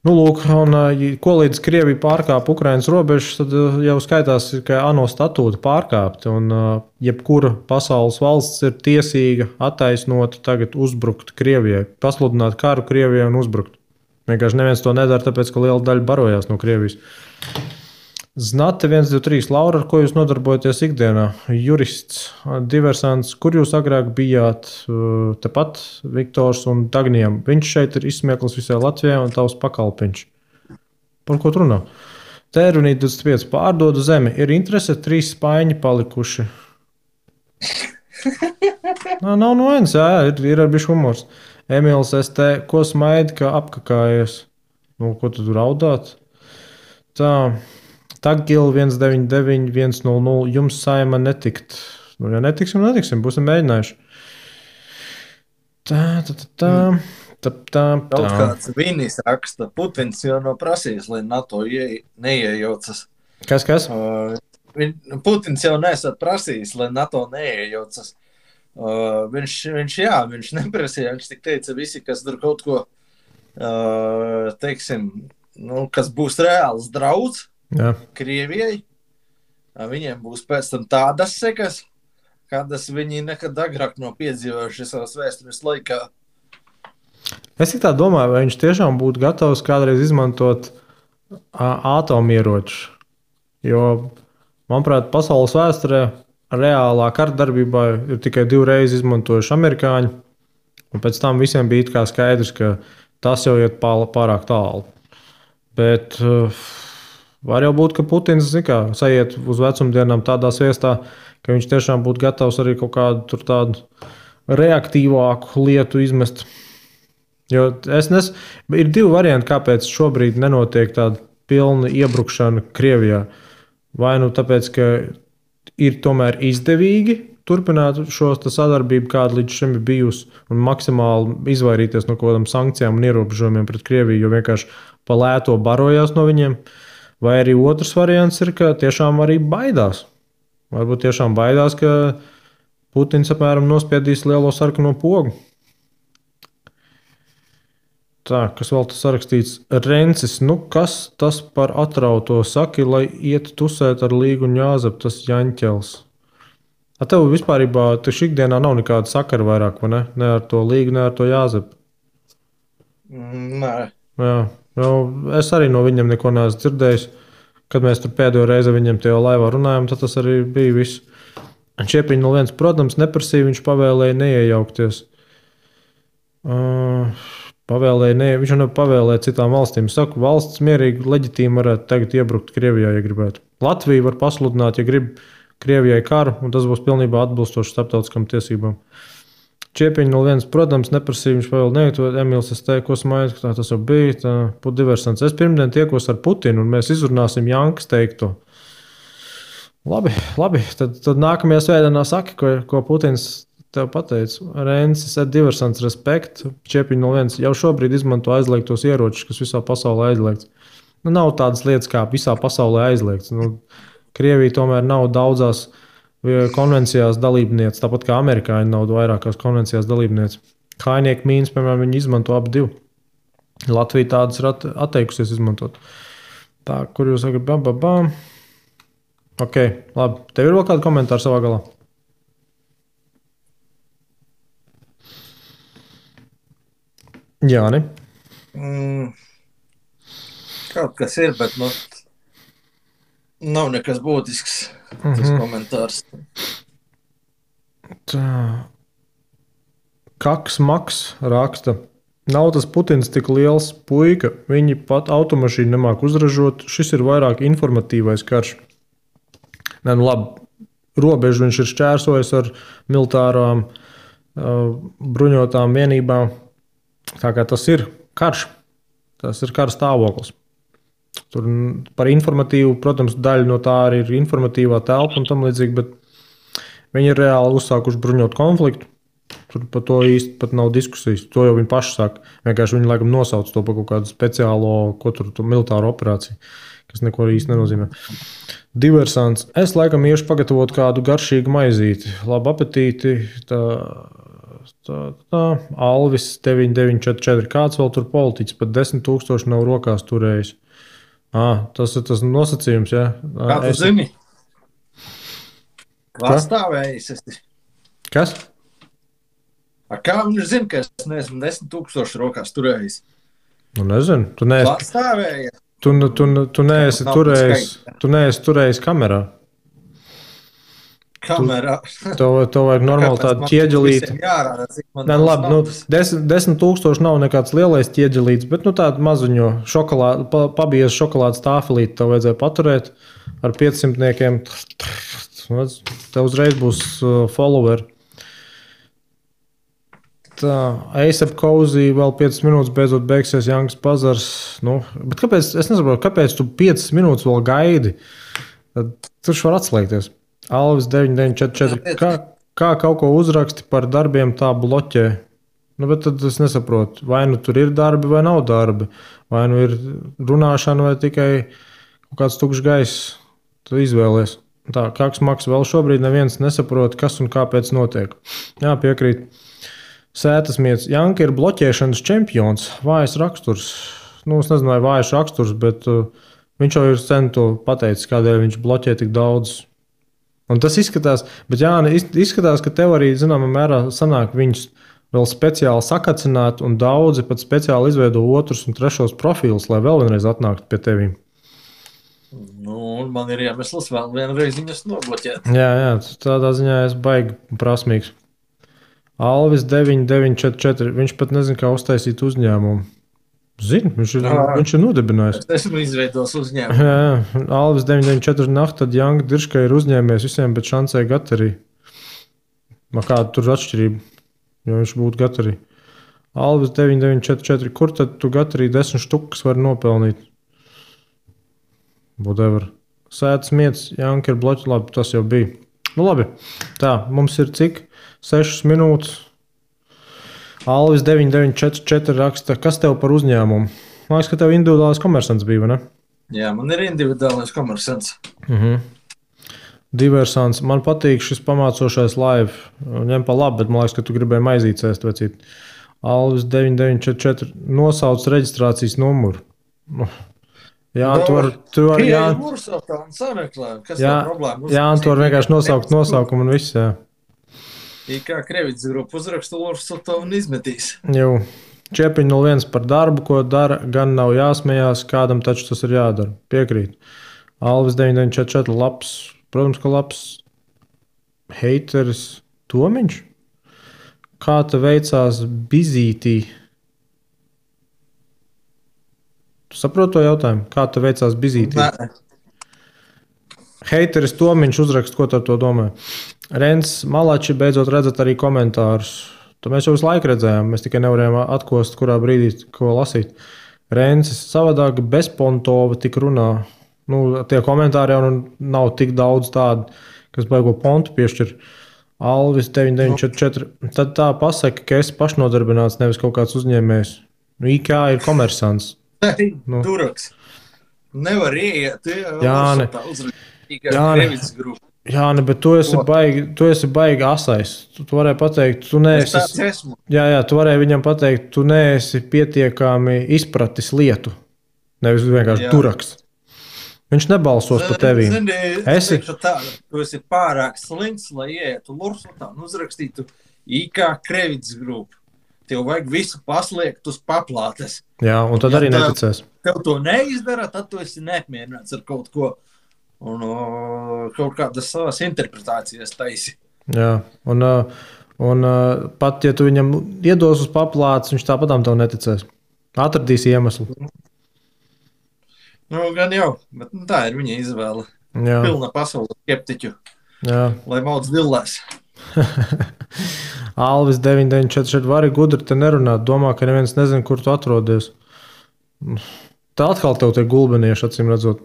Speaker 1: Nu, lūk, un ko līdz Krievija pārkāp Ukrainas robežas, tad jau skaitās, ka ANO statūta pārkāpta, un jebkura pasaules valsts ir tiesīga attaisnota tagad uzbrukt Krievijai, pasludināt karu Krievijai un uzbrukt. Vienkārši neviens to nedara, tāpēc, ka liela daļa barojās no Krievijas. Znate 123. Laura, ar ko jūs nodarbojaties ikdienā? Jurists, diversants, kur jūs agrāk bijāt? Tepat Viktors un Dagnijam. Viņš šeit ir izsmieklis visai Latvijai un tavs pakalpiņš. Par ko tu runā? Tērunīt 25. Pārdodu zemi. Ir interese 3 spaiņi palikuši. Nav no viens, ir ar bišķi humors. Emīls ST, ko smaidi, ka apkakājies? Ko tu raudāt? Tā... Tagil 199-100, jums saima netikt. Ja netiksim, būsim mēģinājuši. Tā.
Speaker 2: Kaut kāds Vinis raksta, Putins jau nav prasījis, lai NATO neiejaucas.
Speaker 1: Kas?
Speaker 2: Putins jau nesat prasījis, lai NATO neiejaucas. Viņš neprasīja, viņš tik teica visi, kas tur kaut ko, teiksim, kas būs reāls draudz. Jā. Krievijai, viņiem būs pēc tam tādas sekas, kādas viņi nekad agrāk nav piedzīvojuši savas vēstures laikā.
Speaker 1: Es tā domāju, vai viņš tiešām būtu gatavs kādreiz izmantot atomieročus. Jo, manuprāt, pasaules vēsturē reālā kardarbībā ir tikai 2 reizes izmantojuši amerikāņi, un pēc tam visiem bija kā skaidrs, ka tas jau iet pārāk tālu. Bet var jau būt, ka Putins sajiet uz vecumdienām tādā sviestā, ka viņš tiešām būtu gatavs arī kaut kādu tādu reaktīvāku lietu izmest. Jo ir divi varianti, kāpēc šobrīd nenotiek tāda pilna iebrukšana Krievijā. Vai nu tāpēc, ka ir tomēr izdevīgi turpināt šo sadarbību, kāda līdz šim ir bijusi, un maksimāli izvairīties no kaut kādām sankcijām un ierobežojumiem pret Krieviju, jo vienkārši pa lēto barojās no viņiem. Vai arī otrs variants ir, ka tiešām arī baidās. Varbūt tiešām baidās, ka Putins apmēram nospiedīs lielo sarkano pogu. Tā, kas vēl tas sarakstīts? Rencis, kas tas par atrauto saki, lai iet tusēt ar Līgu un Jāzepu, tas Jaņķels? Tev vispārībā taču ikdienā nav nekāda sakara vairāk, vai ne? Ne ar to Līgu, ne ar to Jāzepu.
Speaker 2: Nē.
Speaker 1: Jā, es arī no viņiem neko neesmu dzirdējis. Kad mēs tur pēdējo reizi viņam tajā laivā runājām, tad tas arī bija viss. Čiepiņš no viens, protams, neprasīja, viņš pavēlēja neiejaukties. Viņš jau nepavēlēja citām valstīm. Es saku, valsts mierīgi, leģitīmi varētu tagad iebrukt Krievijā, ja gribētu. Latvija var pasludināt, ja grib Krievijai karu, un tas būs pilnībā atbilstoši starptautiskām tiesībām. Čiepiņš no viens, protams, neprasīja, viņš pavēl neietot. Emīls, es teiktu, ko smaidu, ka tas jau bija. Diversants. Es pirmdien tiekos ar Putinu, un mēs izrunāsim Jankas teikto. Labi. Tad nākamajā svētdienā saki, ko Putins tev pateica. Rensis, diversants, respekt. Čiepiņš no viens jau šobrīd izmanto aizliegtos ieročus, kas visā pasaulē aizliegts. Nav tādas lietas, kā visā pasaulē aizliegts. Krievija tomēr nav daudzās konvencijās dalībniece, tāpat kā amerikāņi nav vairākās konvencijās dalībniece. Kājnieku mīnas, piemēram, viņi izmanto abi divi. Latvija tādas ir atteikusies izmantot. Tā, kur jūs sakat, Ok, labi. Tev ir vēl kādi komentāri savā galā? Jāni?
Speaker 2: Kaut kas ir, bet nav nekas būtisks tas komentārs.
Speaker 1: Tā. Kaks Maks raksta. Nav tas Putins tik liels puika, viņi pat automašīnu nemāk uzražot. Šis ir vairāk informatīvais karš. Labi, robežu viņš ir šķērsojis ar militārām bruņotām vienībām. Tā kā tas ir karš. Tas ir kara stāvoklis. Tur par informatīvu, protams, daļa no tā arī ir informatīvā telpa un tam līdzīgi, bet viņi ir reāli uzsākuši bruņot konfliktu. Tur par to īsti pat nav diskusijas. To jau viņi paši saka. Vienkārši viņi laikam nosauc to par kaut kādu speciālo, militāru operāciju, kas neko īsti nenozīmē. Diversants. Es laikam iešu pagatavot kādu garšīgu maizīti. Labu apetīti. Alvis 9944. Kāds vēl tur politiķis? Pat 10 000 nav rokās turējis. Tas ir tas nosacījums, jā.
Speaker 2: Kā tu zini? Pastāvējis esi.
Speaker 1: Kas?
Speaker 2: Kā viņš zina, ka es neesmu 10 000 rokās turējis?
Speaker 1: Nezinu. Tu neesi
Speaker 2: pastāvējies.
Speaker 1: Tu neesi turējis kamerā. Tev vajag normāli tādu ķieģelīti. Labi, 10 000 nav nekāds lielais ķieģelīts, bet tādu mazuņo pabies šokolādes tāfelīti tev vajadzēja paturēt ar 500. Tev uzreiz būs followeri. Tā, ASAP Cozy vēl 5 minūtes beidzot beigsies Jankas bazars. Bet kāpēc, es nesaprotu, kāpēc tu 5 minūtes vēl gaidi? Tad tur var atslēgties. Alvis 9944. Kā kaut ko uzraksti par darbiem tā bloķē? Bet tad es nesaprotu, vai nu tur ir darbi vai nav darbi. Vai nu ir runāšana vai tikai kaut kāds tukšs gaiss. Tu izvēlies. Tā, Kaks Maks vēl šobrīd neviens nesaprot, kas un kāpēc notiek. Jā, piekrīt. Sētasmiets. Janka ir bloķēšanas čempions. Vājs raksturs. Es nezinu, vai vājš raksturs, bet viņš jau ir sen to pateicis, kādēļ viņš bloķē tik daudz. Un tas izskatās, bet izskatās, ka tev arī, zināmā mērā, sanāk viņus vēl speciāli sakacināt, un daudzi pat speciāli izveido otrus un trešos profilus, lai vēl vienreiz atnāktu pie tevīm.
Speaker 2: Man ir iemesls vēl vienreiz viņus nobloķēt.
Speaker 1: Jā, tādā ziņā es baigi prasmīgs. Alvis 9944. Viņš pat nezina, kā uztaisīt uzņēmumu. Zinu, viņš ir nodibinājis.
Speaker 2: Es esmu izveidojis uzņēmumu.
Speaker 1: Jā, Alvis 994 nakta, tad Janga Dirškai ir uzņēmies visiem, bet šancē Gatarī. Kāda tur atšķirība, jo viņš būtu Gatarī? Alvis 9944, kur tad tu Gatarī 10 štukas var nopelnīt? Whatever. Sētas mietas, Janka ir bloķi, labi, tas jau bija. Nu labi, tā, mums ir cik? 6 minūtes. Alvis 9944 raksta, kas tev par uzņēmumu? Man liekas, ka tev individuālais komersants bija, vai ne?
Speaker 2: Jā, man ir individuālais komersants.
Speaker 1: Diversants. Man patīk šis pamācošais live. Ņem pa labi, bet man liekas, ka tu gribēji maizīt cēst, vecīt. Alvis 9944 nosauc reģistrācijas numuru. Jā, tu var jā, tu var vienkārši nosaukt nosaukumu un viss, jā.
Speaker 2: Kā Krevits grupa uzrakstu Lursotovu un izmetīs.
Speaker 1: Jau. Čepiņ 01 par darbu, ko dara, gan nav jāsmējās, kādam taču tas ir jādara. Piekrīt. Alvis 9944 labs, protams, ka labs heiteris Tomiņš. Kā te veicās Bizītī? Tu saproti to jautājumu? Kā te veicās Bizītī? Heiteris Tomiņš uzrakst, ko ar to domā. Rens Malači beidzot redzat arī komentārus. To mēs jau visu laiku redzējām, mēs tikai nevarējām atkost, kurā brīdī ko lasīt. Rensis savādāk bezpontova tik runā. Nu, tie komentāri jau nav tik daudz tādu, kas baigo pontu piešķir. Alvis 9944. Tad tā pasaka, ka esi pašnodarbināts, nevis kaut kāds uzņēmējs. Nu, IK ir komersants.
Speaker 2: Nu. Duraks. Nevar ieiet.
Speaker 1: Jāni, bet tu esi baigi asais. Tu varēji pateikt, tu neesi. Jā, tu varēji viņam pateikt, tu neesi pietiekami izpratis lietu. Nevis vienkārši duraks. Viņš nebalsos par tevi.
Speaker 2: Tu esi pārāk slinks, lai ietu Lursotā un uzrakstītu IK Krevits grupu. Tev vajag visu paslēgt uz paplātes.
Speaker 1: Jā, un tad arī neticēs.
Speaker 2: Tev to neizdara, tad tu esi neapmierināts ar kaut ko. Un kaut kādas savas interpretācijas taisi.
Speaker 1: Jā, un pat, ja tu viņam iedos uz paplātes, viņš tāpatām tev neticēs. Atradīs iemeslu.
Speaker 2: Nu, gan jau, bet tā ir viņa izvēle.
Speaker 1: Jā.
Speaker 2: Pilna pasaules skeptiķu.
Speaker 1: Jā. Lai
Speaker 2: mauc dillēs.
Speaker 1: Alvis 9944 vari gudri te nerunāt. Domā, ka neviens nezin, kur tu atrodies. Tā atkal tev tie gulbenieši, acīm redzot.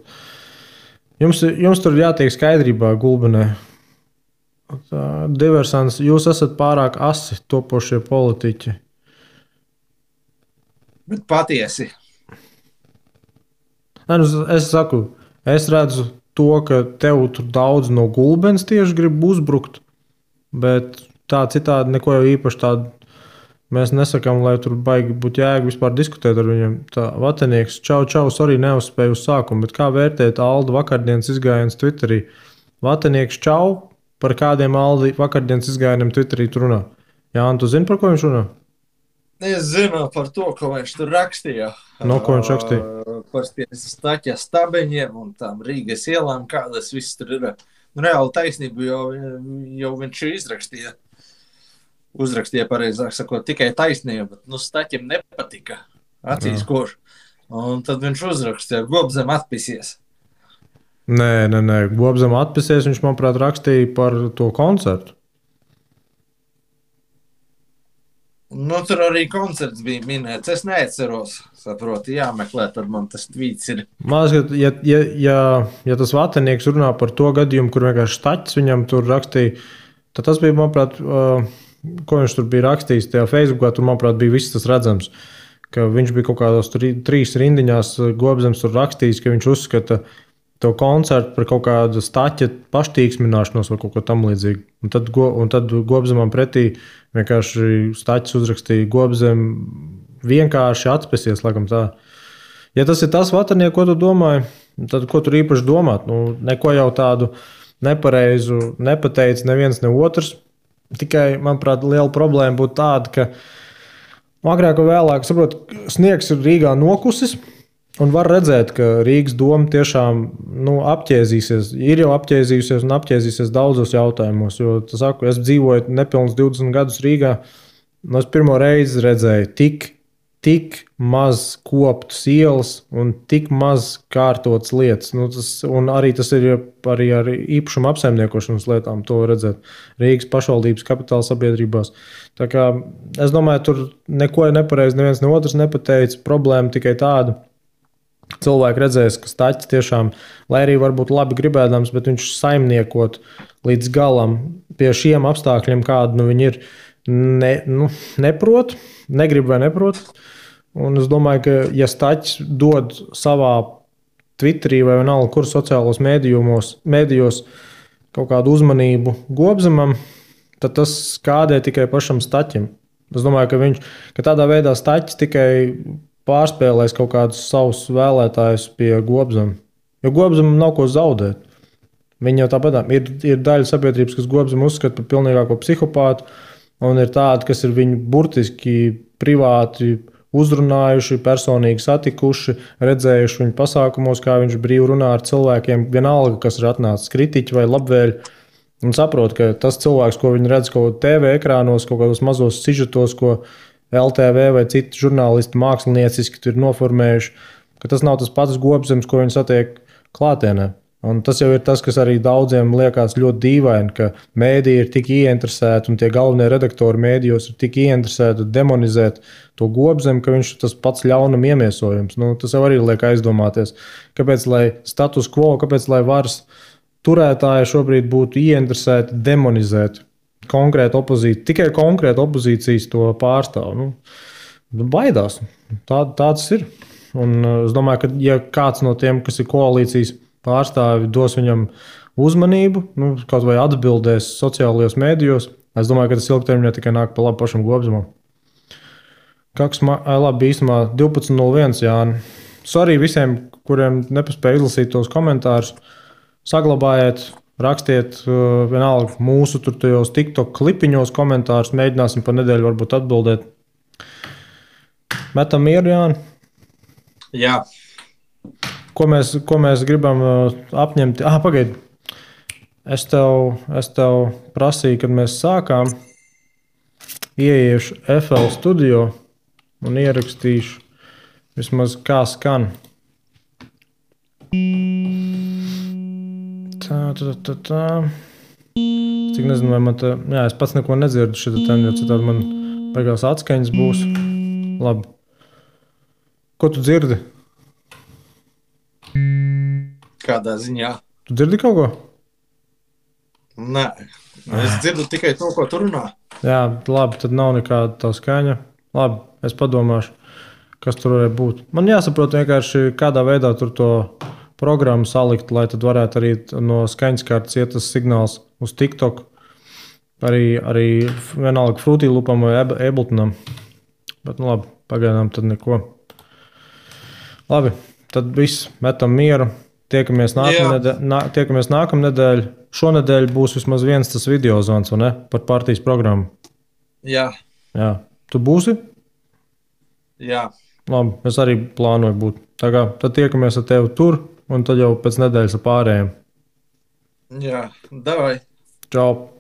Speaker 1: Jums tur jātiek skaidrībā gulbenē. Diversants, jūs esat pārāk asi topošie politiķi.
Speaker 2: Bet patiesi.
Speaker 1: Es saku, es redzu to, ka tev tur daudz no gulbens tieši grib uzbrukt, bet tā citādi neko jau īpaši tādu mēs nesakām, lai tur baigi būtu jēga vispār diskutēt ar viņiem. Tā Vatenieks, čau, sorry, neuzspēju uz sākumu, bet kā vērtēt Alda vakardienas izgājiens Twitterī? Vatenieks, čau, par kādiem Alda vakardienas izgājieniem Twitterī tu runā? Jā, un tu zini, par ko viņš runā?
Speaker 2: Es zinu par to, ko viņš tur rakstīja.
Speaker 1: No ko viņš rakstīja?
Speaker 2: Par Staķa stabeņiem un tām Rīgas ielām, kādas viss tur ir. Reāli taisnību jau viņš izrakstīja. Uzrakstīja, pareizāk sakot, tikai taisnība, bet Staķim nepatika. Acīs koš. Un tad viņš uzrakstīja, Gobzem atpisies.
Speaker 1: Nē, Gobzem atpisies, viņš, manuprāt, rakstīja par to koncertu.
Speaker 2: Nu, tur arī koncerts bija minēts. Es neatceros, saproti, jāmeklē, tad man tas tvīts ir.
Speaker 1: Man liekas, ja tas Vatenieks runā par to gadījumu, kur vienkārši Staķis viņam tur rakstīja, tad tas bija, manuprāt, ko viņš tur bija rakstījis tajā Facebookā, tur, manuprāt, bija viss tas redzams, ka viņš bija kaut kādos 3 rindiņās Gobzems tur rakstījis, ka viņš uzskata to koncertu par kaut kādu Staķa paštīksmināšanos vai kaut ko tam līdzīgu. Un tad Gobzemam pretī vienkārši Staķis uzrakstīja Gobzem vienkārši atspēsies, laikam tā. Ja tas ir tas Vatanieks, ko tu domāji, tad ko tur īpaši domāt? Nu, neko jau tādu nepareizu nepateica neviens, ne otrs. Tikai, manuprāt, liela problēma būtu tāda, ka agrāk vai vēlāk, saprot, sniegs ir Rīgā nokusis, un var redzēt, ka Rīgas doma tiešām apķēzīsies, ir jau apķēzījusies un apķēzīsies daudzos jautājumos. Jo, es dzīvoju nepilnus 20 gadus Rīgā, un es pirmo reizi redzēju tik maz koptas ielas un tik maz kārtotas lietas. Nu, un arī tas ir arī ar īpašumu apsaimniekošanas lietām, to redzēt Rīgas pašvaldības kapitāla sabiedrībās. Tā kā es domāju, tur neko nepareizi neviens ne otrs nepateica. Problēma tikai tāda. Cilvēki redzēs, ka Staķis tiešām, lai arī varbūt labi gribēdams, bet viņš saimniekot līdz galam pie šiem apstākļiem, kādi viņi ir, neprot, negrib vai neprot. Un es domāju, ka ja Staķis dod savā Twitterī vai vienalga, kur sociālos mēdījos kaut kādu uzmanību Gobzemam, tad tas skādē tikai pašam Staķim. Es domāju, ka tādā veidā Staķis tikai pārspēlēs kaut kādus savus vēlētājus pie Gobzema. Jo Gobzemam nav ko zaudēt. Viņi jau tāpat ir daļa sabiedrības, kas Gobzemu uzskata par pilnīgāko psihopātu, un ir tādi, kas ir viņu burtiski privāti uzrunājuši, personīgi satikuši, redzējuši viņu pasākumos, kā viņš brīvi runā ar cilvēkiem, vienalga, kas ir atnācis kritiķi vai labvēļi, un saprot, ka tas cilvēks, ko viņi redz kaut TV ekrānos, kaut kādos mazos sižetos, ko LTV vai citi žurnālisti mākslinieciski tur noformējuši, ka tas nav tas pats Gobzems, ko viņi satiek klātienē. Un tas jau ir tas, kas arī daudziem liekas ļoti dīvaini, ka mēdīji ir tik ieinteresēti un tie galvenie redaktori mēdījos ir tik ieinteresēti demonizēt to Gobzemu, ka viņš ir tas pats ļaunam iemiesojums. Nu, tas jau arī liek aizdomāties, kāpēc lai status quo, kāpēc lai varas turētāji šobrīd būtu ieinteresēti demonizēt konkrēta opozīcija, tikai konkrēta opozīcijas to pārstāv. Baidās. Tāds ir. Un es domāju, ka ja kāds no tiem, kas ir koalīcijas pārstāvi, dos viņam uzmanību, kaut vai atbildēs sociālajos mēdījos, es domāju, ka tas ilgtermiņā tikai nāk pa labu pašam Gobzemam. Labi, īstumā 12.01, Jāni. Sorry visiem, kuriem nepaspēja izlasīt tos komentārus. Saglabājiet, rakstiet vienalga mūsu tajos TikTok klipiņos komentārus, mēģināsim pa nedēļu varbūt atbildēt. Metam mieru, Jāni?
Speaker 2: Jā.
Speaker 1: Ko mēs gribam apņemt? Pagaidi. Es tev prasīju, kad mēs sākām, ieiešu FL studio un ierakstīšu vismaz kā skan. Tā. Cik nezinu, vai man te... Jā, es pats neko nedzirdu šitā ten, jo citādi man beigās atskaņas būs. Labi. Ko tu dzirdi?
Speaker 2: Kādā ziņā?
Speaker 1: Tu dzirdi kaut ko?
Speaker 2: Nē. Es dzirdu tikai to, ko tu runā.
Speaker 1: Jā, labi, tad nav nekāda tā skaņa. Labi, es padomāšu, kas tur varētu būt. Man jāsaprot vienkārši, kādā veidā tur to programmu salikt, lai tad varētu arī no skaņaskartes iet tas signāls uz TikTok. Arī vienalga Fruity Loopam vai Abletonam. Bet labi, pagaidām tad neko. Labi, tad viss, metam mieru. Tiekamies nākamnedēļ. Šonedēļ būs vismaz viens tas video zvans, vai ne? Par partijas programmu.
Speaker 2: Jā.
Speaker 1: Tu būsi?
Speaker 2: Jā.
Speaker 1: Labi, es arī plānoju būt. Tad tiekamies ar tevi tur, un tad jau pēc nedēļas ar pārējiem.
Speaker 2: Jā, davai.
Speaker 1: Čau.